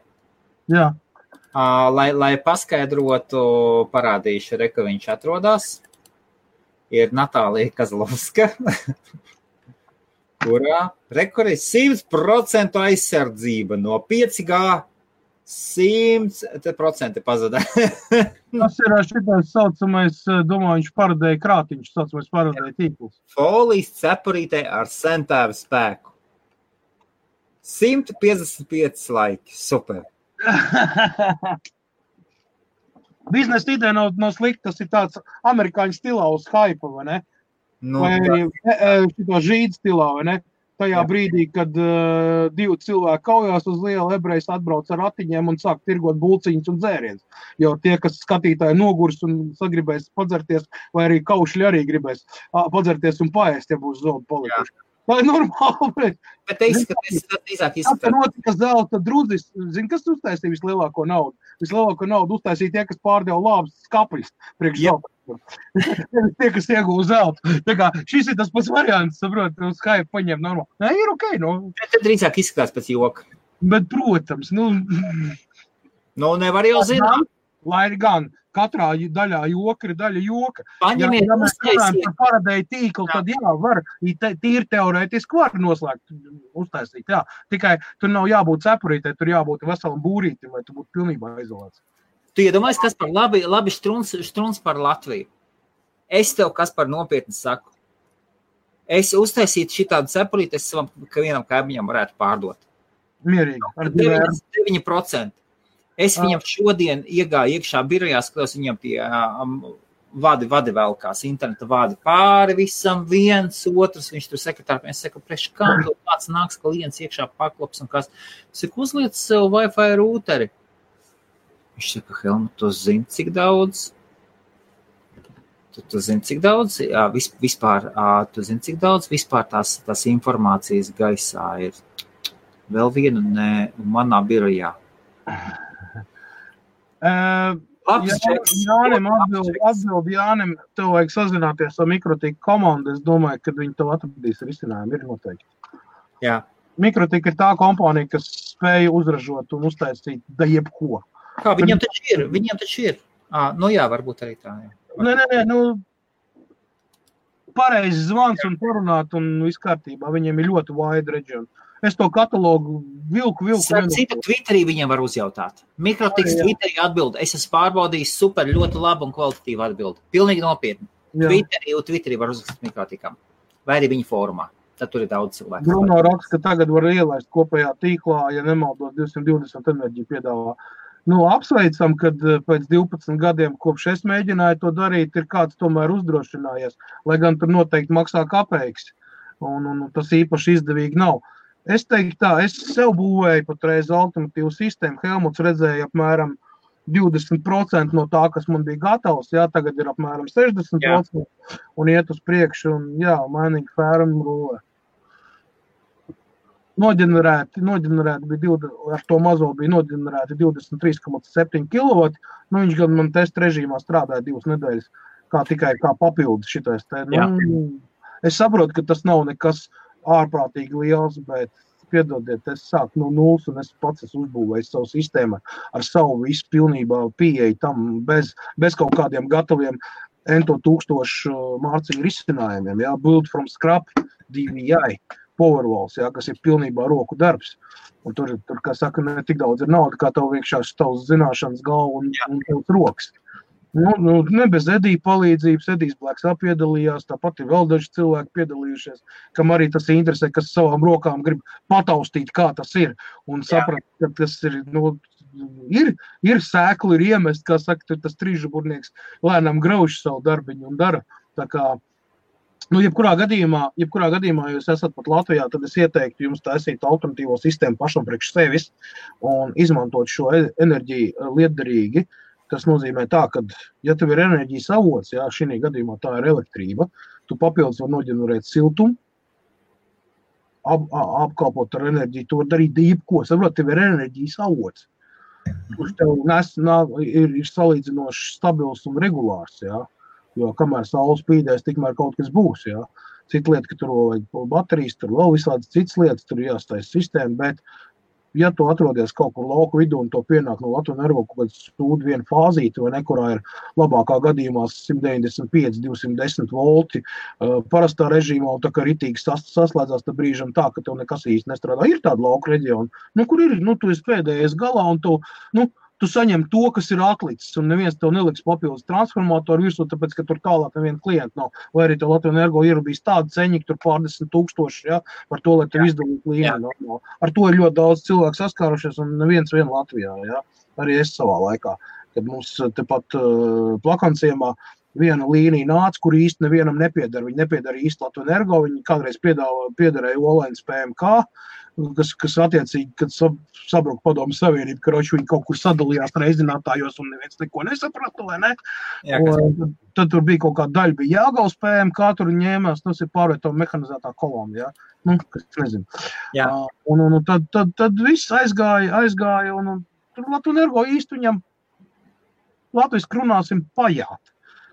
Jā. Lai paskaidrotu, parādīšu, ka viņš atrodas, ir Natālija Kazlovska, kurā ir 100% aizsardzība no 5G, 100% pazadā. Tas ir šitais saucamais, domāju, viņš paradēja krātiņš, saucamais paradēja tīkls. Folijas cepurītē ar centāru spēku. 155 laiki, super. Biznesa ideja nav slikta, tas ir tāds amerikāņu stilā uz haipa, vai ne? Vai šito žīdu stilā, vai ne? Tajā brīdī, kad divi cilvēki kaujās uz lielu, ebrejs atbrauc ar ratiņiem un sāk tirgot bulciņus un dzēriens. Jo tie, kas skatītāji nogurs un sagribēs padzerties, vai arī kaušļi arī gribēs padzerties un paēst, ja būs zobi palikuši. Tā ir normāli. Bet te izskatās. Tā notika zelta drudzis. Zini, kas uztaisīja vislielāko naudu? Vislielāko naudu uztaisīja tie, kas pārdeva labas skapļus priekš zelta. Tie, kas ieguva zeltu. Tā kā šis ir tas pats variants, saprot, uz Skype paņem normāli. Nē, ir ok, Te drīzāk izskatās pēc joka. Bet, protams, nevar jau zināt. Lai ir gan. Katrā daļā joka ir daļa joka. Paņemiet, ja mēs runājam par paradēju tīklu, tad var, tīri teorētiski var noslēgt, uztaisīt, jā. Tikai tur nav jābūt cepurītē, tur jābūt veselam būrītim, lai tu būtu pilnībā izolēts. Tu iedomājies, kas par labi štruns par Latviju. Es tev, kas par nopietni saku. Es uztaisītu šitādu cepurīti, es savam, ka vienam kaimiņam varētu pārdot. Mierīgi. Ar 9%. Es viņam šodien iegāju iekšā birojā, skatos viņam tie vadi velkās, interneta vadi pāri visam, viens, otrs, viņš tur sekretāri, es saku, priekš kā, kāds nāks klients iekšā paklops un kas. Es saku, uzliec sev Wi-Fi rūteri. Viņš saka, Helmut, tu zini, cik daudz? Tu zini, cik daudz? Jā, vispār, tu zini, cik daudz? Vispār tās informācijas gaisā ir vēl viena, manā birojā. Jānim atbild Jānim, tev vajag sazināties ar Mikrotika komandu. Es domāju, ka viņi tev atradīs risinājumu. Ir noteikti. Jā. Mikrotika ir tā kompānija, kas spēja uzražot un uztaisīt da jebko. Kā, viņam taču ir. Nu jā, varbūt arī tā. Jā. Nē, pareizi zvans un parunāt un viss kārtībā. Viņiem ir ļoti wide region. Es to katalogu vilku. Citu Twitterī viņiem var uzjautāt. Mikrotiks Twitterī atbild. Es esmu pārbaudījis super, ļoti labu un kvalitatīvu atbildi. Pilnīgi nopietni. Twitterī var uzrakstīt Mikrotikam. Vai arī viņa fórumā. Tad tur ir daudz cilvēku. Bruno raksta, ka tagad var ielaist kopējā tīklā, ja nemaldos 220 enerģiju piedāvā. Apsveicam, kad pēc 12 gadiem, kopš es mēģināju to darīt, ir kāds tomēr uzdrošinājies, lai gan tur noteikti maksā kapeiks, un tas īpaši izdevīgi nav. Es teiktu tā, es sev būvēju patreiz alternatīvu sistēmu. Helmuts redzēja apmēram 20% no tā, kas man bija gatavs, tagad ir apmēram 60% un iet uz priekšu, un mainīgi fērumu rulē. Noģenerēti bija ar to mazo bija noģenerēti 23,7 kW. Viņš gan man testa režīmā strādāja 2 nedēļas, tikai kā papildus šitais te. Es saprotu, ka tas nav nekas ārprātīgi liels, bet piedodiet, es sāku no nulles un es pats uzbūvēju savu sistēmu ar savu visu pilnībā pieeju tam bez kaut kādiem gataviem ento 1000 mārciņu risinājumiem. Build from scrap, DVI, Powerwalls, kas ir pilnībā roku darbs. Un tur, kā saka, ne tik daudz ir nauda, kā tev vienkārši tavs zināšanas galva un tavs rokas. Ne bez Edija palīdzības, Edijs Blacks piedalījās, tāpat ir vēl daži cilvēki piedalījušies, kam arī tas interesē, kas savām rokām grib pataustīt, kā tas ir, un saprast, ka tas ir, ir sēkli, ir iemest, kā saka, tas trīžaburnieks lēnām grauž savu darbiņu un dara. Tā kā, jebkurā gadījumā, ja jūs esat pat Latvijā, tad es ieteiktu jums taisīt alternatīvo sistēmu pašam priekš sevis un izmantot šo enerģiju lietderīgi. Tas nozīmē tā, ka, ja tev ir enerģijas avots, šī gadījumā tā ir elektrība, tu papildus var noģenerēt siltumu, apkalpot ar enerģiju, tu var darīt jebko. Saprot, tev ir enerģijas avots, kurš tev ir salīdzinoši stabils un regulārs, jo kamēr saule spīdēs, tikmēr kaut kas būs, Cita lieta, ka tur vajag baterijas, tur vēl visādas citas lietas, tur jāstais sistēma, bet ja tu atrodies kaut kur lauku vidū un to pienāk no Latvijas Energo kaut kāds stūdu viena fāzīte, vai ne, kurā ir labākā gadījumā 195-210 volti parastā režīmā, un tā kā ritīgi saslēdzās tā brīžam tā, ka tev nekas īsti nestrādā. Ir tāda lauka reģiona, kur ir, tu esi pēdējais galā, un tu saņem to, kas ir atlicis, un neviens tev neliks papildus transformatoru virsū, tāpēc, ka tur tālāk neviena klienta nav. Vai arī tev Latvijas Energo ierubīs tādu ceņiku, tur pārdesmit tūkstoši, par to, lai tev izdalītu līmeni normāli. Ar to ir ļoti daudz cilvēku saskārušies, un neviens vien Latvijā, Arī es savā laikā, kad mums tepat Plakanciemā viena līnija nāca, kur īsti nevienam nepiedara. Viņi nepiedara īsti Latvijas Energo, viņi kādreiz piederēja Olēnas PMK, kas attiecīgi, kad sabruka Padomju Savienība, karoči viņi kaut kur sadalījās reizinātājos un neviens neko nesaprata, vai ne? Tad tur bija kaut kāda daļa, bija Jāgavas PMK, tur ņēmās, tas ir pārvieto mehanizētā kolona, kas nezinu. Un tad viss aizgāja, un tur Latvijas Energo īsti viņam Latvijas krunāsim pajāt.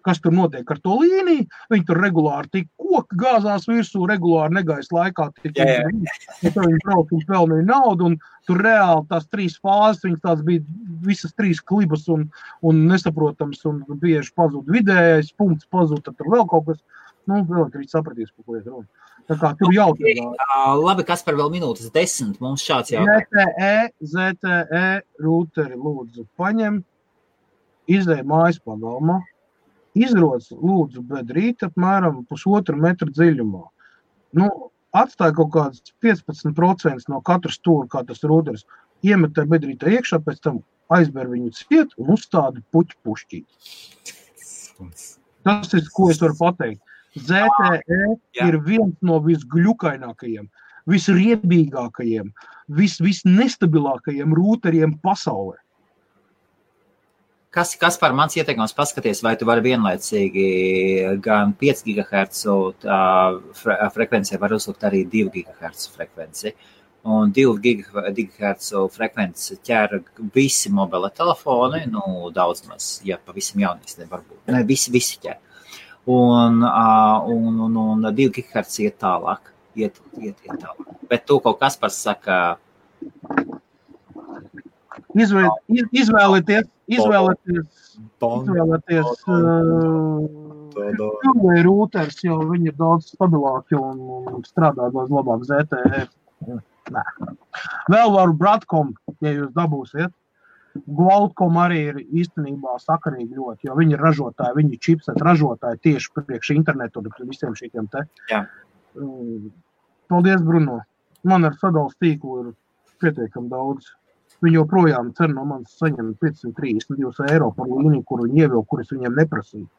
Kas tur notiek ar to līniju, viņi tur regulāri tik koki gāzās virsū, regulāri negaisa laikā tik viņi brauc un pelnīja naudu, un tur reāli tās 3 fāzes, viņas tās bija visas 3 klibas un nesaprotams, un bieži pazūd vidējais, punkts pazūd, tad tur vēl kaut kas, elektrīši sapratīs, ko iet runa. Tā kā tur jautājumā. Labi, Kaspar, vēl minūtes 10, mums šāds jautājums. ZTE rūteri lūdzu paņem, izlej mājas pagalmā, izroc lūdzu bedrīt apmēram 1,5 metra dziļumā. Atstāja kaut kāds 15% no katra stūra, kā tas rūteris, iemetē bedrītā iekšā, pēc tam aizber viņu ciet un uzstādi puķu pušķīt. Tas ir, ko es varu pateikt. ZTE ir viens no visgļukainākajiem, visriebīgākajiem, visnestabilākajiem rūteriem pasaulē. Kas par mans ieteikums paskaties, vai tu vari vienlaicīgi gan 5 GHz frekvencē var uzlikt arī 2 GHz frekvenci. un 2 GHz frekvences ķer visi mobile telefoni, daudz maz, ja pavisam jaunīs, varbūt. Ne, visi ķer. Un 2 GHz iet tālāk. Iet tālāk. Bet to kaut kas par saka... Izvēlēties rūters, jo viņi ir daudz stabilāki un strādā daudz labāk ZTE. Nē. Vēl varu Broadcom, ja jūs dabūsiet. Qualcomm arī ir īstenībā sakarīgi ļoti, jo viņi ir ražotāji, viņi ir chipset ražotāji tieši priekš internetu un visiem šīkiem te. Jā. Paldies, Bruno. Man ar sadalas tīklu ir pietiekami daudz. Viņi joprojām cer no manis saņem 532 eiro par līniju, kuru viņi ievilk, kuras viņiem neprasīja.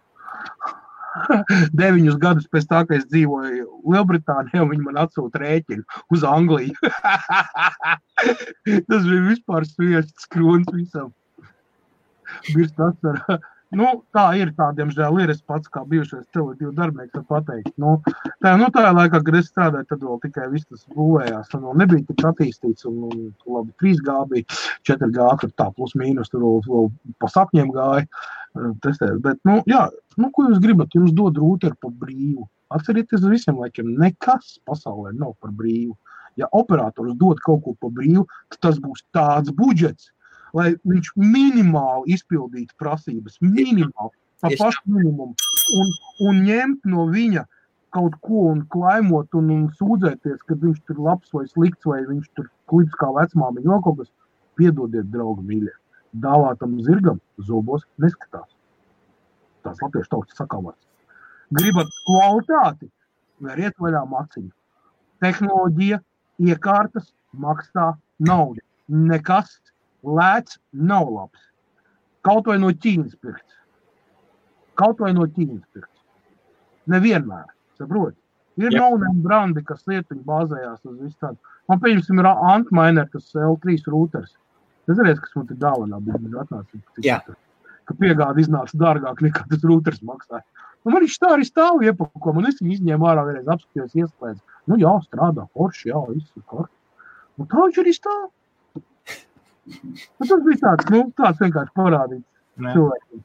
9 gadus pēc tā, ka es dzīvoju Lielbritānijā, viņi man atsūta rēķinu uz Angliju. Tas bija vispār sviests krūns visam. Birst asara. Tā ir, diemžēl ir, es pats kā bijušais Tele2 darbinieks var pateikt. Tā laikā, kad es strādāju, tad vēl tikai viss tas būvējās, un vēl nebija tik attīstīts, un labi, 3G bija, 4G, tur tā plus mīnus, tur vēl pa sapņiem gāja testēt. Bet, ko jūs gribat? Jums dod rūteru par brīvu. Atcerieties visiem laikiem, nekas pasaulē nav par brīvu. Ja operators dod kaut ko par brīvu, tad tas būs tāds budžets, lai viņš minimāli izpildītu prasības, minimāli, pa pašu minimumu, un ņemt no viņa kaut ko un klaimot un sūdzēties, kad viņš tur labs vai slikts, vai viņš tur klips kā vecmāmiņa, vēl kaut kas, piedodiet, draugi mīļie, dāvātam zirgam zobos neskatās. Tās latviešu tautas sakāvārds. Gribat kvalitāti, veriet vaļā maciņu. Tehnoloģija, iekārtas, maksā naudu. Nekas lēts nav labs. Kaut vai no Ķīnas pirkts. Nevienmēr, saproti. Ir no-name brandi, kas lietiņi bāzējās uz visu tādu. Man pieņemsim ir Antminer, kas L3 rūters. Es redzu, kas man te dāvanā bija atnācis. Ka piegāda iznāca dārgāk nekā tas rūters maksāja. Man viņš tā arī stāv iepako, man es viņu izņēmu ārā vienreiz apskatījos iespējas. Jā, strādā, forši, viss ir kort. Un tā viņš arī stāv. Tas bija tāds vienkārši parādīts cilvēkiem.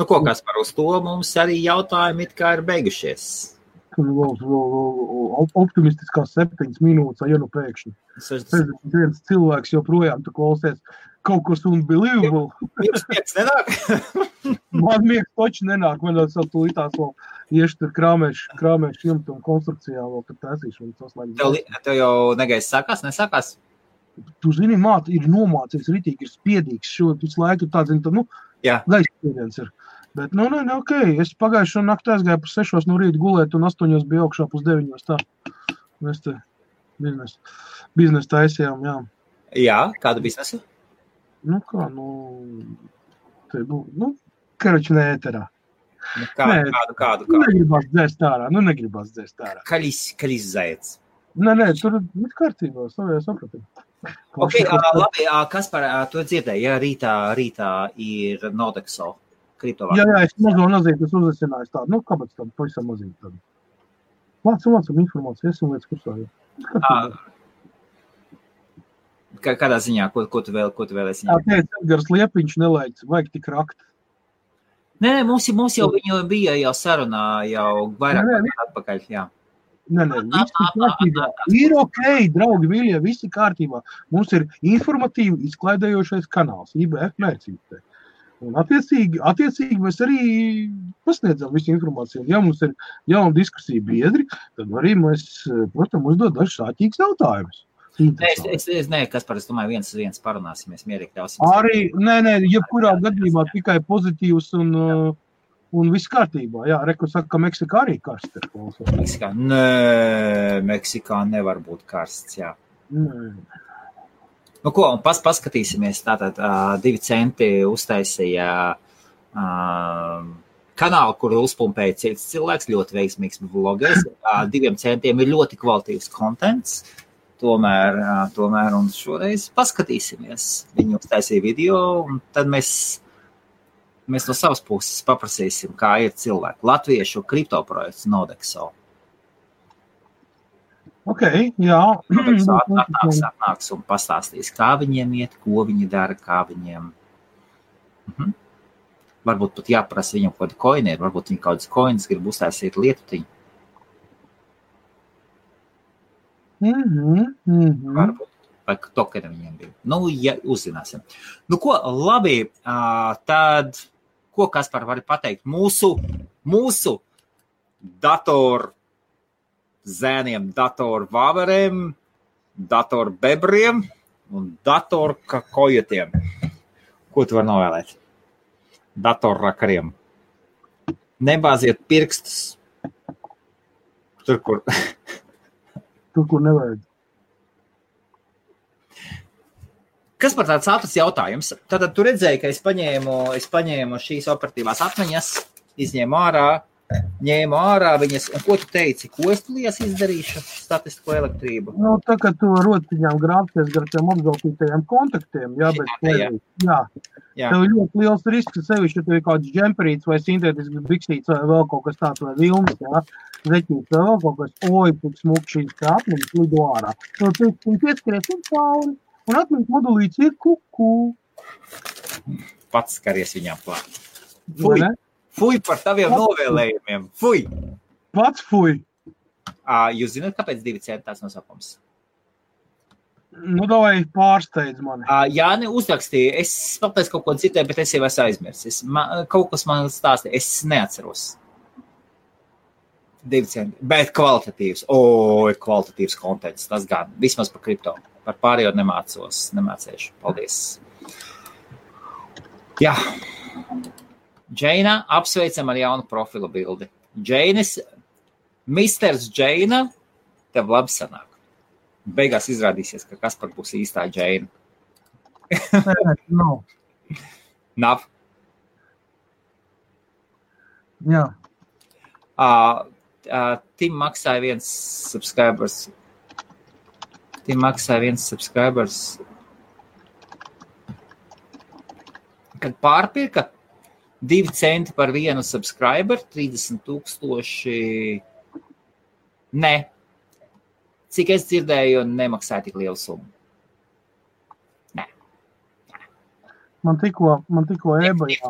Ko Kaspar, uz to mums arī jautājumi it kā ir beigušies. Optimistiskās 7 minūtes, ja pēkšņi. 61 cilvēks joprojām tu klausies kaut kas unbelievable. Miegs nenāk? Man miegs toči nenāk, man vēl tūlītās vēl ieši tur krāmēšu jumtu un konstrukcijā vēl tur taisīšu. Tev jau negais sākās, nesākās? Tu zini, ir nomācies ritīgi, ir spiedīgs šo visu laiku, gaisa spiediens ir. Bet, ok, es pagājušo nakti aizgāju par 6 no rīta gulēt un 8 bija augšā pus 9 tā. Mēs te biznesu taisījām, jā. Jā, kādu biznesu? Karoči ne ēterā. Kādu? Negribās dzēst ārā. Kaļis zaiets. Nē, tur ir kārtībā, sapratu. Ok, labi, Kaspar, tu dzirdēji, ja rītā ir Nodexo kriptovārdu. Jā, es mazo nazīti, es uzesināju tādu, kāpēc tādu pavisam mazīti tādu. Vācam informāciju, esam lietas kursā. Kādā ziņā, ko tu vēlēsi? Edgars Liepiņš nelaic, vajag tik rakt. Nē, mums jau viņu bija jau sarunā, jau vairāk atpakaļ, jā. Nē, viss ir kārtībā. Ir ok, draugi, mīļie, viss ir kārtībā. Mums ir informatīvi izklaidējošais kanāls, IBF mērcības. Un attiecīgi mēs arī pasniedzam visu informāciju. Ja mums ir jauna diskusija biedri, tad arī mēs, protams, uzdod dažs sāķīgs jautājumus. Nē, Kaspar, es domāju, viens uz viens parunāsimies, mierīgi ļausim. Arī, nē, jebkurā gadījumā tikai pozitīvs un viss kārtībā. Jā, Reku saka, ka Meksikā arī karsts ir. Meksikā? Nē, Meksikā nevar būt karsts, jā. Paskatīsimies. Tātad 2 centi uztaisīja kanālu, kur uzpumpēja cits cilvēks, ļoti veiksmīgs vlogers. 2 centiem ir ļoti kvalitīvs kontents. Tomēr, un šoreiz paskatīsimies. Viņi uztaisīja video, un tad mēs no savas puses paprasīsim, kā ir cilvēki. Latviešu kriptoprojekts Nodexo. Ok, jā. Atnāks un pastāstīs, kā viņiem iet, ko viņi dara, kā viņiem. Varbūt pat jāprasa viņam kaut kādi koini, varbūt viņi kaut kādas koinas grib uztaisīt lietutiņu. Varbūt. Vai tokeni viņiem bija. Nu, ja uzzināsim. Nu, ko, labi, tad, ko Kaspar vari pateikt? Mūsu datoru zēniem, datoru vāveriem, datoru bebriem un datoru kakojotiem. Ko tu vari novēlēt? Datoru rakariem. Nebāziet pirkstus. Tur, kur nevajag. Kas par tāds ātrs jautājums? Tātad tu redzēji, ka es paņēmu šīs operatīvās atmiņas, ņēmu ārā viņas, un ko tu teici? Ko es tulījās izdarīšu? Statistisko elektrību? Nu, tā kā tu rotiņām grābties gar tiem apgaltītajiem kontaktiem, jā. Tev ir ļoti liels risks, sevišķi, ja tev ir kāds džemperīts vai sintētisks biksīts vai vēl kaut kas tāds vai vilnis, jā. Zeķīts vai vēl kaut kas, tik smuk šīs kā atmiņas lido ārā. Tu pieskaries un cauri, un atmiņas modulīts ir kuku. Pats skaries viņām klāt. Fuj par taviem novēlējumiem. Fuj! Pats fuj! Jūs zināt, kāpēc 2 centi tās nosapums? Nu, davai pārsteidz mani. Jāni uzrakstīja. Es pateicu kaut ko citēju, bet es jau esmu aizmirsis. Kaut kas man stāstīja. Es neatceros. 2 centi. Bet kvalitatīvs. Kvalitatīvs kontents. Tas gan. Vismaz par kripto. Par pārējo nemācēšu. Paldies. Jā. Džeina, apsveicam ar jaunu profilu bildi. Misters Džeina, tev labi sanāk. Beigās izrādīsies, ka Kaspar būs īstā Džeina. Nav? Jā. Tim maksāja viens subscribers. Kad pārpirka 2 centi par vienu subscriber, 30,000. Nē. Cik es dzirdēju, nemaksāja tik lielu summu. Nē. Man tikko ebajā.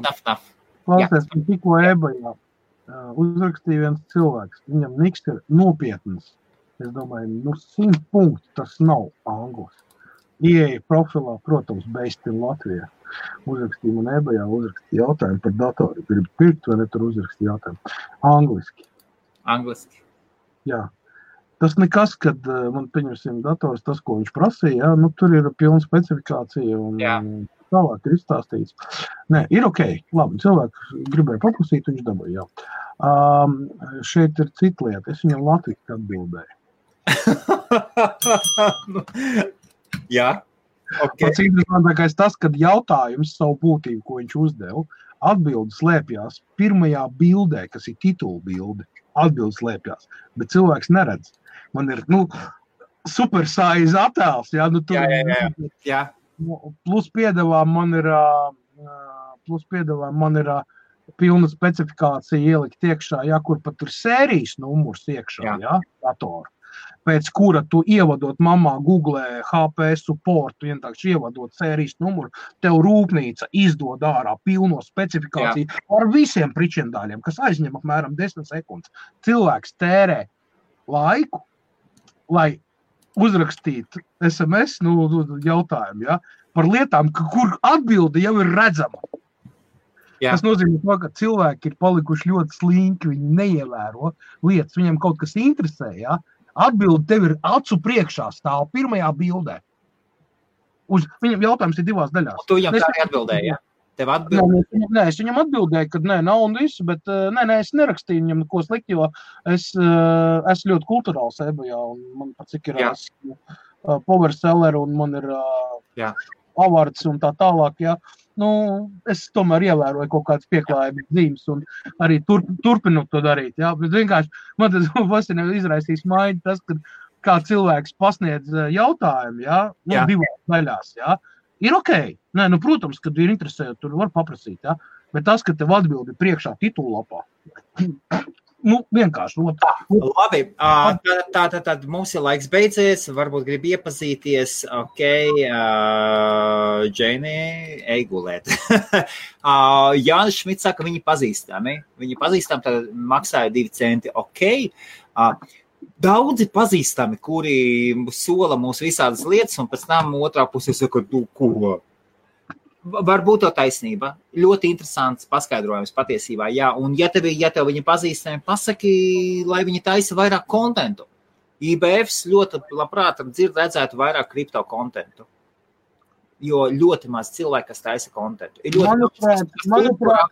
Klausies, man tikko ebajā uzrakstīja viens cilvēks. Viņam niks ir nopietnas. Es domāju, 100 punkti tas nav anglis. Ieeja profilā, protams, based in Latvijā. Uzrakstīja man ebajā, uzrakstīja jautājumu par datoru. Gribu pirkt, vai ne tur uzrakstīja jautājumu. Angliski? Jā. Tas nekas, kad man pieņemsim dators, tas, ko viņš prasīja, jā, nu tur ir pilna specifikācija un tālāk ir izstāstīts. Nē, ir ok. Labi, cilvēks gribēja paprasīt, viņš dabūja, jā. Šeit ir cita lieta. Es viņam latviski atbildēju. Jā. Okay. Pats interesantākais tas, kad jautājums savu būtību, ko viņš uzdeva, atbildi slēpjās pirmajā bildē, kas ir titula bilde. Atbildi slēpjās, bet cilvēks neredz. Man ir, super size attēls, jā, tur. Jā. Plus piedevām man ir pilna specifikācija ielikt iekšā, jā, kur pat ir sērijas numurs iekšā, jā, datoru. Pēc kura tu ievadot mamā Google HP support, vienkārši ievadot sērijas numuru, tev rūpnīca izdod ārā pilno specifikāciju ar visiem pričendāļiem, kas aizņem apmēram 10 sekundes. Cilvēks tērē laiku, lai uzrakstītu SMS jautājumu, ja, par lietām, kur atbilde jau ir redzama. Jā. Tas nozīmē to, ka cilvēki ir palikuši ļoti slinki, viņi neievēro lietas, viņiem kaut kas interesē, ja. Atbildi tev ir acu priekšā stāv pirmajā bildē. Viņam jautājums ir 2 daļās. Tu viņam tā arī atbildēji, ja? Tev atbildēji? Nē, es viņam atbildēju, ka nav un visu, bet es nerakstīju viņam neko slikti, jo es ļoti kulturāls ebajā, un man pat cik ir power seller, un man ir avards un tā tālāk, ja. Es tomēr ievēroju kaut kādas pieklājības zīmes un arī turpinu to darīt, jā, bet vienkārši man tas fascinē izraisīs maiņu tas, kad kā cilvēks pasniedz jautājumu, jā, 2 daļās, jā, ir ok, protams, kad ir interesējot, tur var paprasīt, jā, bet tas, ka tev atbildi priekšā titulapā, vienkārši. Labi, tad mums ir laiks beidzies, varbūt grib iepazīties, Džeini, ej gulēt. Jānis Šmits saka, viņi pazīstami, tad maksāja 2 centi, Daudzi pazīstami, kuri sola mūs visādas lietas, un pēc tam otrā pusē saka, ko? Varbūt to taisnība. Ļoti interesants paskaidrojums patiesībā, jā. Un ja tev viņi pazīstami, pasaki, lai viņi taisa vairāk kontentu. IBFs ļoti labprāt redzētu vairāk kripto kontentu. Jo ļoti maz cilvēki, kas taisa kontentu. Manuprāt,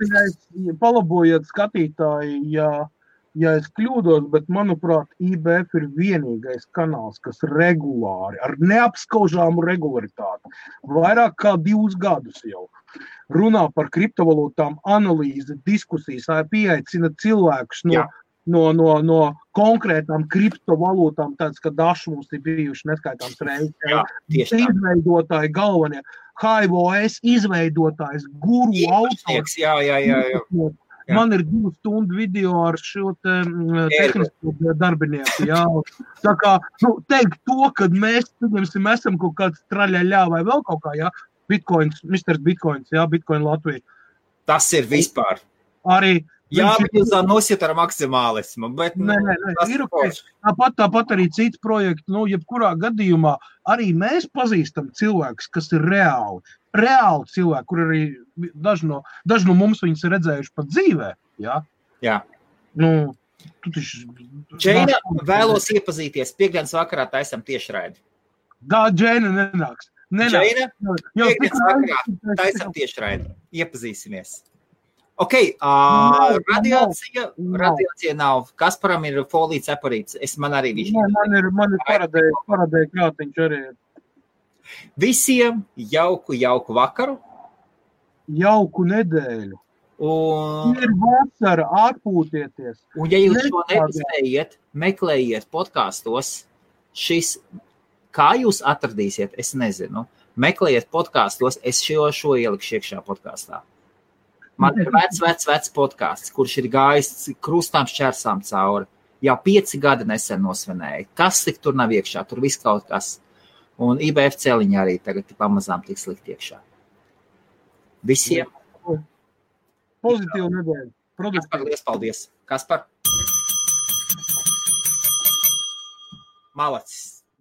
palabojiet skatītāji, ja es kļūdos, bet, manuprāt, IBF ir vienīgais kanāls, kas regulāri, ar neapskaužāmu regularitāti, vairāk kā 2 gadus jau runā par kriptovalūtām, analīzi, diskusijas, pieaicina cilvēkus no konkrētām kriptovalūtām, tāds, ka daži mums ir bijuši neskaitāms reizes. Izveidotāji galvenie, HIVOS izveidotājs, guru autors. Jā. Man ir 2 stundu video ar šo tehnisko darbinieku, jā. Tā kā, teikt to, kad mēs, esam kaut kāds traļaļā vai vēl kaut kā, jā, Bitcoins, Mr. Bitcoins, jā, Bitcoin Latvija. Tas ir vispār. Arī. Jā, bet jūs nosiet ar maksimālismu, bet... Nē, ir tāpat arī cits projekts, jebkurā gadījumā arī mēs pazīstam cilvēkus, kas ir reāli cilvēki, kur arī daži no mums viņus ir redzējuši pat dzīvē, jā? Jā. Džeina, vēlos iepazīties, piekdienas vakarā taisam tiešraidi. Džeina nenāks. Džeina, piekdienas vakarā taisam tiešraidi. Iepazīsimies. Radiācija nav. Kasparam ir folija ceparīts. Man arī viņš. Man ir paradēja krātiņš arī. Visiem jauku vakaru. Jauku nedēļu. Ir vasara, atpūtieties. Un ja jūs šo nepaspējiet, meklējiet podkastos, kā jūs atradīsiet, es nezinu. Meklējiet podkastos, es šo ielikšu iekšā podkastā. Man ir vecs podcasts, kurš ir gājis krustām šķērsām cauri. Jau 5 gadi nesen nosvinēja. Kas tik tur nav iekšā? Tur viss kaut kas. Un IBF celiņi arī tagad pamazām tiks likt iekšā. Visiem. Pozitīvu nedēļu. Kaspar, liels paldies. Kaspar. Malacis.